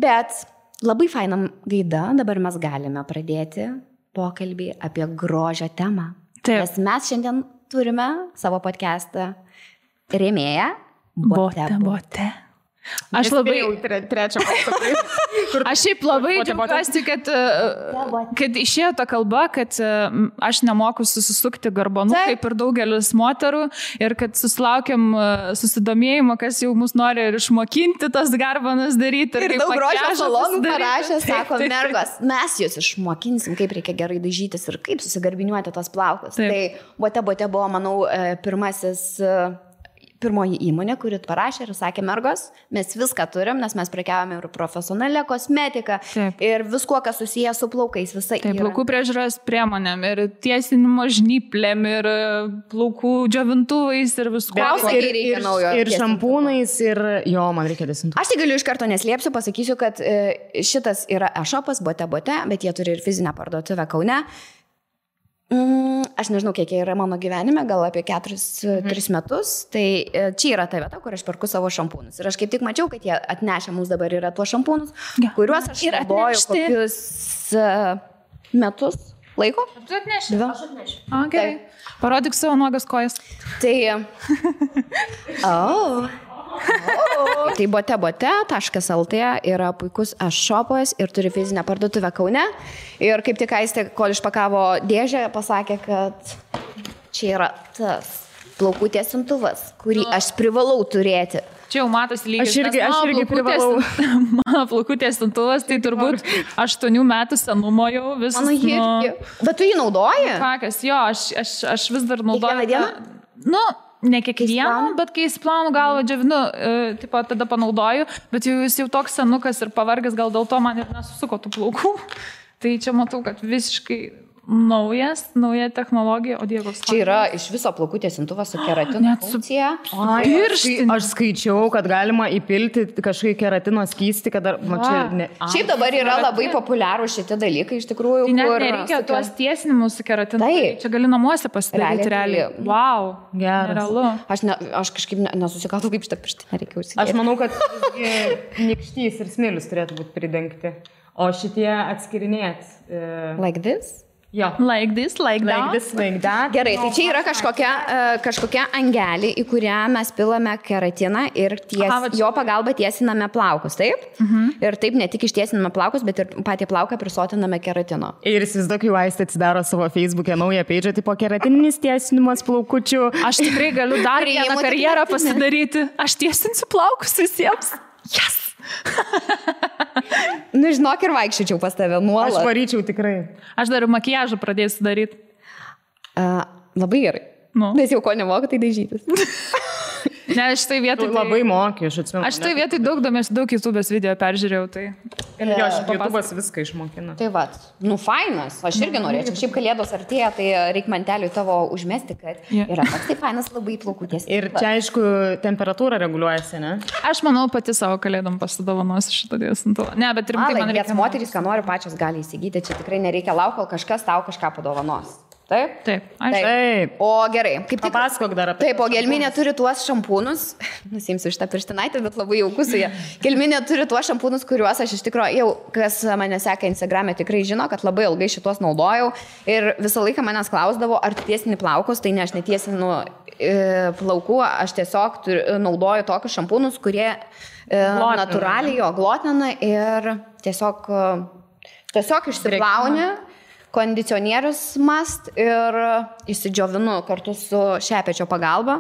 Bet labai fainam gaida, dabar mes galime pradėti pokalbį apie grožio temą. Taip. Nes mes šiandien turime savo podcastą rėmėją Bote. Aš labai... Trečią pasakai. Aš šiaip labai džiaugiuosi, kad išėjo ta kalba, kad aš nemoku susisukti garbanų, kaip ir daugelis moterų, ir kad susilaukiam susidomėjimo, kas jau mus nori ir išmokinti tas garbanas daryti. Ir daug grožio salonų parašė, sako, mergos, mes jūs išmokinsim, kaip reikia gerai dažytis ir kaip susigarbiniuoti tos plaukus. Taip. Tai Bote buvo, manau, pirmoji įmonė, kuri parašė ir sakė, mergos, mes viską turim, nes mes prekiavame ir profesionalią kosmetiką, ir viskuo, kas susijęs su plaukais, visai. Taip, plaukų priežiūros priemonėm, ir tiesinimo žnyplėm, ir plaukų džiovintuvais, ir viskuo. Ir šampūnais, ir man reikia desintų. Aš tai galiu iš karto neslėpsiu, pasakysiu, kad šitas yra e-shopas Bote, bet jie turi ir fizinę parduotuvę Kaune. Aš nežinau, kiek yra mano gyvenime, gal apie 4-3 metus, tai čia yra ta vieta, kur aš perku savo šampūnus. Ir aš kaip tik mačiau, kad jie atnešė mums dabar yra tuos šampūnus, kuriuos aš naudoju kokius metus laiko. Tu atneši? Aš atnešiu. Gerai. Parodyk savo nuogas kojas. Tai... Tai bote.lt yra puikus e-shopas ir turi fizinę parduotuvę Kaune. Ir kaip tik Aistė, kol išpakavo dėžę, pasakė, kad čia yra tas plaukų tiesintuvas, kurį aš privalau turėti. Čia jau matosi lygis. Aš irgi privalau. Mano plaukų tiesintuvas, tai turbūt 8 metų senumo jau visas. Mano irgi. Bet tu jį naudoji? Kakas, jo, aš vis dar naudoju. Kiekvieną dieną? Ne kiekvieną, bet kai įsiplaunu galvą džiavinu, tada panaudoju, bet jis jau toks senukas ir pavargęs, gal dėl to man ir nesusuko tų plaukų. Tai čia matau, kad visiškai nauja technologija, o dievas. Čia yra iš viso plaukų tiesintuvas su keratino funkcija. Aš skaičiau, kad galima įpilti kažkokį keratino skystį, kad Šiaip dabar yra labai populiarų šitie dalykai, iš tikrųjų. Tai net nereikia tuos tiesinimus su keratinu. Čia gali namuose pasidaryti realiai. Wow, geras. Aš kažkaip nesusikatau, kaip šitą pirštinę reikia užsidėti. Aš manau, kad nykštys ir smilius turėtų būti pridengti, o šitie atskirinėti. Like this? Jo. Like this, like that. Gerai, tai čia yra kažkokia angelė, į kurią mes pilame keratiną ir jo pagalba tiesiname plaukus, taip? Ir taip ne tik ištiesiname plaukus, bet ir patį plauką prisotiname keratino. Ir įsivaizduok, jau Aistė atsidaro savo Facebook'e naują page'ą, tipo keratininis tiesinimas plaukučių. Aš tikrai galiu dar vieną karjerą pasidaryti. Aš tiesinsiu plaukus visiems. Yes! Nu, žinok, ir vaikščiučiau pas tave nuolat. Aš varyčiau tikrai. Aš dar makiažą pradėsiu daryti. Labai gerai. Nes jau ko nemoku, tai dažytis. Ne, aš tai vietoj... Labai mokiu, aš atsimenu. Aš tai vietoj daug YouTube'ės video peržiūrėjau, tai... Jo, YouTube'as viską išmokina. Tai va, fainas. Aš irgi norėčiau. Šiaip kalėdos artėja, tai reikia manteliui tavo užmesti, kad yra toks tai fainas labai plaukų tiesiog. Ir čia, aišku, temperatūra reguliuojasi, ne? Aš manau, pati savo kalėdom pasidovanosiu šitą tiesintuvą. Ne, bet rimtai man reikia... Moterys, ką nori, pačios gali įsigyti. Čia tikrai nereikia laukti, kol kažkas tau kažką padovanos. Taip? Taip. Taip. O gerai, kaip tik... Papasakok dar apie... Taip, o Gelminė turi tuos šampūnus, nusimsiu šitą pirštinaitę, bet labai jauku su jie. Gelminė turi tuos šampūnus, kuriuos aš iš tikrųjų, jau kas mane seka Instagram'e, tikrai žino, kad labai ilgai šitos naudojau ir visą laiką manęs klausdavo, ar tiesini plaukus, tai ne, aš netiesinu plaukų, aš tiesiog naudoju tokius šampūnus, kurie natūraliai jo glotina ir tiesiog išsiplauni. Kondicionierius must ir įsidžiovinu kartu su šepečio pagalba.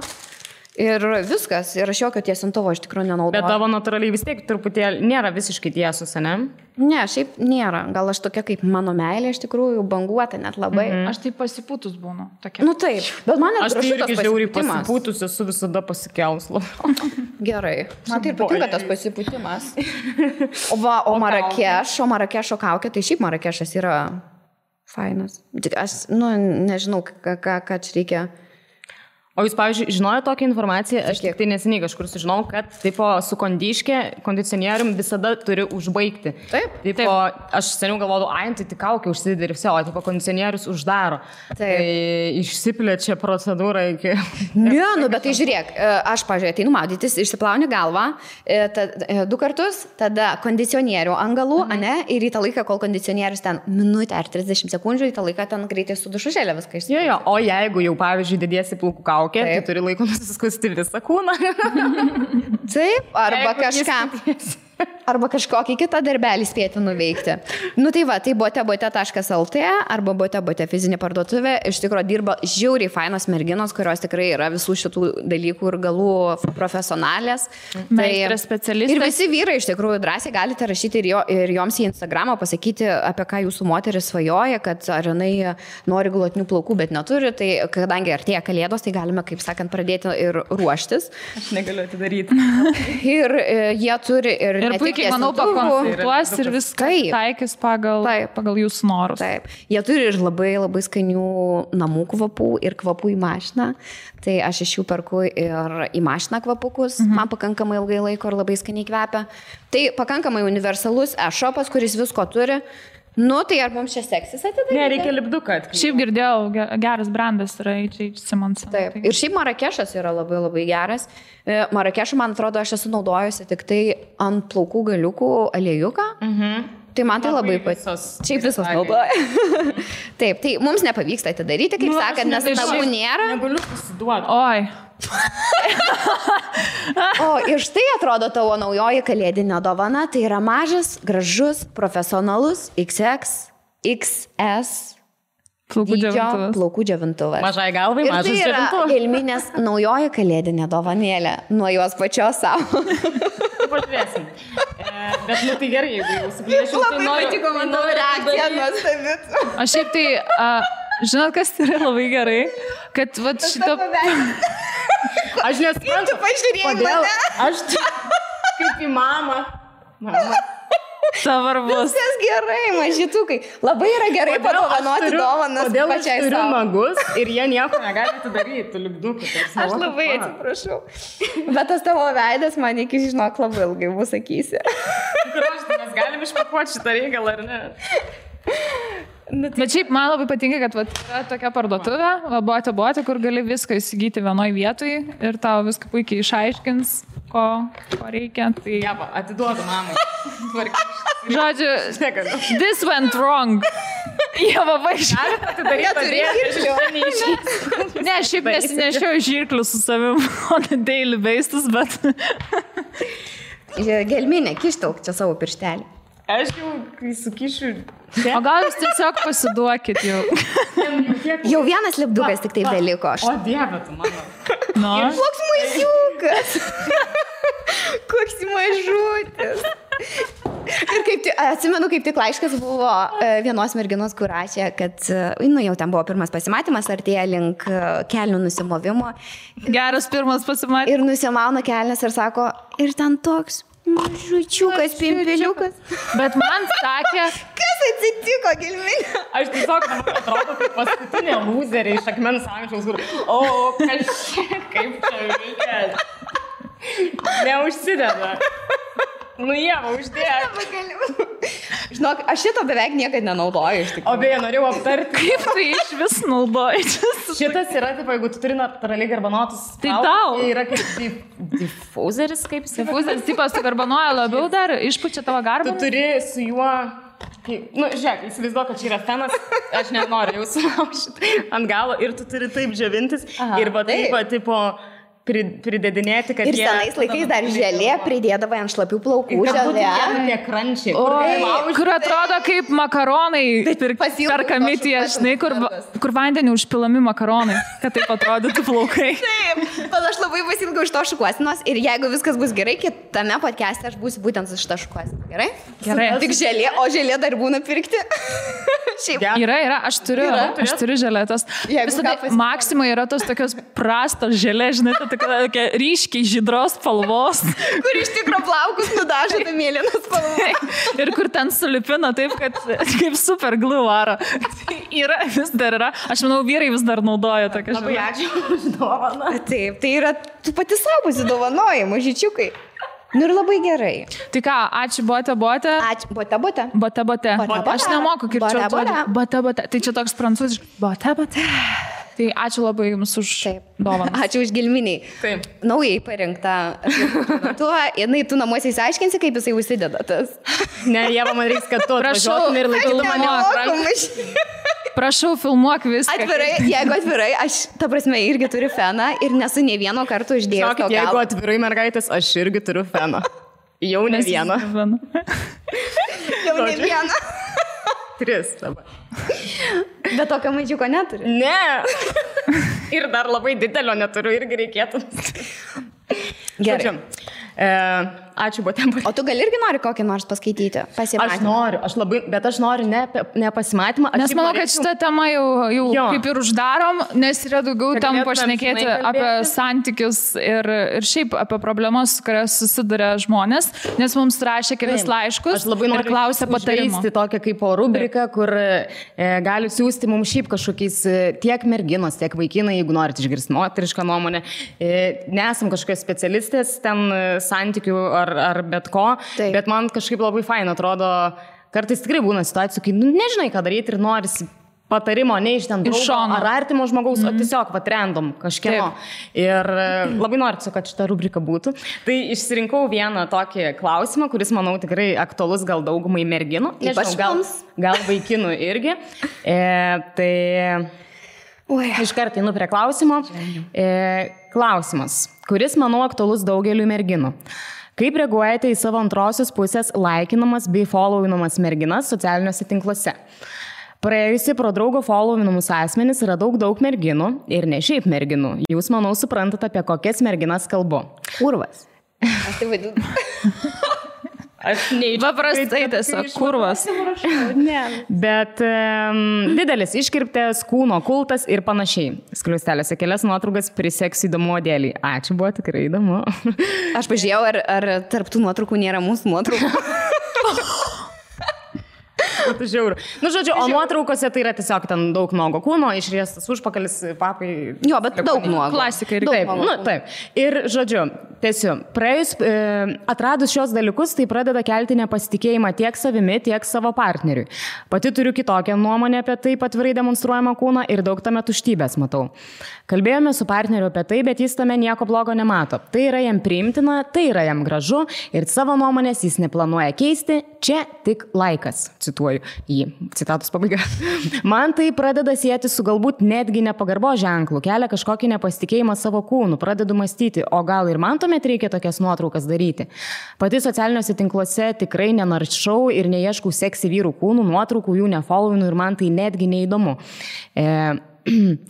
Ir viskas. Ir aš jokio tiesintuvo iš tikrųjų nenaudoju. Bet tavo natūraliai vis tiek truputėlį nėra visiškai tiesus, ne? Ne, šiaip nėra. Gal aš tokia kaip mano meilė iš tikrųjų banguota net labai. Aš tai pasipūtus būnu. Tokia. Nu taip. Bet man aš tai irgi žiauriai pasipūtus esu visada pasikelslu. Gerai. Man tai ir patinka tas pasipūtimas. O Marakešo kaukė, tai šiaip Marakešas yra fainas. Aš, nežinau, ką čia reikia. O jūs, pavyzdžiui, žinojo tokią informaciją, aš tik tai neseniai kažkur sužinau, kad tipo, su kondicionierium visada turi užbaigti. Taip. Tipo, aš seniau galvodavau, tai tik kaukė užsidedi ir visi, o tipo, kondicionierius uždaro. Taip. Tai išsiplečia procedūra iki... Ne, bet tai žiūrėk, aš, pavyzdžiui, ateinu maudytis, išsiplauni galvą 2 kartus, tada kondicionierių ant galų, ane, ir į tą laiką, kol kondicionierius ten minutę ar 30 sekundžių, į tą laiką ten greitai su dušušėlė viską išsiplauni. Jo, o jeigu jau, pavyzdžiui, dėdėsi plaukų kaukę, tai turi laiko nusiskusti visą kūną. Taip, arba kažkokį kitą darbelį spėti nuveikti. Nu tai va, tai bote.lt arba bote fizinė parduotuvė. Iš tikrųjų dirba žiauriai fainos merginos, kurios tikrai yra visų šitų dalykų ir galų profesionalės. Meistrės specialistės. Ir visi vyrai iš tikrųjų drąsiai galite rašyti ir joms į Instagramą pasakyti, apie ką jūsų moteris svajoja, kad ar jinai nori glotnių plaukų, bet neturi. Tai kadangi artėja kalėdos, tai galime, kaip sakant, pradėti ir ruoštis. Aš negaliu atidaryti. Ir jie turi ir puikiai, manau, pakonsultuos ir viską taikys pagal jūsų norus. Taip. Jie turi ir labai, labai skanių namų kvapų ir kvapų į mašiną. Tai aš iš jų perku ir į mašiną kvapukus. Man pakankamai ilgai laiko ir labai skaniai kvepia. Tai pakankamai universalus e-shopas, kuris visko turi. Nu, tai ar mums čia seksis atidaryti? Ne, reikia lipduką. Šiaip girdėjau, geras brandas yra H.H. Simonson. Taip. Ir šiaip Marakešas yra labai, labai geras. Marakešą, man atrodo, aš esu naudojusi tik tai ant plaukų galiukų aliejuką. Tai man tai labai patiko. Šiaip visos naudoja. Taip, tai mums nepavyksta atidaryti, kaip sakant, nes nagų nėra. Negaliu pasiduoti. Oi. O ir štai atrodo tavo naujoji kalėdinė dovana. Tai yra mažas, gražus, profesionalus XX, XS plaukų džiovintuvas. Mažai galvai, mažas džiovintuvas. Ir tai yra Gelminės naujoji kalėdinė dovanėlė nuo jos pačios savo. Pažiūrėsim. Bet nu tai gerai, jeigu jau suplėšiu. Labai patiko mano reakcija nuostabit. Aš šiaip tai, žinot, kas yra labai gerai, kad vat šito... Aš nesuprantu, kodėl aš kaip į mamą. Savarbus. Viskas gerai, mažytukai. Labai yra gerai padovanoti dovanas pačiai savo. Kodėl aš turiu nagus ir jie nieko negali atidaryti, liukdukų. Aš labai atsiprašau. Bet tas tavo veidas man iki žinok labai ilgai bus sakysi. Mes galim išpakuoti šitą reikalą, ar ne? Bet šiaip man labai patinka, kad yra tokia parduotuvė, bote, kur gali viską įsigyti vienoj vietoj ir tau viską puikiai išaiškins, ko reikia. Tai... Ja, atiduodu mamai. Žodžiu, this went wrong. Jie labai Ne, šiaip nesinešiau žirklių su savim on a daily basis, bet... Gelminė, kištelk čia savo pirštelį. Aš jau, kai sukišiu... O gal jūs tiesiog pasiduokit jau? Jau vienas lipdukas tik tai beliko. O Dieve, tu mano. No. Koks mažiukas. Koks mažutis. Ir atsimenu, kaip tik laiškas buvo vienos merginos, kur rašė, kad jau ten buvo pirmas pasimatymas, artėja link kelnių nusimovimo. Geras pirmas pasimatymas. Ir nusimauna kelnes ir sako, ir ten toks mažučiukas, pimpeliukas. Bet man sakė... Kas atsitiko, Gelminė? Aš tiesiog atrodo kaip paskutinė lūzerė iš akmens amžiaus, kur... Kaip čia reikia... Neužsideda. Nu, Ieva, uždėjo. Žinok, aš šito beveik niekad nenaudoju iš tikrųjų. O beje, norėjau aptarti. Kaip tai iš vis naudoji? Šitas yra, taip, jeigu tu turi natūraliai garbanotus. Tai tau. Yra kaip diffuseris, kaip jis. Diffuseris, tipas, tu garbanoja labiau dar, išpučia tavo garbaną. Tu turi su juo... žiūrėk, įsivaizduoju, kad čia yra fenas, aš nenoriu jau sulaužyti ant galo ir tu turi taip džiovintis. Ir va taip, tipo... pridedinėti, kad ir senais laikais dar želė pridėdavo ant šlapių plaukų želė. Tie krančiai. Kur atrodo kaip makaronai perkami tie, žinai, kur vandenį užpilami makaronai, kad taip atrodytų plaukai. Taip, bet aš labai pasilgau iš to šukuosinos ir jeigu viskas bus gerai, kitame podcast'e aš būsiu būtent su šitą šukuosiną. Gerai? Gerai. Tik želė, o želė dar būna pirkti. Yra, aš turiu želėtas. Maksimai yra tos tokios prastos želė, žinai, tai tokia ryškiai žydros spalvos. Kur iš tikro plaukus nudažo tą mėlyną spalvą. Ir kur ten sulipina taip, kad kaip super glue varo. Yra, vis dar yra. Aš manau, vyrai vis dar naudoja tokią žiną. Labai ačiū už dovaną. Taip, tai yra, tu pati savo pasidovanoji, mažyčiukai. Nu ir labai gerai. Tai ką, ačiū bote. Ačiū, bote. Bote. Aš nemoku kirčiuoti. Bote. Tai čia toks prancūziškas. Bote. Tai ačiū labai jums už dovaną. Ačiū už gilminiai. Taip. Naujai parinktą. Tu namuose įsiaiškinsi, kaip jisai užsideda tas. Ne, Ieva, man reiks, kad tu atvažiuotum ir laikytum mane. Prašau, filmuok viską. Jeigu atvirai, aš, ta prasme, irgi turiu feną ir nesu nei vieno karto uždėjęs. Žinokit, jeigu atvirai mergaitės, aš irgi turiu feną. Jau ne vieną. Jau ne vieną. 3 dabar. Bet tokio mažiuko neturi. Ne. Ir dar labai didelio neturiu, irgi reikėtų. Gerai. Ačiū, bote. O tu gal irgi nori kokį nors paskaityti? Pasimatymą. Bet aš noriu ne pasimatymą. Nes manau, kad šitą temą jau kaip ir uždarom, nes yra daugiau tam pašnekėti apie santykius ir šiaip apie problemas, kurias susiduria žmonės, nes mums rašė kelis laiškus ir klausė patarimų. Aš tokią kaip rubriką, kur gali siūsti mums šiaip kažkokiais tiek merginos, tiek vaikinai, jeigu norit išgirsti moterišką nuomonę. Nesam kažkokios specialistės ten santykių ar bet ko, bet man kažkaip labai faina atrodo, kartais tikrai būna situacijų, kai nežinai, ką daryti ir norisi patarimo ne iš ten draugo ar artimo žmogaus, o tiesiog random kažkieno. Ir labai noriu, kad šita rubrika būtų. Tai išsirinkau vieną tokį klausimą, kuris, manau, tikrai aktualus gal daugumai merginų. Nežinau, gal vaikinų irgi. Iškart einu prie klausimo. Klausimas, kuris, manau, aktualus daugeliu merginų. Kaip reaguojate į savo antrosios pusės laikinamas bei followinamas merginas socialiniuose tinkluose? Praėjusi pro draugo followinamus asmenis yra daug merginų ir ne šiaip merginų. Jūs, manau, suprantate, apie kokias merginas kalbu. Kurvas. Aš tai vadinu. Paprastai tiesiog kurvas. Bet didelis iškirptės, kūno kultas ir panašiai. Skliustelėse kelias nuotraukas priseks įdomu dėlį. Ačiū, buvo tikrai įdomu. Aš pažiūrėjau, ar tarp tų nuotraukų nėra mūsų nuotraukų. Žiauru. Nu, žodžiu, o nuotraukose tai yra tiesiog ten daug nuogo kūno, išriestas užpakalis, papai. Jo, bet daug nuogo. Klasika ir taip. Taip. Ir, žodžiu, tiesiu, praėjus, atradus šios dalykus, tai pradeda kelti nepasitikėjimą tiek savimi, tiek savo partneriui. Pati turiu kitokią nuomonę apie taip atvirai demonstruojamą kūną ir daug tame tuštybės matau. Kalbėjome su partneriu apie tai, bet jis tame nieko blogo nemato. Tai yra jam priimtina, tai yra jam gražu ir savo nuomonės jis neplanuoja keisti, čia tik laikas, cituoju jį, citatos pabaiga. Man tai pradeda sieti su galbūt netgi nepagarbo ženklu, kelia kažkokį nepasitikėjimą savo kūnu, pradedu mąstyti, o gal ir man tuomet reikia tokias nuotraukas daryti. Pati socialiniuose tinkluose tikrai nenaršau ir neieškau seksi vyrų kūnų, nuotraukų jų nefollowinu ir man tai netgi neįdomu.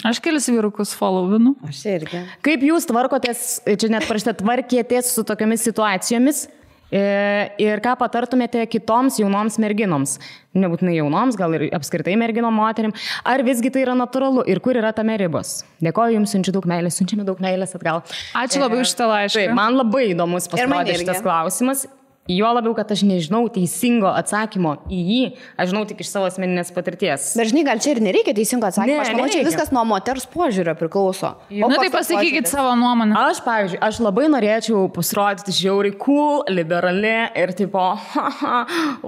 Aš kelis vyrukus followinu. Aš irgi. Kaip jūs tvarkotės, čia net parašyta, tvarkėtės su tokiamis situacijomis? Ir ką patartumėte kitoms jaunoms merginoms, nebūtinai jaunoms, gal ir apskritai merginom moterim, ar visgi tai yra natūralu ir kur yra tame ribos? Dėkoju jums, siunčiame daug meilės atgal. Ačiū labai už šitą laišką. Taip, man labai įdomus pasirodė šitas klausimas. Jo labiau, kad aš nežinau teisingo atsakymo į jį, aš žinau tik iš savo asmeninės patirties. Bet žinai, gal čia ir nereikia teisingo atsakymo, aš manau, čia viskas nuo moters požiūrio priklauso. Na tai pasakykit savo nuomonę. Aš, pavyzdžiui, aš labai norėčiau pasirodyti žiauriai cool, liberali ir tipo,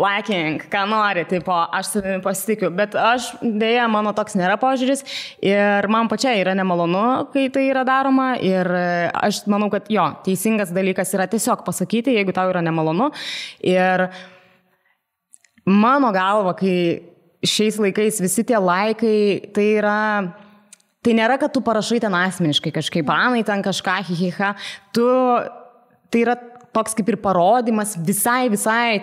lacking, ką nori, tipo, aš savimi pasitikiu, bet aš, dėja, mano toks nėra požiūris ir man pačiai yra nemalonu, kai tai yra daroma ir aš manau, kad jo, teisingas dalykas yra tiesiog pasakyti, jeigu tau yra nemalonu. Ir mano galva, kai šiais laikais visi tie laikai, tai nėra, kad tu parašai ten asmeniškai kažkaip, anai ten kažką, hihiha, tai yra toks kaip ir parodimas visai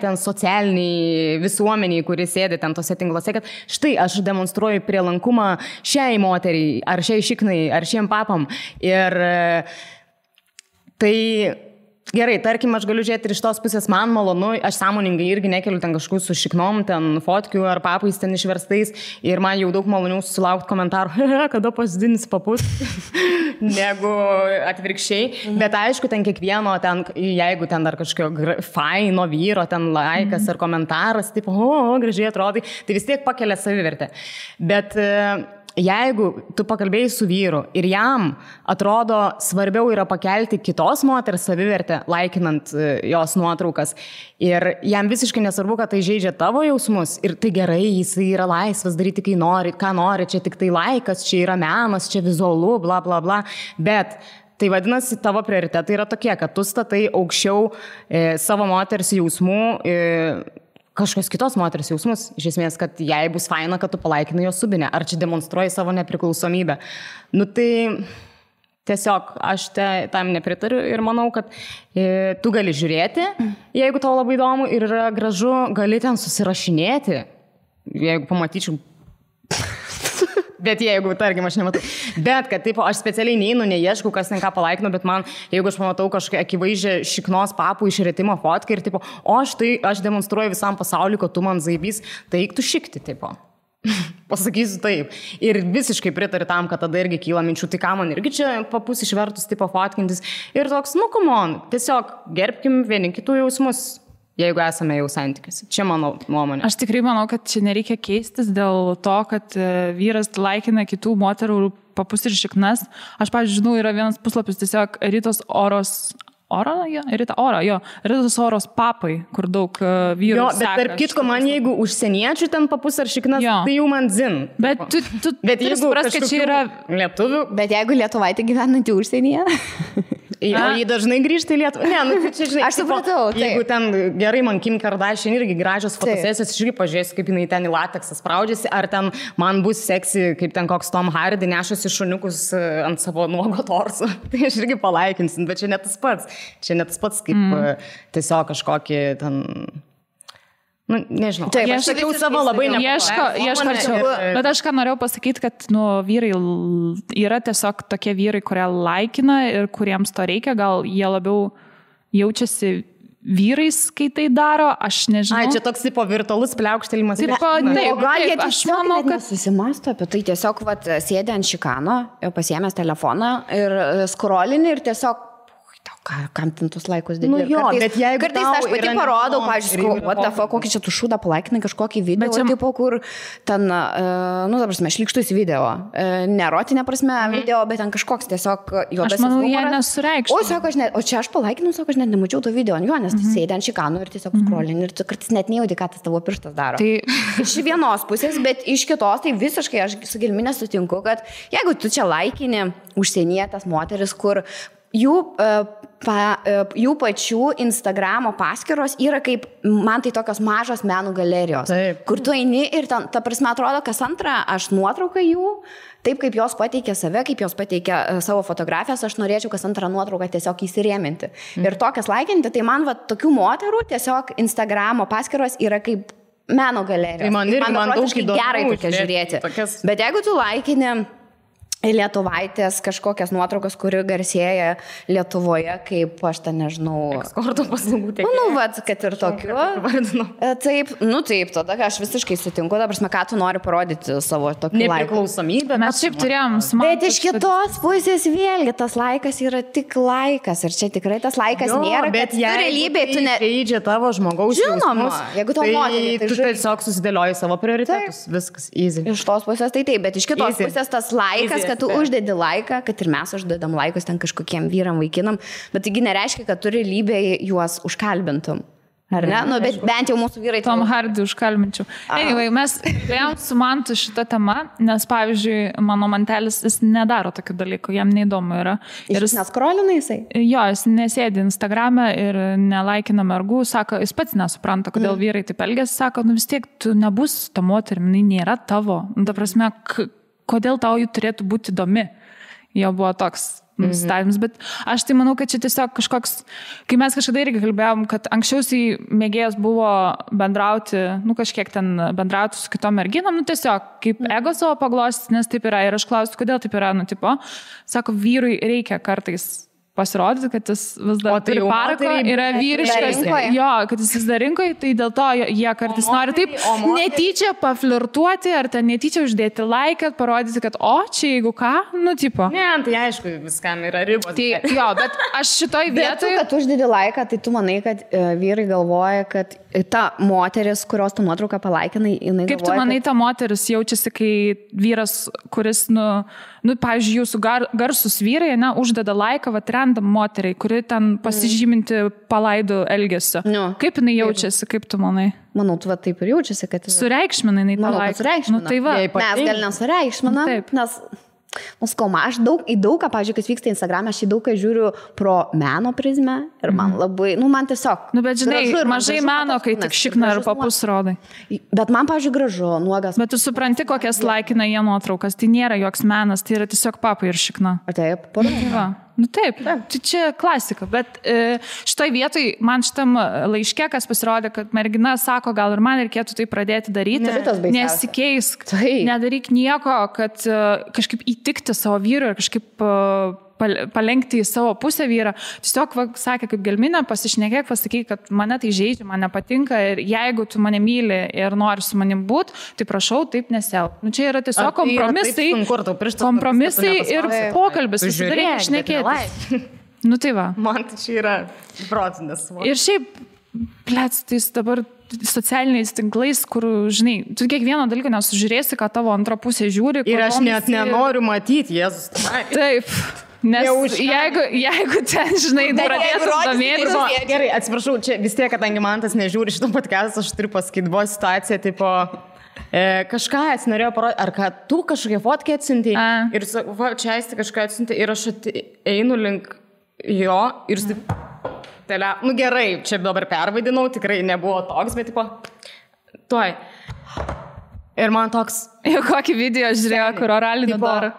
ten socialiniai visuomeniai, kuris sėdi ten tose tinkluose, kad štai aš demonstruoju prielankumą šiai moteriai, ar šiai šiknai, ar šiem papam. Ir tai Gerai, tarkim, aš galiu žiūrėti ir iš tos pusės, man malonu, aš sąmoningai irgi nekeliu ten kažkokių su šiknom, ten fotkių ar papais ten išverstais ir man jau daug maloniau sulaukti komentarų, kada pasidins papus, negu atvirkščiai. Bet aišku, ten kiekvieno, ten, jeigu ten dar kažkokio faino vyro, ten laikas ar komentaras, tipo, gražiai atrodai, tai vis tiek pakelia savivertę. Bet jeigu tu pakalbėjai su vyru ir jam atrodo svarbiau yra pakelti kitos moters savivertę, laikinant jos nuotraukas, ir jam visiškai nesvarbu, kad tai žaidžia tavo jausmus, ir tai gerai, jis yra laisvas daryti, kai nori, ką nori, čia tik tai laikas, čia yra menas, čia vizualu, bla bla bla, bet tai vadinasi, tavo prioritetai yra tokie, kad tu statai aukščiau savo moters jausmų, kažkokios kitos moters jausmus, iš esmės, kad jai bus faina, kad tu palaikinai jos subinę, ar čia demonstruoji savo nepriklausomybę. Nu tai tiesiog aš tam nepritariu ir manau, kad tu gali žiūrėti, jeigu tau labai įdomu ir yra gražu, gali ten susirašinėti, jeigu pamatyčiau. Bet jeigu, tarkim, aš nematau. Bet, kad taip, aš specialiai neinu, neieškau, kas ten ką palaikinu, bet man, jeigu aš pamatau kažkokią akivaizdžią šiknos papų išretimo fotką ir tipo, aš demonstruoju visam pasauliu, kad tu man zaibys, tai eik tu šikti, tipo. Pasakysiu taip. Ir visiškai pritariu tam, kad tada irgi kyla minčių, tai ką man irgi čia papus išvertus, tipo, fotkintis. Ir toks, come on, tiesiog gerbkim vieni kitų jausmus. Jeigu esame jau santykiuose. Čia mano nuomonė. Aš tikrai manau, kad čia nereikia keistis dėl to, kad vyras laikina kitų moterų papus ir šiknas. Aš, pavyzdžiui, žinau, yra vienas puslapis tiesiog Ritos Oros papai, kur daug vyrų bet seka. tarp kitko, man jeigu užsieniečių ten papus ar šiknas, tai jau man zin. Bet tu turi suprast, kad čia yra lietuvių. Bet jeigu lietuvaitė gyvenanti užsienyje? O jį dažnai grįžta į Lietuvą. Ne, nu, čia, žinai, aš supratau. Jeigu ten gerai, man Kim Kardashian irgi gražios fotosesijos, aš irgi pažiūrėsiu, kaip jinai ten į lateksą spraudžiasi, ar ten man bus seksi, kaip ten koks Tom Hardy nešasi šuniukus ant savo nuogo torso. Tai aš irgi palaikinsim, bet čia net tas pats. Čia net tas pats, kaip tiesiog kažkokį ten... Nu, nežinau. Taip, aš sakiau savo labai ieškočiau. Bet aš ką norėjau pasakyti, kad vyrai yra tiesiog tokie vyrai, kurie laikina ir kuriems to reikia, gal jie labiau jaučiasi vyrais, kai tai daro, aš nežinau. Čia toks tipo virtualus pliaukštelimas. O gal jie tiesiog net nesusimasto apie tai, tiesiog sėdė ant šikano, pasiėmęs telefoną ir skrolini ir tiesiog kam ten tus laikus dėti. Nu jo, bet jeigu kartais aš pati parodau, pavyzdžiui, what the fuck, kokį čia tu šūdą palaikinai kažkokį video, čia... tipo, kur ten, ta prasme, šlykštus video. Nerotinė prasme video, bet ten kažkoks tiesiog juodasis humoras. Aš manau, jie nesureikštų. O čia aš palaikinau, sako, aš net nemačiau to video ant jo, nes tu sėdė ant šikanų ir tiesiog scrollini ir tu kartais net nejauti, ką tas tavo pirštas daro. Tai iš vienos pusės, bet iš kitos, tai visiškai aš su Gelmine sutinku, kad jeigu tu čia laikini užsienietės moteris, kur jų pačių Instagramo paskyros yra kaip, man tai tokios mažos menų galerijos, kur tu eini ir ten, ta prasme, atrodo, kas antrą aš nuotrauką jų, taip kaip jos pateikia save, kaip jos pateikia savo fotografijas, aš norėčiau kas antrą nuotrauką tiesiog įsirėminti. Ir tokias laikinti, tai man tokių moterų tiesiog Instagramo paskyros yra kaip meno galerijos. Tai man daug įdomu gerai tokia žiūrėti. Bet jeigu tu laikini lietuvaitės kažkokias nuotraukas, kuri garsėja Lietuvoje, kaip aš ten nežinau. Ekskorto paslaugų tiek. Nu, kad ir tokiu. Taip, tada aš visiškai sutinku, ta prasme, ką tu nori parodyti savo tokiu laiku. Nepriklausomybę. Mes šiaip turėjom bet iš kitos pusės vėlgi, tas laikas yra tik laikas ir čia tikrai tas laikas nėra, bet realybėje tu nežaidžia tavo žmogaus jausmus. Jeigu tau moterį, tai tu tiesiog susidėlioji savo prioritetus. Viskas, easy. Iš tos pusės tai taip, bet iš kitos pusės tas laikas, kad tu uždedi laiką, kad ir mes uždedam laikus ten kažkokiem vyram, vaikinam, bet taigi nereiškia, kad tu realybėje juos užkalbintum. Ar ne? Nu, bet bent jau mūsų vyrai... Tom Hardy užkalbinčiau. Anyway, mes kalbėjom su Mantu šitą temą, nes, pavyzdžiui, mano mantelis, jis nedaro tokių dalykų, jam neįdomu yra. Ir jis neskrolina jisai? Jo, jis nesėdi Instagrame ir nelaikina mergų, sako, jis pats nesupranta, kodėl vyrai taip elgiasi, sako, nu vis tiek tu nebus ta moterim, nėra tavo. Ta prasme, kodėl tau jų turėtų būti įdomi? Jo buvo toks nusistatymas, bet aš tai manau, kad čia tiesiog kažkoks, kai mes kažkada irgi kalbėjom, kad anksčiausiai mėgėjas buvo bendrauti, kažkiek ten bendrauti su kitom merginom, tiesiog kaip ego savo paglostyti, nes taip yra. Ir aš klausiu, kodėl taip yra, sako, vyrui reikia kartais pasirodyti, kad jis vis dar turi parako, yra vyriškas, jo, kad jis vis dar rinkoje, tai dėl to jie kartais nori taip netyčia paflirtuoti, ar ten netyčia uždėti laiką, parodyti, kad čia jeigu ką, tipo. Ne, tai aišku, viskam yra ribos. Tai, jo, bet aš šitoj vietoj... Bet tu uždėdi laiką, tai tu manai, kad vyrai galvoja, kad ta moteris, kurios tu nuotrauką palaikinai, jinai galvoja... Kaip tu manai, ta moteris jaučiasi, kai vyras, kuris, pavyzdžiui, jūsų garsus vyrai, uždeda laiką, randam moteriai, kuri ten pasižyminti palaidų elgesio. Kaip jinai jaučiasi, kaip tu manai? Manau, tu taip ir jaučiasi, kad... Sureikšmina jinai tą laiką. Sureikšmina. Tai va. Mes gal nesureikšmina, nes... aš į daugą, pavyzdžiui, kas vyksta Instagram'e, aš į daugą žiūriu pro meno prizmę ir man labai, man tiesiog... Bet žinai, mažai meno, kai tik šikna ir papus rodai. Bet man, pavyzdžiui, gražu, nuogas. Bet tu supranti, kokias laikina jie nuotraukas, tai nėra joks menas, tai yra tiesiog papai ir šikna. Taip, Taip, tai čia klasika, bet šitoj vietoj man šitam laiške, kas pasirodė, kad mergina sako, gal ir man reikėtų tai pradėti daryti, nesikeisk, nedaryk nieko, kad kažkaip įtikti savo vyrui ir kažkaip palenkti į savo pusę vyrą. Tiesiog sakė, kaip gelminė, pasišnekėk, pasakyk, kad mane tai žaidžia, man nepatinka ir jeigu tu mane myli ir nori su manim būti, tai prašau, taip nesielk. Čia yra tiesiog kompromisai ir pokalbis, susidarėk, šnekėti. Tai va. Man tai čia yra protinės. Ir šiaip, tais dabar socialiniais tinklais, kur, žinai, tu kiekvieno dalyko nesužiūrėsi, ką tavo antra pusė žiūri. Ir aš net nenoriu matyti, Jėzus. Taip. Nes jeigu ten, žinai, pradėtų domėtis. Gerai, atsiprašau, čia vis tiek, kadangi man tas nežiūri šitą podcastą, aš turiu pasakyti, buvo situacija, tipo, kažką atsinorėjau parodyti, ar kad tu kažkokią fotkę atsinti ir čia aisti kažką atsinti ir aš einu link jo ir gerai, čia dabar pervaidinau, tikrai nebuvo toks, bet tipo, tuoj. Ir man toks... Jau kokį video žiūrėjo, kur oralinį daro.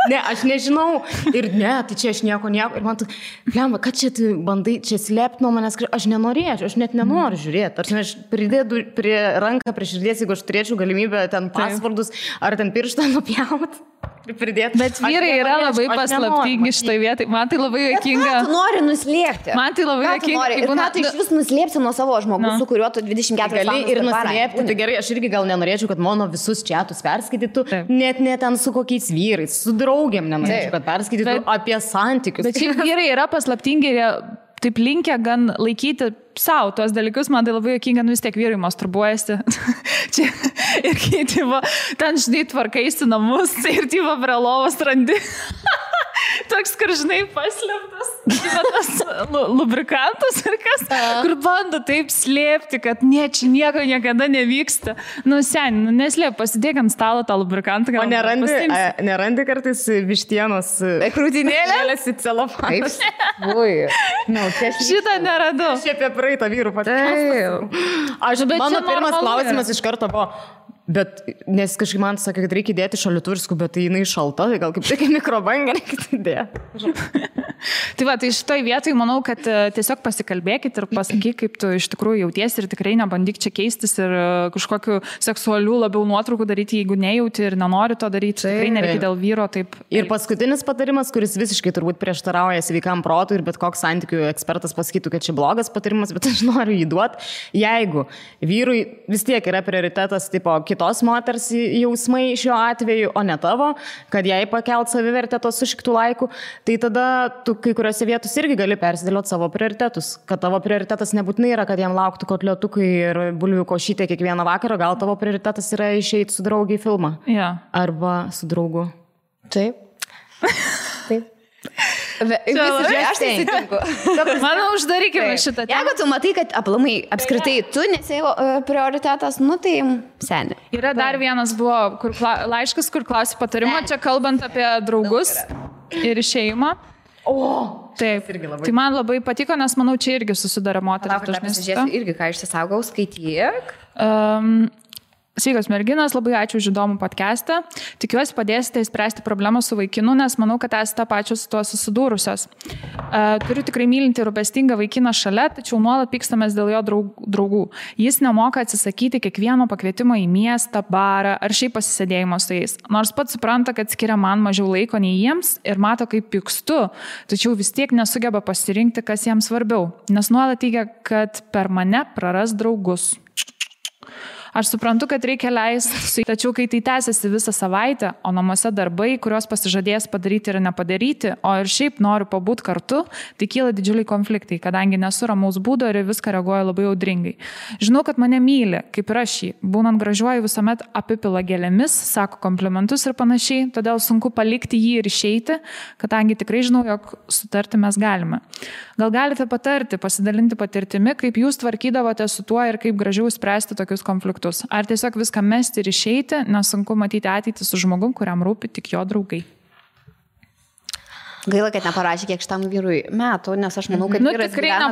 Ne, aš nežinau. Ir ne, tai čia aš nieko. Ir man tu, lemba, kad čia tu bandai, čia slėpti nuo manęs, aš nenorėčiau, aš net nenoriu žiūrėti. Aš pridėdu prie ranką, prie širdies, jeigu aš turėčiau galimybę ten pasvardus ar ten pirštą nupjauti. Pridėti. Bet vyrai yra labai paslaptingi šitoj vietai. Man tai labai juokinga. Tu nori nuslėpti. Man tai labai juokinga. Ir ką tu iš vis nuslėpsi nuo savo žmogus, su kuriuo tu 24 valandas ir nuslėpti. Tai gerai, aš irgi gal nenorėčiau, kad mano visus čiatus perskaitytų, net ne ten su kokiais vyrais, su draugėm nenorėčiau, kad perskaitytų apie santykius. Bet šiaip vyrai yra paslaptingi ir taip linkę gan laikyti savo tuos dalykus, man tai labai juokinga, vis tiek vyrai masturbuojasi. Ir kai ten, žinai, tvarkaisi namus ir prie lovos randi. Toks, kur, žinai, paslėptas, tas lubrikantas ir kas, kur bando taip slėpti, kad čia nieko niekada nevyksta. Neslėp, pasidėk ant stalo tą lubrikantą. O nerandi kartais vištienos krūtinėlės į celofaną? Šitą neradau. Aš apie praeitą vyrų patį. Mano pirmas klausimas iš karto buvo. Bet, nes kažkaip man sakė, kad reikia dėti šalitursku, bet tai jinai šalta, tai gal kaip tik mikrobangą reikia dėti. Tai va, tai šitoj vietoj manau, kad tiesiog pasikalbėkit ir pasakyk, kaip tu iš tikrųjų jautiesi ir tikrai nebandyk čia keistis ir kažkokiu seksualių labiau nuotraukų daryti, jeigu nejauti ir nenori to daryti, tikrai nereikia dėl vyro taip. Ir paskutinis patarimas, kuris visiškai turbūt prieštarauja sveikam protui ir bet koks santykių ekspertas pasakytų, kad čia blogas patarimas, bet aš noriu jį duoti. Jeigu vyrui vis tiek yra prioritetas tipo kitos moters jausmai šiuo atveju, o ne tavo, kad jai pakelt savivertę tos sušiktų laikų, tai tada tu kai kuriuose vietos irgi gali persidėlioti savo prioritetus. Kad tavo prioritetas nebūtinai yra, kad jam lauktų kotliotukai ir bulvių košytė kiekvieną vakarą, gal tavo prioritetas yra išeiti su draugiai į filmą. Ja. Arba su draugu. Taip. Taip. Aš tai sutinku. Manau, uždarykime šitą temą. Jeigu tu matai, kad aplamai apskritai tu nesi prioritetas, tai seni. Yra dar vienas buvo laiškas, kur klausi patarimo, čia kalbant apie draugus ir išėjimą. Taip, tai man labai patiko, nes manau, čia irgi susidara moteris. Pasižiūrėsiu irgi, ką išsisaugau, skaityk. Sveikos merginos, labai ačiū už įdomų podcastą. Tikiuosi padėsite įspręsti problemą su vaikinu, nes manau, kad esate pačios su tuo susidūrusios. Turiu tikrai mylinti ir rūpestingą vaikiną šalia, tačiau nuolat pykstamės dėl jo draugų. Jis nemoka atsisakyti kiekvieno pakvietimo į miestą, barą ar šiaip pasisėdėjimo su jais. Nors pats supranta, kad skiria man mažiau laiko nei jiems ir mato, kaip pykstu, tačiau vis tiek nesugeba pasirinkti, kas jiems svarbiau, nes nuolat teigia, kad per mane praras draugus. Aš suprantu, kad reikia leisti, tačiau kai tai tęsiasi visą savaitę, o namuose darbai, kuriuos pasižadės padaryti ir nepadaryti, o ir šiaip noriu pabūti kartu, tai kyla didžiuliai konfliktai, kadangi nesu ramaus būdo ir viską reaguoja labai audringai. Žinau, kad mane myli, kaip ir aš jį. Būnant gražiuoju visuomet apipila gėlėmis, sako komplimentus ir panašiai, todėl sunku palikti jį ir išeiti, kadangi tikrai žinau, jog sutarti mes galime. Gal galite patarti, pasidalinti patirtimi, kaip jūs tvarkydavote su tuo ir kaip gražiau spręsti tokius konfliktus. Ar tiesiog viską mesti ir išeiti, nes sunku matyti ateitį su žmogum, kuriam rūpi tik jo draugai. Gaila, kad neparašė kiek šitam vyrui metų, nes aš manau, kad vyras gyvena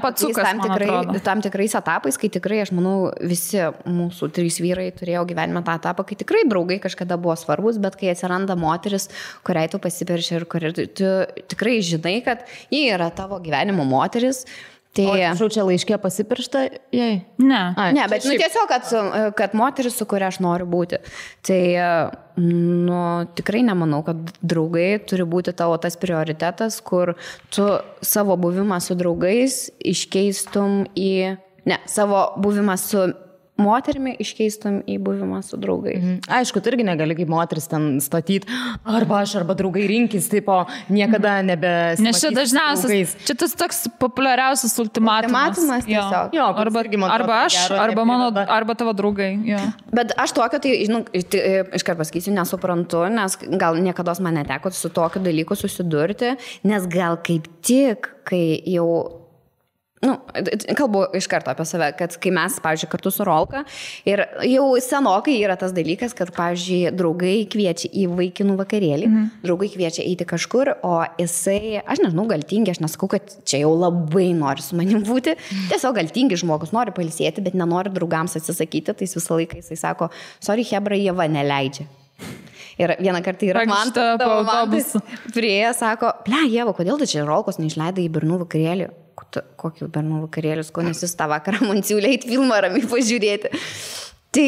tam tikrais etapais, kai tikrai, aš manau, visi mūsų 3 vyrai turėjo gyvenime tą etapą, kai tikrai draugai kažkada buvo svarbus, bet kai atsiranda moteris, kuriai tu pasiperši ir kuriai tu tikrai žinai, kad ji yra tavo gyvenimo moteris. O čia laiškė pasipiršta jai? Ne, bet tiesiog, kad moteris, su kuria aš noriu būti. Tai tikrai nemanau, kad draugai turi būti tavo tas prioritetas, kur tu savo buvimą su draugais iškeistum savo buvimą su moterimi iškeistum į buvimą su draugais. Aišku, tu irgi negali kaip moteris ten statyti, arba aš, arba draugai rinkis, taip, o niekada nebesimatys. Nes čia dažniausias, čia tas toks populiariausias ultimatumas. Tiesiog. Jo, arba aš, arba tavo draugai. Jo. Bet aš tokio, tai, iškart pasakysiu, nesuprantu, nes gal niekada man neteko su tokiu dalyku susidurti, nes gal kaip tik, kai jau kalbu iš karto apie save, kad kai mes, pavyzdžiui, kartu su Rolka ir jau senokai yra tas dalykas, kad, pavyzdžiui, draugai kviečia į vaikinų vakarėlį, draugai kviečia eiti kažkur, o jisai, aš nežinau, gal tingi, aš nesakau, kad čia jau labai nori su manim būti, tiesiog gal tingi žmogus nori pailsėti, bet nenori draugams atsisakyti, tai visą laiką jisai sako, sorry, hebra, jie va neleidžia. Ir vieną kartą yra man prieėję, sako, Ieva, kodėl tu čia Rolkos neišleidai į bernų vakarėlį? Kokių bernų vakarėlius, ko nes jūs tą vakarą man siūlė eiti filmą ramiai pažiūrėti. Tai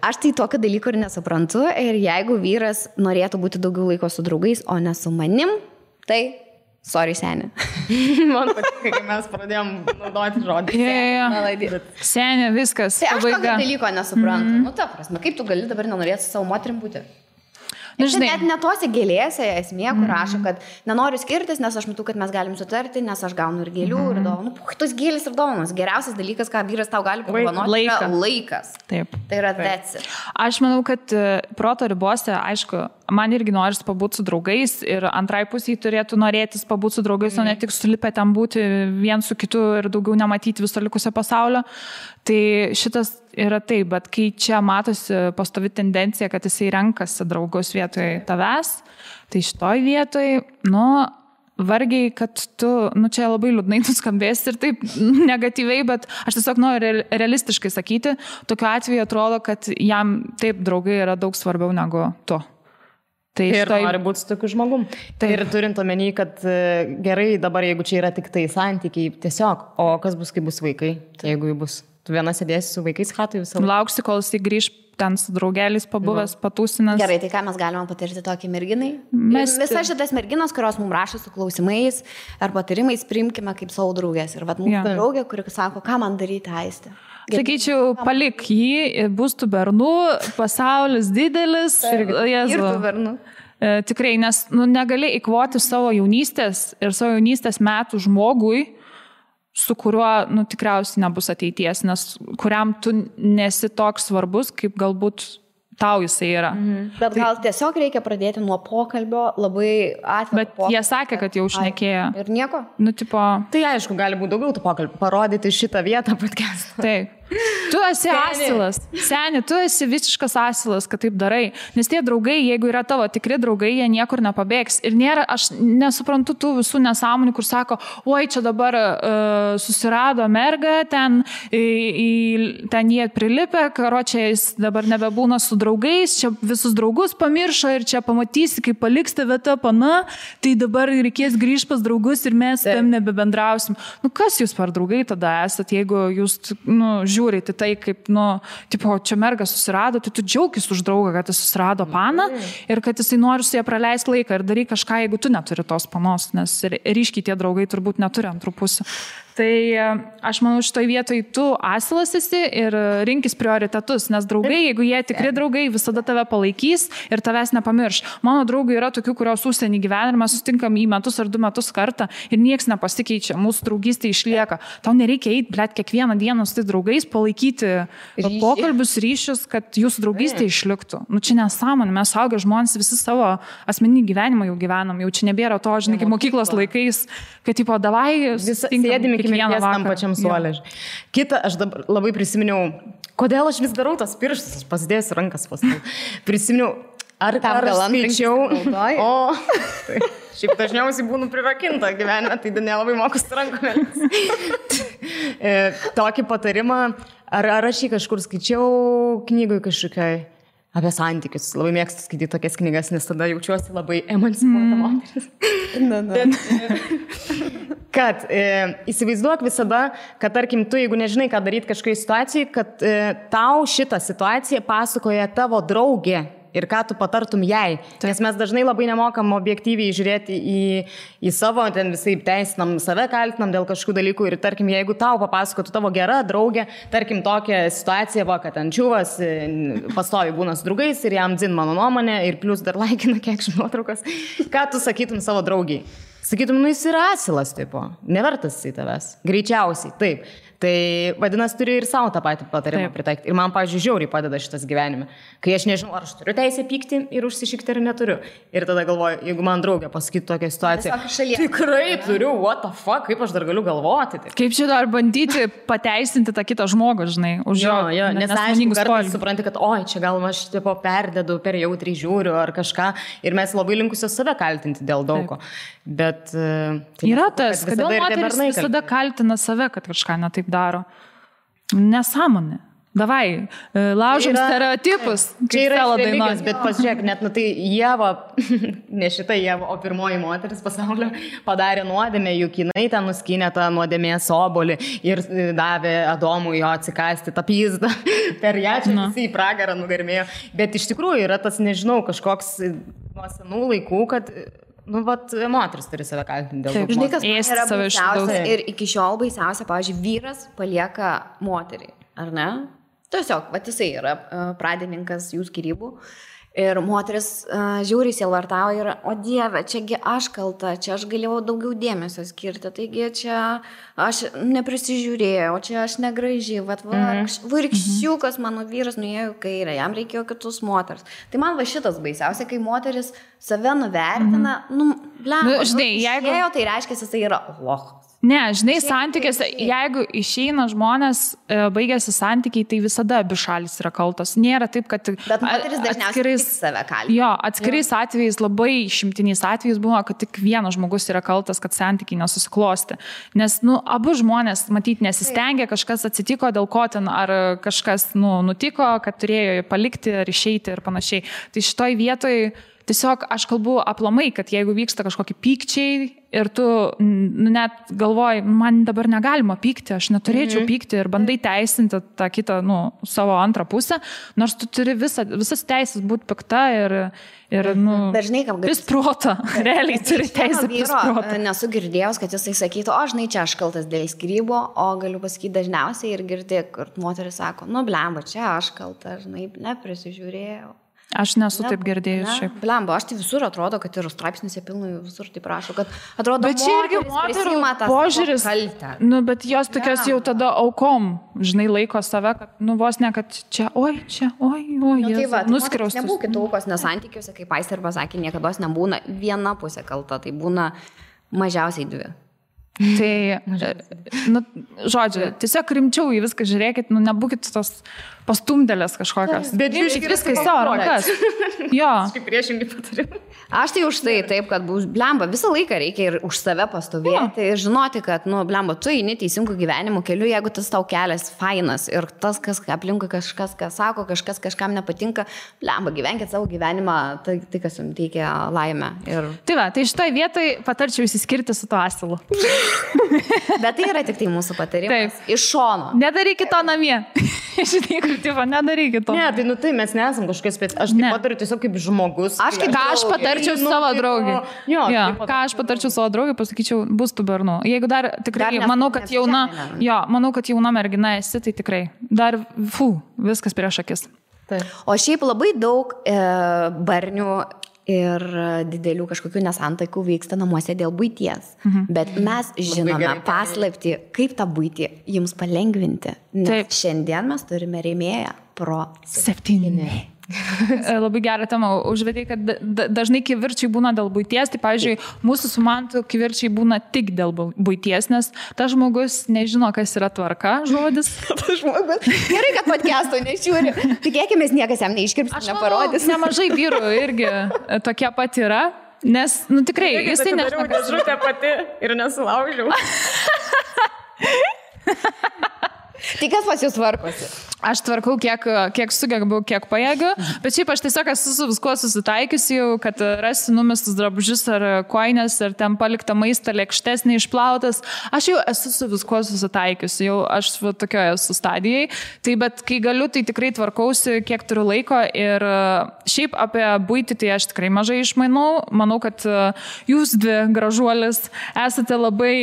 aš tai tokio dalyko ir nesuprantu. Ir jeigu vyras norėtų būti daugiau laiko su draugais, o ne su manim, tai sorry, senė. Man patinka, kai mes pradėjom naudoti žodį. Senė, viskas. Tai aš tokio dalyko nesuprantu. Ta prasme, kaip tu gali dabar nenorėti su savo moterim būti? Net netose gėlėse esmė, kur rašo, kad nenoriu skirtis, nes aš matau, kad mes galim sutarti, nes aš gaunu ir gėlių, ir dovanų. Tos gėlės ir dovanos. Geriausias dalykas, ką vyras tau gali padovanoti, yra laikas. Taip. Tai yra that's it. Aš manau, kad proto ribose, aišku, man irgi noris pabūti su draugais ir antrai pusiai turėtų norėtis pabūti su draugais, o ne tik sulipę ten būti vien su kitu ir daugiau nematyti viso likusio pasaulio. Tai šitas yra taip, bet kai čia matosi pastovi tendencija, kad jisai renkasi draugus vietoj tavęs, tai šitoj vietoj, vargiai, kad tu, čia labai liūdnai nuskambės ir taip negatyviai, bet aš tiesiog noriu realistiškai sakyti, tokiu atveju atrodo, kad jam taip draugai yra daug svarbiau negu tu. Tai ir nori būti su tokiu žmogum. Tai ir turint omeny, kad gerai dabar, jeigu čia yra tik tai santykiai, tiesiog, o kas bus, kai bus vaikai, jeigu jų bus. Tu viena sėdėsi su vaikais chatui visą laiką. Lauksi, kol jis grįž ten su draugeliais pabuvęs, patūsinęs. Gerai, tai ką mes galime patirti tokį merginai? Visas šitas merginos, kurios mums rašo su klausimais ar patarimais, priimkime kaip savo draugės. Ir mūsų draugė, kuri sako, ką man daryti, Aistė. Sakyčiau, palik jį, bus tų bernų, pasaulis didelis. Ir tų bernų. Tikrai, nes negali įkvoti savo jaunystės ir savo jaunystės metų žmogui, su kuriuo tikriausiai nebus ateities, nes kuriam tu nesi toks svarbus, kaip galbūt tau jisai yra. Bet gal tiesiog reikia pradėti nuo pokalbio, labai atvirų Bet jie sakė, kad jau šnekėjo. Ir nieko? Tai aišku, gali būti daugiau tų pokalbių, parodyti šitą vietą podcast'ą. Taip. Tu esi asilas. Seni, tu esi visiškas asilas, kad taip darai. Nes tie draugai, jeigu yra tavo tikri draugai, jie niekur nepabėgs. Ir nėra, aš nesuprantu tų visų nesąmonių, kur sako, oi, čia dabar susirado merga, ten jie prilipę, karočią jis dabar nebebūna su draugais, čia visus draugus pamiršo ir čia pamatysi, kaip paliks tave ta pana, tai dabar reikės grįžti pas draugus ir mes tam nebebendrausim. Nu, kas jūs per draugai tada esat, jeigu jūs, žiūrite tai, kaip, tipo, čia merga susirado, tai tu džiaugis už draugą, kad jis susirado paną ir kad jisai nori su jie praleisti laiką ir daryk kažką, jeigu tu neturi tos panos, nes ryškiai tie draugai turbūt neturi antrų pusių. Tai aš manau, šitoj vietoj tu asilas esi ir rinkis prioritetus, nes draugai, jeigu jie tikri draugai, visada tave palaikys ir tavęs nepamirš. Mano draugai yra tokių, kurios užsienį gyvena ir mes sustinkam į metus ar 2 metus kartą ir nieks nepasikeičia, mūsų draugystė išlieka. Tau nereikia eiti, blėt, kiekvieną dieną su tais draugais, palaikyti pokalbius, ryšius, kad jūsų draugystė išliktų. Nu, čia nesąmonė, mes suaugę žmonės visi savo asmeninį gyvenimą jau gyvenam, jau čia nebėra to, žinai, kaip mokyklos laikais, kad, tipo, davai, sėdime mirties tam pačiam suolė. Kita, aš dabar labai prisiminiau, kodėl aš vis darau tas pirštus, aš pasidėsiu rankas paskui. Prisiminiau, ar skaičiau, tai, šiaip dažniausiai būnu prirakinta gyvenime, tai nelabai mokus rankomis. Tokį patarimą, ar aš jį kažkur skaičiau knygui kažkokiai apie santykius. Labai mėgstu skaityti tokias knygas, nes tada jaučiuosi labai emancipuota moteris. Kad įsivaizduok visada, kad tarkim tu, jeigu nežinai, ką daryti kažkokiai situacijai, kad tau šitą situaciją pasakoja tavo draugė ir ką tu patartum jai. Nes mes dažnai labai nemokam objektyviai žiūrėti į savo, ten visai teisinam, save kaltinam dėl kažkokių dalykų ir tarkim, jeigu tau papasakotų tavo gera draugė, tarkim tokią situaciją, kad ten čiuvas pastovi būna su draugais ir jam dzin mano nuomonė ir plus dar laikina kiek nuotraukas, ką tu sakytum savo draugiai? Sakytum, jis yra asilas, tipo, nevertas į tavęs. Greičiausiai, taip. Tai vadinasi, turi ir savo tą patį patarimą pritaikyti. Ir man, pavyzdžiui, žiauriai padeda šitas gyvenime. Kai aš nežinau, ar aš turiu teisę pykti ir užsišikti, ar neturiu. Ir tada galvoju, jeigu man draugė pasakytų tokią situaciją, tikrai turiu, what the fuck, kaip aš dar galiu galvoti. Tai. Kaip čia dar bandyti pateisinti tą kitą žmogų, žinai, už jo. Nes aišku, kartais supranti, kad oi, čia gal aš tipo perdedu, per jautriai žiūriu ar kažką. Ir mes labai linkusios save kaltinti dėl daugo. Bet tai yra tas, kodėl moteris visada kaltina save, kad kažką netaip daro. Nesąmonė. Davai, laužim stereotipus. Čia yra religijos, bet pasižiūrėk, net tai Ieva, ne šita Ieva, o pirmoji moteris pasaulio padarė nuodėmę, juk jinai ten nuskynė tą nuodėmės obuolį ir davė Adomui jo atsikasti tą pizdą. Per ją čia visi į pragarą nugarmėjo. Bet iš tikrųjų yra tas, nežinau, kažkoks nuo senų laikų, kad moteris turi save kaltinti dėl to. Žinai, kas yra baisiausia ir iki šiol baisiausia, pavyzdžiui, vyras palieka moterį, ar ne? Tiesiog, jisai yra pradininkas jų skyrybų ir moteris žiūri sielvartauja ir, o Dieve, čiagi aš kalta, čia aš galėjau daugiau dėmesio skirti, taigi čia aš neprisižiūrėjau, čia aš negraži, vaikščiukas mano vyras nuėjo į kairę, jam reikėjo kitus moters. Tai man šitas baisiausia, kai moteris save nuvertina, žinai, jeigu tai reiškia, jisai yra lochas. Ne, žinai, santykiuose, jeigu išeina žmonės, baigėsi santykiai, tai visada abi šalis yra kaltos. Nėra taip, kad atskirais atvejais, labai išimtiniais atvejais buvo, kad tik vienas žmogus yra kaltas, kad santykiai nesusiklosti. Nes, abu žmonės, matyt, nesistengia, kažkas atsitiko, dėl ko ten, ar kažkas, nutiko, kad turėjo palikti, ar išeiti ir panašiai. Tai šitoj vietoj tiesiog aš kalbu aplamai, kad jeigu vyksta kažkokie pykčiai ir tu net galvoji, man dabar negalima pykti, aš neturėčiau pykti ir bandai teisinti tą kitą, savo antrą pusę, nors tu turi visas teisės būti pikta ir vis protą, realiai turi teisę vis protą. Nesu girdėjęs, kad jisai sakytų, žinai, čia aš kaltas dėl skyrybų, o galiu pasakyti dažniausiai ir girdėti, kur moteris sako, blemba, čia aš kalta, žinai, neprisižiūrėjau. Aš nesu taip girdėjus šiaip. Blemba, aš tai visur atrodo, kad ir straipsniuose pilnai visur taip rašo, kad atrodo, bet čia irgi moterų požiūris, bet jos tokios jau tada aukom, žinai, laiko save, kad vos ne, kad čia, oi, nuskriaustus. Nebūkit aukos, nes santykiuose, kaip Aistė ir pasakė, niekados nebūna viena pusė kalta, tai būna mažiausiai dvi. Tai, nu, žodžiu, tiesiog rimčiau į viską žiūrėkit, nu, nebūkit tos pastumdėlės kažkokios. Bet jūs viską į savo rankas. Jo. Kaip priešingai patarim. Aš tai už tai taip, kad blemba, visą laiką reikia ir už save pastovėti ir žinoti, kad, nu, blemba, tu eini teisingų gyvenimo keliu, jeigu tas tau kelias fainas ir tas, kas aplinkui kažkas, kas sako, kažkas kažkam nepatinka, blemba, gyvenkit savo gyvenimą, tai kas jums teikia laimę. Ir... Tai va, tai šitoj vietoj patarčiau įsiskirti su to asilu. Bet tai yra tik tai mūsų patarimas. Taip. Iš šono. Nedarykit to namie. Žinai, kur tipo, nedarykit to. Ne, tai, nu, tai mes nesam kažkokios specialios. Aš tai patariu tiesiog kaip žmogus. Ką aš patarčiau savo draugiai. Jo, ką aš patarčiau savo draugiai, pasakyčiau, bus tų bernų. Jeigu dar tikrai, manau, kad jauna mergina esi, tai tikrai. Dar, viskas prieš akis. Taip. O šiaip labai daug barnių ir didelių kažkokių nesantaikų vyksta namuose dėl buities. Bet mes žinome paslaptį, kaip tą buitį jums palengvinti. Nes šiandien mes turime rėmėją Pro 7. Labai gerą temą užvedai, kad dažnai kivirčiai būna dėl buities, tai pavyzdžiui, mūsų su Mantu kivirčiai būna tik dėl buities, nes tas žmogus nežino, kas yra tvarka, žodis. Tas žmogus. Gerai, kad podcast'o nežiūri. Tikėkime, niekas jam neiškirps, neparodys. Nemažai vyrų irgi tokie pat yra, nes, nu tikrai, jisai nežino, kas žutė pati ir nesulaužiau. Tai kas pas jūs tvarkosi? Aš tvarkau, kiek sugebu, kiek pajėgiu, bet šiaip aš tiesiog esu su viskuo susitaikiusi jau, kad rasiu numestus drabužius ar koinės, ar ten paliktą maistą lėkštes neišplautas. Aš jau esu su viskuo susitaikiusi, jau aš tokioje esu stadijai. Tai bet kai galiu, tai tikrai tvarkausi, kiek turiu laiko ir šiaip apie buitį tai aš tikrai mažai išmanau. Manau, kad jūs dvi gražuolis esate labai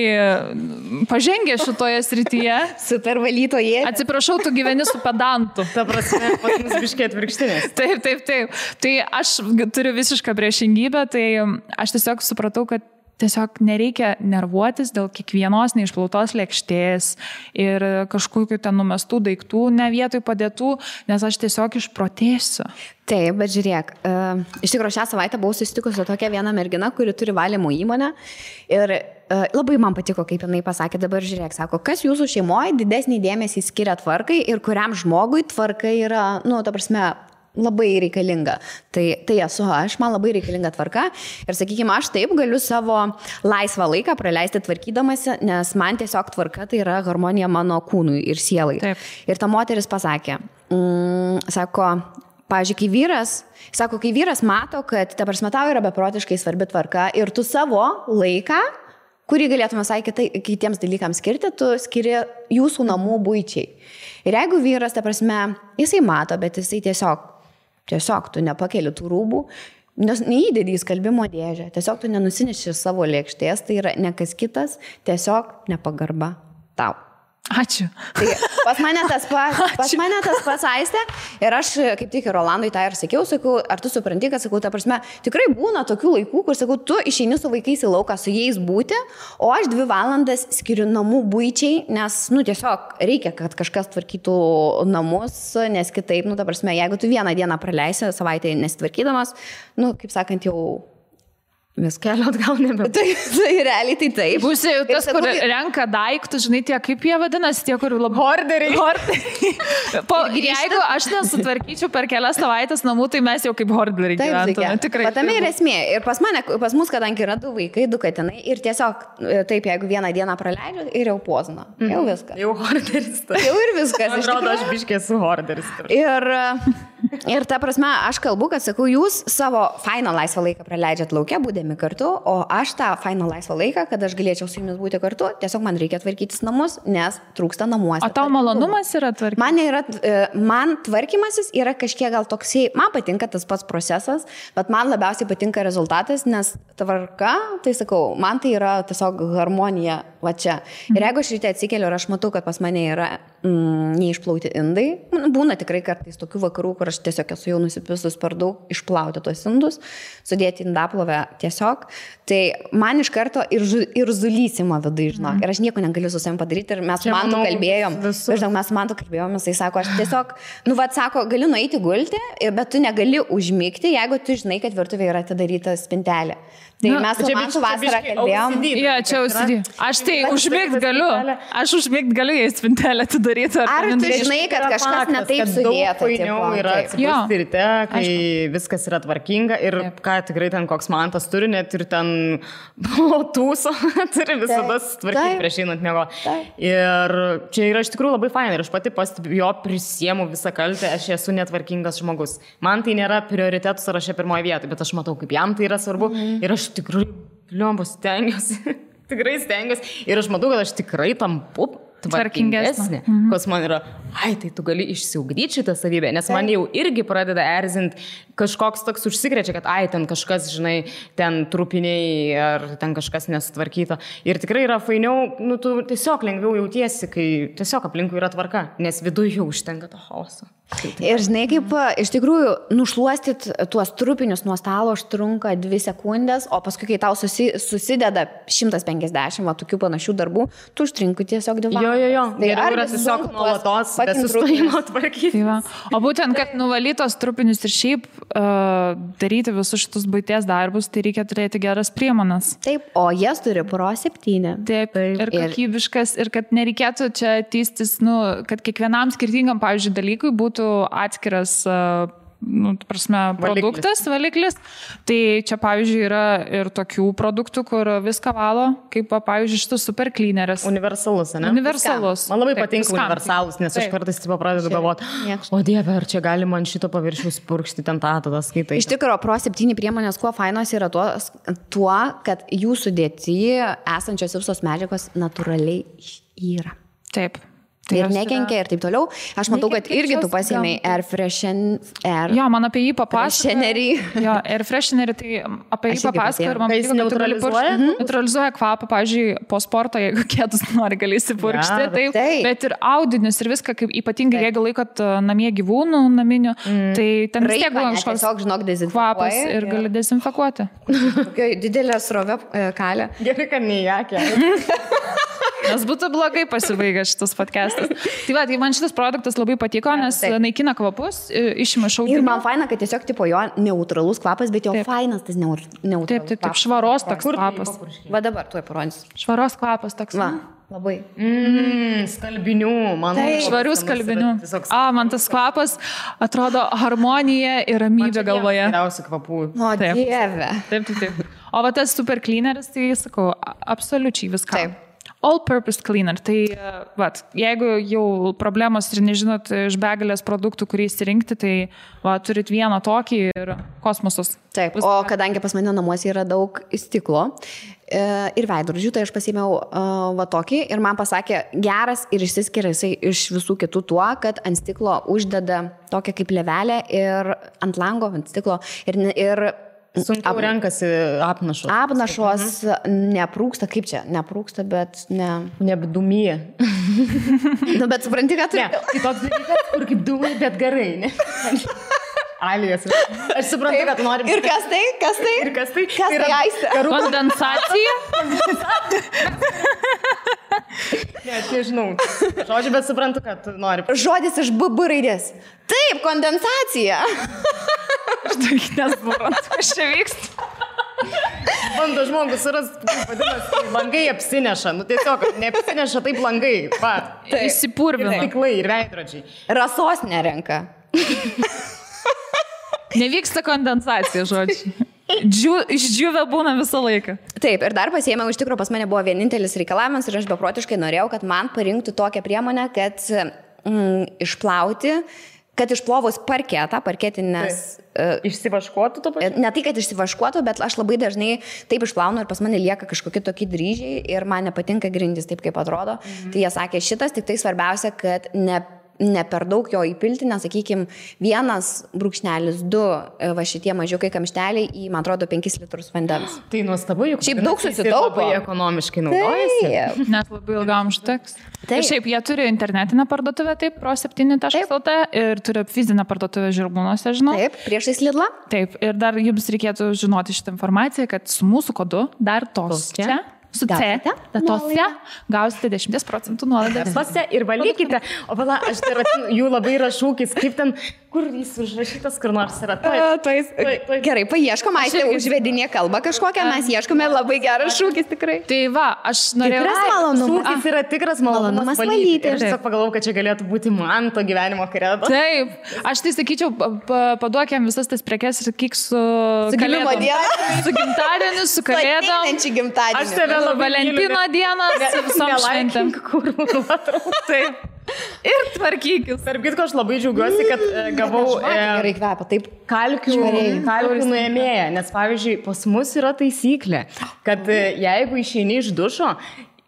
pažengę šitoje srityje. Super valytoje. Atsiprašau, tu gyveni su pedantu. Ta prasme, pas mus biškiai atvirkštinės. Taip. Tai aš turiu visišką priešingybę, tai aš tiesiog supratau, kad tiesiog nereikia nervuotis dėl kiekvienos neišplautos lėkštės ir kažkokių ten numestų daiktų, ne vietoj padėtų, nes aš tiesiog išprotėsiu. Taip, bet žiūrėk, iš tikrųjų šią savaitę buvau susitikusi su tokia viena mergina, kuri turi valymo įmonę ir labai man patiko, kaip jinai pasakė, dabar žiūrėk, sako, kas jūsų šeimoje didesnį dėmesį skiria tvarkai ir kuriam žmogui tvarka yra, nu, ta prasme, labai reikalinga. Tai esu aš, man labai reikalinga tvarka ir, sakykime, aš taip galiu savo laisvą laiką praleisti tvarkydamasi, nes man tiesiog tvarka tai yra harmonija mano kūnui ir sielai. Taip. Ir ta moteris pasakė, sako, pavyzdžiui, kai vyras mato, kad ta prasme tau yra beprotiškai svarbi tvarka ir tu savo laiką, kurį galėtume kitiems dalykams skirti, tu skiri jūsų namų buičiai. Ir jeigu vyras, ta prasme, jisai mato, bet jisai tiesiog tu nepakeli tų rūbų, neįdedi į skalbimo dėžę, tiesiog tu nenusineši savo lėkštės, tai yra ne kas kitas, tiesiog nepagarba tau. Ačiū. Tai pas mane tas pats Aistė ir aš kaip tik ir Rolandui tą ir sakiau, ar tu supranti, kad, sakau, ta prasme, tikrai būna tokių laikų, kur, sakau, tu išeini su vaikais į lauką su jais būti, o aš 2 valandas skiriu namų buičiai, nes, nu, tiesiog reikia, kad kažkas tvarkytų namus, nes kitaip, nu, ta prasme, jeigu tu vieną dieną praleisi savaitę nesitvarkydamas, nu, kaip sakant, jau vis kelio atgal nebe. Tai realiai tai taip. Būsi jau tas, kur renka daiktus, žinai, tie, kaip jie vadinasi, tie, kur labai... Horderiai. Jeigu aš nesutvarkyčiau per kelias savaitės namų, tai mes jau kaip horderiai gyventume. Tikrai. Patame ir esmė. Ir pas mus, kadangi yra 2 vaikai, 2 katinai, ir tiesiog taip, jeigu vieną dieną praleidžiu, ir jau pozna. Jau viskas. Jau horderis. Jau ir viskas. Atrodo, aš biškiai esu horderis. Ir ta prasme, aš kalbu, kad, sakau, jūs savo fainą laisvą laiką praleidžiat laukia, būdami kartu, o aš tą fainą laisvą laiką, kad aš galėčiau su jumis būti kartu, tiesiog man reikia tvarkytis namus, nes trūksta namuose. O tau malonumas yra tvarkymas? Man tvarkymasis yra kažkiek gal toksai, man patinka tas pats procesas, bet man labiausiai patinka rezultatas, nes tvarka, tai sakau, man tai yra tiesiog harmonija va čia. Ir jeigu aš ryte atsikeliu ir aš matau, kad pas mane yra neišplauti indai. Būna tikrai kartais tokių vakarų, kur aš tiesiog esu jau nusipisus per daug, išplauti tos indus, sudėti indaplovę tiesiog. Tai man iš karto ir zulysimo vidai, žinok. Ir aš nieko negaliu su savim padaryti. Ir mes Mantu kalbėjom, jisai sako, aš tiesiog, sako, galiu nueiti gulti, bet tu negali užmigti, jeigu tu žinai, kad virtuvėje yra atidaryta spintelė. Tai mes su Mantu vasarą kalbėjom. Jo, čia OCD. Aš tai užmigt galiu. Aš užmigt galiu, jei spintelę atidaryti. Ar tu žinai, kad kažkas netaip sudėta? Fainiau yra atsibusti ryte, kai viskas yra tvarkinga ir ką tikrai ten koks Mantas turi, net ir ten tūso turi visada tvarkyti prieš einant miego. Ir čia yra iš tikrųjų labai fainai ir aš pati pastebiu, jo prisiemu visą kaltę, aš esu netvarkingas žmogus. Man tai nėra prioritetų sąraše pirmoje vietoje, bet aš matau, kaip jam tai yra svarbu ir aš tikrai, stengiuosi. Tikrai stengiuosi. Ir aš matau, kad aš tikrai tampu tvarkingesnė. Kas man yra, tai tu gali išsiugdyti šitą savybę, nes man jau irgi pradeda erzinti kažkoks toks užsikrečia, kad ten kažkas, žinai, ten trupiniai ar ten kažkas nesutvarkyta. Ir tikrai yra fainiau, tu tiesiog lengviau jautiesi, kai tiesiog aplinkui yra tvarka, nes viduje jau užtenka to chaoso. Ir žinai, kaip iš tikrųjų nušluostyt tuos trupinius nuo stalo užtrunka 2 sekundės, o paskui, kai tau susideda 150 tokių panašių darbų, tu užtrinkai tiesiog 2 valandas. Jo. Geriau yra tiesiog nuolatos be sustojimo tvarkyti. O būtent, kad nuvalytos trupinius ir šiaip daryti visus šitus buities darbus, tai reikia turėti geras priemonas. Taip, o jas turi Pro 7. Taip. Ir kokybiškas, ir kad nereikėtų čia tystis, kad kiekvienam skirtingam, pavyzdžiui, dalykui būtų atskiras produktas, valiklis. Tai čia, pavyzdžiui, yra ir tokių produktų, kur viską valo, kaip, pavyzdžiui, šitas super cleaneris. Universalus, ne? Universalus. Man labai patinka universalus, nes aš kartais pradedu galvoti, o Dieve, ar čia gali man šito paviršiaus purkšti ten tada skaitai. Iš tikrųjų, Pro 7 priemonės, kuo fainos yra tuo, kad jų sudėtyje esančios visos medžiagos natūraliai yra. Taip. Ir nekenkia ir taip toliau. Aš matau, kad irgi tu pasiėmei Air Freshener. Jo, man apie jį papasakoja. Jo, Air Freshenerį, tai apie jį papasakoja ir man patiko, kad tu gali purkšti. Neutralizuoja kvapą, pavyzdžiui, po sporto, jeigu kėdus nori, gali įsipurkšti. Taip. Bet ir audinius ir viską, kaip ypatingai, jeigu laikot namie gyvūnų naminių, tai ten vis tiek buvo kažkoks kvapas ir gali dezinfekuoti. Didelė srovė kalė. Gerai, kad neįjakė. Nes būtų blogai pasibaigęs šitas podcastas. Tai man šitas produktas labai patiko, nes naikina kvapus, išima šaudinių. Ir man faina, kad tiesiog tipo jo neutralus kvapas, bet jo fainas tas neutralus. Taip, švaros toks kvapas. Va dabar tuoj parodysiu. Švaros kvapas toks. Va, labai. Skalbinių, man. Švarių skalbinių. Man tas kvapas atrodo harmonija ir ramybė galvoje. Geriausių kvapų. O Dieve. Taip. O va tas super cleaneris, tai sakau, absoliučiai viską. Taip. All-purpose cleaner. Tai, jeigu jau problemos ir nežinot iš begalės produktų, kurį įsirinkti, tai turit vieną tokį ir kosmosus. Taip, o kadangi pas mane namuose yra daug stiklo ir veidrodžių, tai aš pasiėmiau tokį ir man pasakė, geras ir išsiskiria jisai iš visų kitų tuo, kad ant stiklo uždeda tokią kaip levelę ir ant lango, ant stiklo ir sunkiau renkasi apnašos. Apnašos neprūksta, kaip čia? Neprūksta, bet nebdumyje. Bet supranti, ką tu... Ne, tai toks dalykas, kur kaip dūmai, bet gerai, ne? Alijas. Aš suprantu, kad nori... Ir kas tai? Kas tai? Kas tai Aistė? Kondensacija? Ne, tai žinau. Žodžiu, bet suprantu, kad nori... Žodis iš BB raidės. Taip, kondensacija. Aš tai nesuprantu, kas čia vyksta. Bando žmogus surasti, vadinasi, langai apsineša. Tiesiog neapsineša taip langai. Įsipurvina. Stiklai ir veidrodžiai. Rasos nerenka. Nevyksta kondensacija, žodžiai. Išdžiūvę būna visą laiką. Taip, ir dar pasiėmiau, iš tikrųjų pas mane buvo vienintelis reikalavimas ir aš beprotiškai norėjau, kad man parinktų tokią priemonę, kad išplovus parketinės... Išsivaškuotų to pačiu? Ne tai, kad išsivaškuotų, bet aš labai dažnai taip išplaunu ir pas mane lieka kažkokie tokie dryžiai ir man nepatinka grindys taip, kaip atrodo. Tai jie sakė, šitas tik tai svarbiausia, kad ne per daug jo įpilti, nes, sakykime, 1,2 va šitie mažiukai kamšteliai į, man atrodo, 5 litrus vandens. Tai nuostabu, juk šiaip daug susitaupo. Labai ekonomiškai naudojasi. Net labai ilgam užteks. Taip. Ir šiaip jie turi internetinę parduotuvę, taip, pro7.lt ir turi fizinę parduotuvę Žirmūnuose, žinau. Taip, priešais Lidlą. Taip, ir dar jums reikėtų žinoti šitą informaciją, kad su mūsų kodu dar tos čia. Su C, datose gausite 10% nuolaidą. Datose ir valykite. O pala, aš tai ratinu, jų labai yra šūkis, kaip ten, kur jis užrašytas, kur nors yra. Gerai, paieškom, Aistė užvedinė kalbą kažkokią, mes ieškome labai geras šūkis tikrai. Tai va, aš norėjau... Tikras malonumas. Šūkis yra tikras malonumas valyti. Ir aš tiesiog pagalvojau, kad čia galėtų būti man to gyvenimo kredo. Taip, aš tai sakyčiau, paduokiam visas tas prekes ir kiek su gimimo diena. Su gimtadieniu, su kalėdom. Aš tave Valentino dieną su visom šventėm. Taip. Ir tvarkykis. Tarp kitko, aš labai džiaugiuosi, kad gavau gerai kvepia, taip kalkių nuėmėją, nes pavyzdžiui, pas mus yra taisyklė, kad jeigu išeini iš dušo,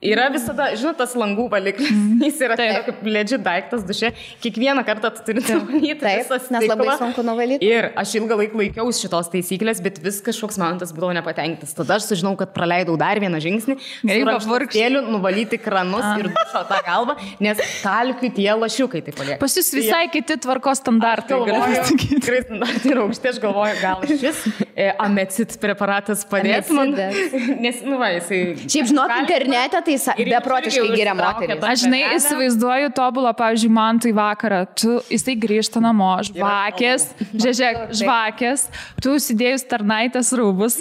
yra visada, žinot, tas langų valiklis, jis yra kaip legit daiktas duše, kiekvieną kartą tu turi nuvalyti visą stiklą. Nes labai sunku nuvalyti. Ir aš ilgą laiką laikiausi šitos taisyklės, bet vis kažkoks momentas būdavo nepatenkintas. Tada aš sužinau, kad praleidau dar vieną žingsnį, su rankšluostėliu nuvalyti kranus ir dušo tą galvą, nes kalkių tie lašiukai taip palieka. Pas jūs visai kiti tvarkos standartai. Tikrai standartai yra aukšti, aš galvoju, gal šis amecit preparatas padės man. Nes, nu va, jisai... Šiaip žinok, internete tai beprotiškai giria moterį. Aš žinai, įsivaizduoju tobulą, pavyzdžiui, man tai vakarą, jisai grįžta namo, žvakės, žvakės, tu užsidėjus tarnaitės rūbus,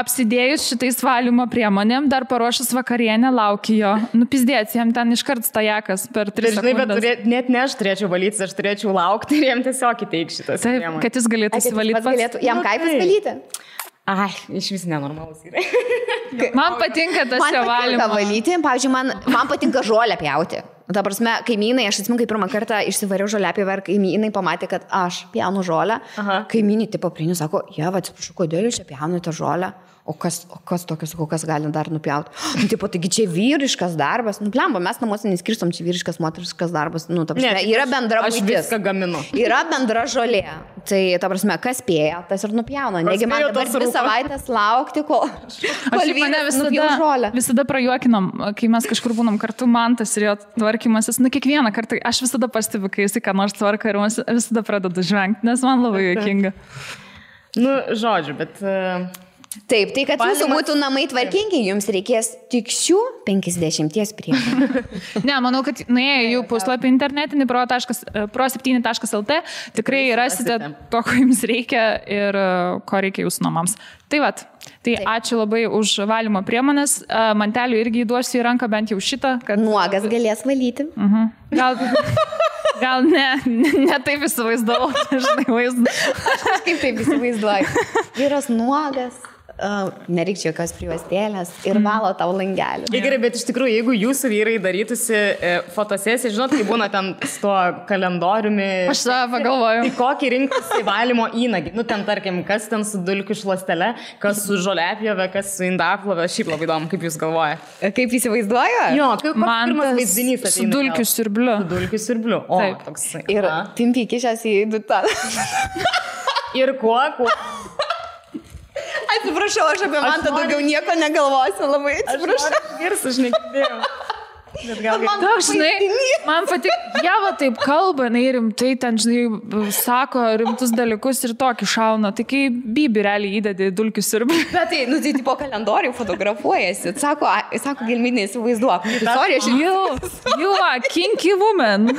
apsidėjus šitais valymo priemonėm, dar paruošus vakarienę, lauki jo. Nupizdėts, jam ten iškart stajakas per 3 sekundes. Bet net ne aš turėčiau valyti, aš turėčiau laukti ir jam tiesiog įteik šitas priemonės. Kad jis galėtų įsivalyti pats. Jam kaipas valyti? Ai, iš vis nenormalus yra. Man patinka tas jo valymas. Man patinka valyti, pavyzdžiui, man patinka žolę pjauti. Ta prasme, kaimynai, aš atsimenu, kai pirmą kartą išsivariau žolėpjovę ir kaimynai pamatė, kad aš pjaunu žolę. Kaimynai tipo prieinu, sako, atsiprašau, kodėl jūs čia pjaunate žolę? O kas tokios, kas gali dar nupjauti? Tipo, taigi čia vyriškas darbas. Blemba, mes namuose neskirstom, čia vyriškas, moteriškas darbas. Ta prasme, yra bendra būtis. Aš viską gaminu. Yra bendra žolė. Tai, ta prasme, kas spėja, tas ir nupjauna. Negi man dabar 2 savaitės laukti, kol vyras nupjauna žolę. Visada prajuokinam, kai mes kažkur būnam kartu, Mantas ir jo tvarkymasis. Kiekvieną kartą aš visada pastebiu, kai jis ką nors tvarka ir visada pradedu žvengti, nes man labai juokinga. Žodžiu, bet... Taip, tai kad jūsų būtų namai tvarkingi, jums reikės tik šių 50 priemonių. Ne, manau, kad nuėję jų puslapį internetinį pro7.lt tikrai rasite to, ko jums reikia ir ko reikia jūsų namams. Tai vat, ačiū labai už valymo priemonės. Mantelių irgi įduosiu į ranką bent jau šitą. Kad... Nuogas galės valyti. Gal ne taip įsivaizdavau, žinai, vaizdą. Aš kaip taip įsivaizduoju. Vyras nuogas. Nereikia jokios prijuostėlės ir valo tau langelį. Gerai, bet iš tikrųjų, jeigu jūsų vyrai darytųsi fotosesiją, žinot, kai būna ten su tuo kalendoriumi. Aš tą pagalvoju. Tai kokį rinktis valymo įnagį? Ten, tarkim, kas ten su dulkių šluostele, kas su žolėpjove, kas su indaplove. Šiaip labai įdomu, kaip jūs galvojate. Kaip įsivaizduoju? Jo, kaip pirmas vaizdinys ateina. Su dulkių siurbliu. Su dulkių siurbliu. O, toks. Ir pimpi kišęs į dutą. Ir kuo? Atsiprašau, aš apie Mantą daugiau nieko negalvosiu, labai atsiprašau. Aš negirdėjau. Man patik, Jeva taip kalba, rimtai ten, žinai, sako rimtus dalykus ir tokį šauna. Tai kai Bibi realiai įdedi dulkių siurblį. Bet tai, tai po kalendorių fotografuojasi. Sako Gelminė, įsivaizduok. You are kinky woman.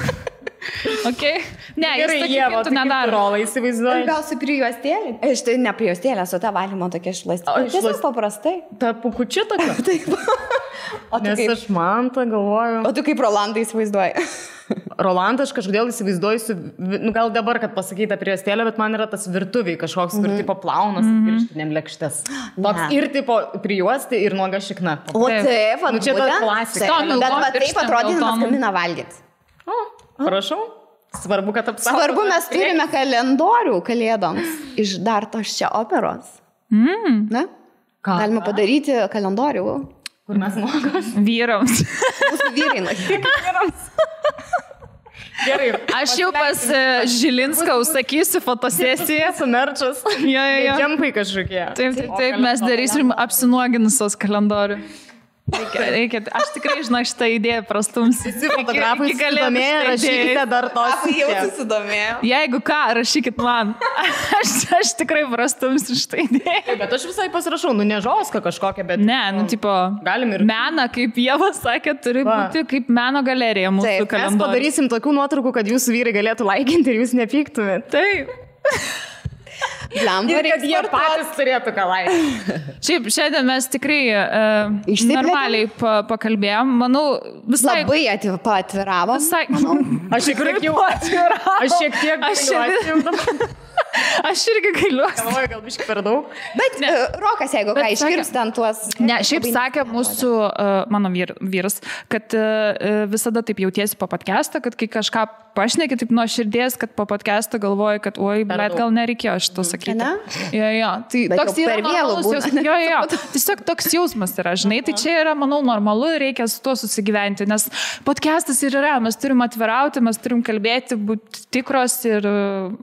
Okay. Ne, gerai, Ieva, tu nedaro. Rolą įsivaizduoji. Gal su prijuostėlė? Štai ne prijuostėlė, su ta valymo tokia šluostėlė. Tiesiog paprastai. Ta pukučia tokia? Taip. Nes aš Mantą galvoju. O tu kaip Rolandą įsivaizduoji? Rolandą aš kažkodėl įsivaizduoju, gal dabar, kad pasakyta prijuostėlė, bet man yra tas virtuviai kažkoks, kur tipo plaunas pirštinėm lėkštes. Ir tipo prijuosti ir nuoga šikna. O taip, čia ta klasika. Bet taip atrodydamas kamina valgyti. Prašau. Svarbu, kad apsaugotų. Svarbu, mes turime kalendorių kalėdoms iš dar tos čia operos. Ne? Galime padaryti kalendorių. Kur mes nuogos? Vyrams. Mūsų vyrai. Vyrams. Gerai. Aš jau pas Žilinską užsakysiu fotosesiją. Sumerčas. Jo. Džempai kažkokie. Taip, mes darysim apsinuoginusios kalendorių. Reikia, aš tikrai žinau šitą idėją prastumsiu. Visi fotografai susidomėję, rašykite dar tos. Jau susidomėjau. Jeigu ką, rašykit man. Aš tikrai prastumsiu šitą idėją. Bet aš visai pasirašau, nežoska kažkokia, bet... Ne, tipo, galim ir... meną, kaip Ieva sakė, turi būti kaip meno galerija mūsų kalendorius. Mes padarysim tokių nuotraukų, kad jūsų vyrai galėtų laikinti ir jūs nepyktumėt. Taip. Ir kad jie patys turėtų ką laikyti. Šiaip, šiandien mes tikrai normaliai pakalbėjom. Manau, visai... Labai atviravom. Visai... Aš šiek tiek gailiuosi. Aš irgi gailiuosi. Galvoju, gal biškai per daug. Bet Rokas, jeigu ką iškirps ten tuos... Ne, šiaip sakė mūsų, mano vyras, kad visada taip jautiesi po podcastą, kad kai kažką pašneki taip nuo širdies, kad po podcastą galvoji, kad oi, bet gal nereikėjo šito sakyti. Ne? Jo. Tai bet toks yra normalus jausmas. Jo. Tiesiog toks jausmas yra, žinai. Tai čia yra, manau, normalu ir reikia su tuo susigyventi, nes podcastas ir yra. Mes turim atvirauti, mes turim kalbėti, būti tikros ir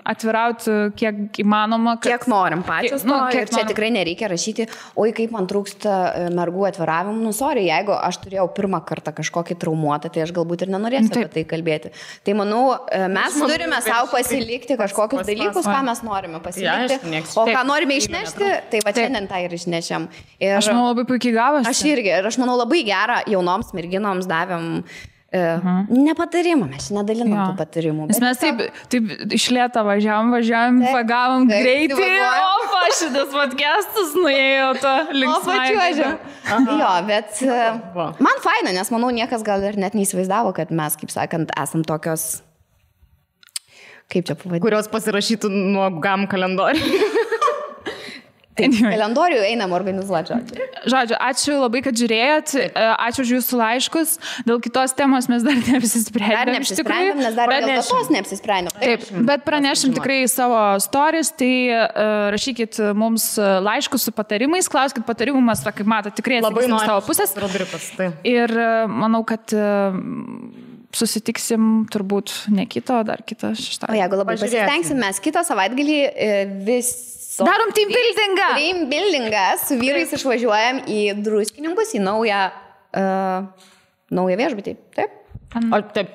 atvirauti kiek įmanoma. Kiek norim pačios. Ir čia tikrai nereikia rašyti, oi, kaip man trūksta mergų atviravimų. Nu, sorry, jeigu aš turėjau pirmą kartą kažkokį traumuotą, tai aš galbūt ir nenorėsiu apie tai kalbėti. Tai manau, mes turime savo pasilikti kažkokius dalykus, ką mes norime pasilikti, o ką norime išnešti, tai va šiandien tą ir išnešėm. Aš manau, labai puikiai gavosi. Aš irgi, ir aš manau, labai gerą jaunoms merginoms davėm nepatarimą, mes nedalinom tų patarimų. Nes mes taip iš lėto važiavom, pagavom greitai, o šitas podcastas nuėjo to linksmai. Jo, bet man faina, nes manau, niekas gal ir net neįsivaizdavo, kad mes, kaip sakant, esam tokios, kaip čia pavadinti, kurios pasirašytų nuo GAM kalendorių. Kalendorių einam organizuoti. Žodžiu, ačiū labai, kad žiūrėjot, ačiū už jūsų laiškus. Dėl kitos temos mes dar neapsisprendėm. Nes dar dėl tos neapsisprendėm. Taip, bet pranešim tikrai savo stories, tai rašykit mums laiškus su patarimais, klauskit patarimų, mes, kaip matot, tikrai atsakysim savo pusės. Ir manau, kad susitiksim turbūt ne kito, dar kitą šeštadienį. O jeigu labai pasistengsim, mes kitą savaitgalį darom team buildingą. Team buildingą su vyrais išvažiuojam į Druskininkus, į naują viešbutį. Taip? Taip.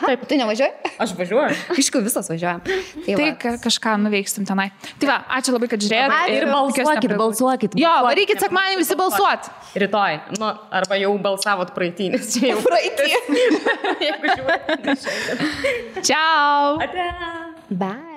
Taip, tu nevažiuoji? Aš važiuoju. Aišku, visos važiuojam. Tai kažką nuveiksim tenai. Tai va, ačiū labai, kad žiūrėjot. Ir balsuokit. Jo, varykit sekmadienį visi balsuot. Rytoj. Nu, arba jau balsavot praeitį, nes čia jau praeitį. Jeigu žiūrėt. Ciao. Bye.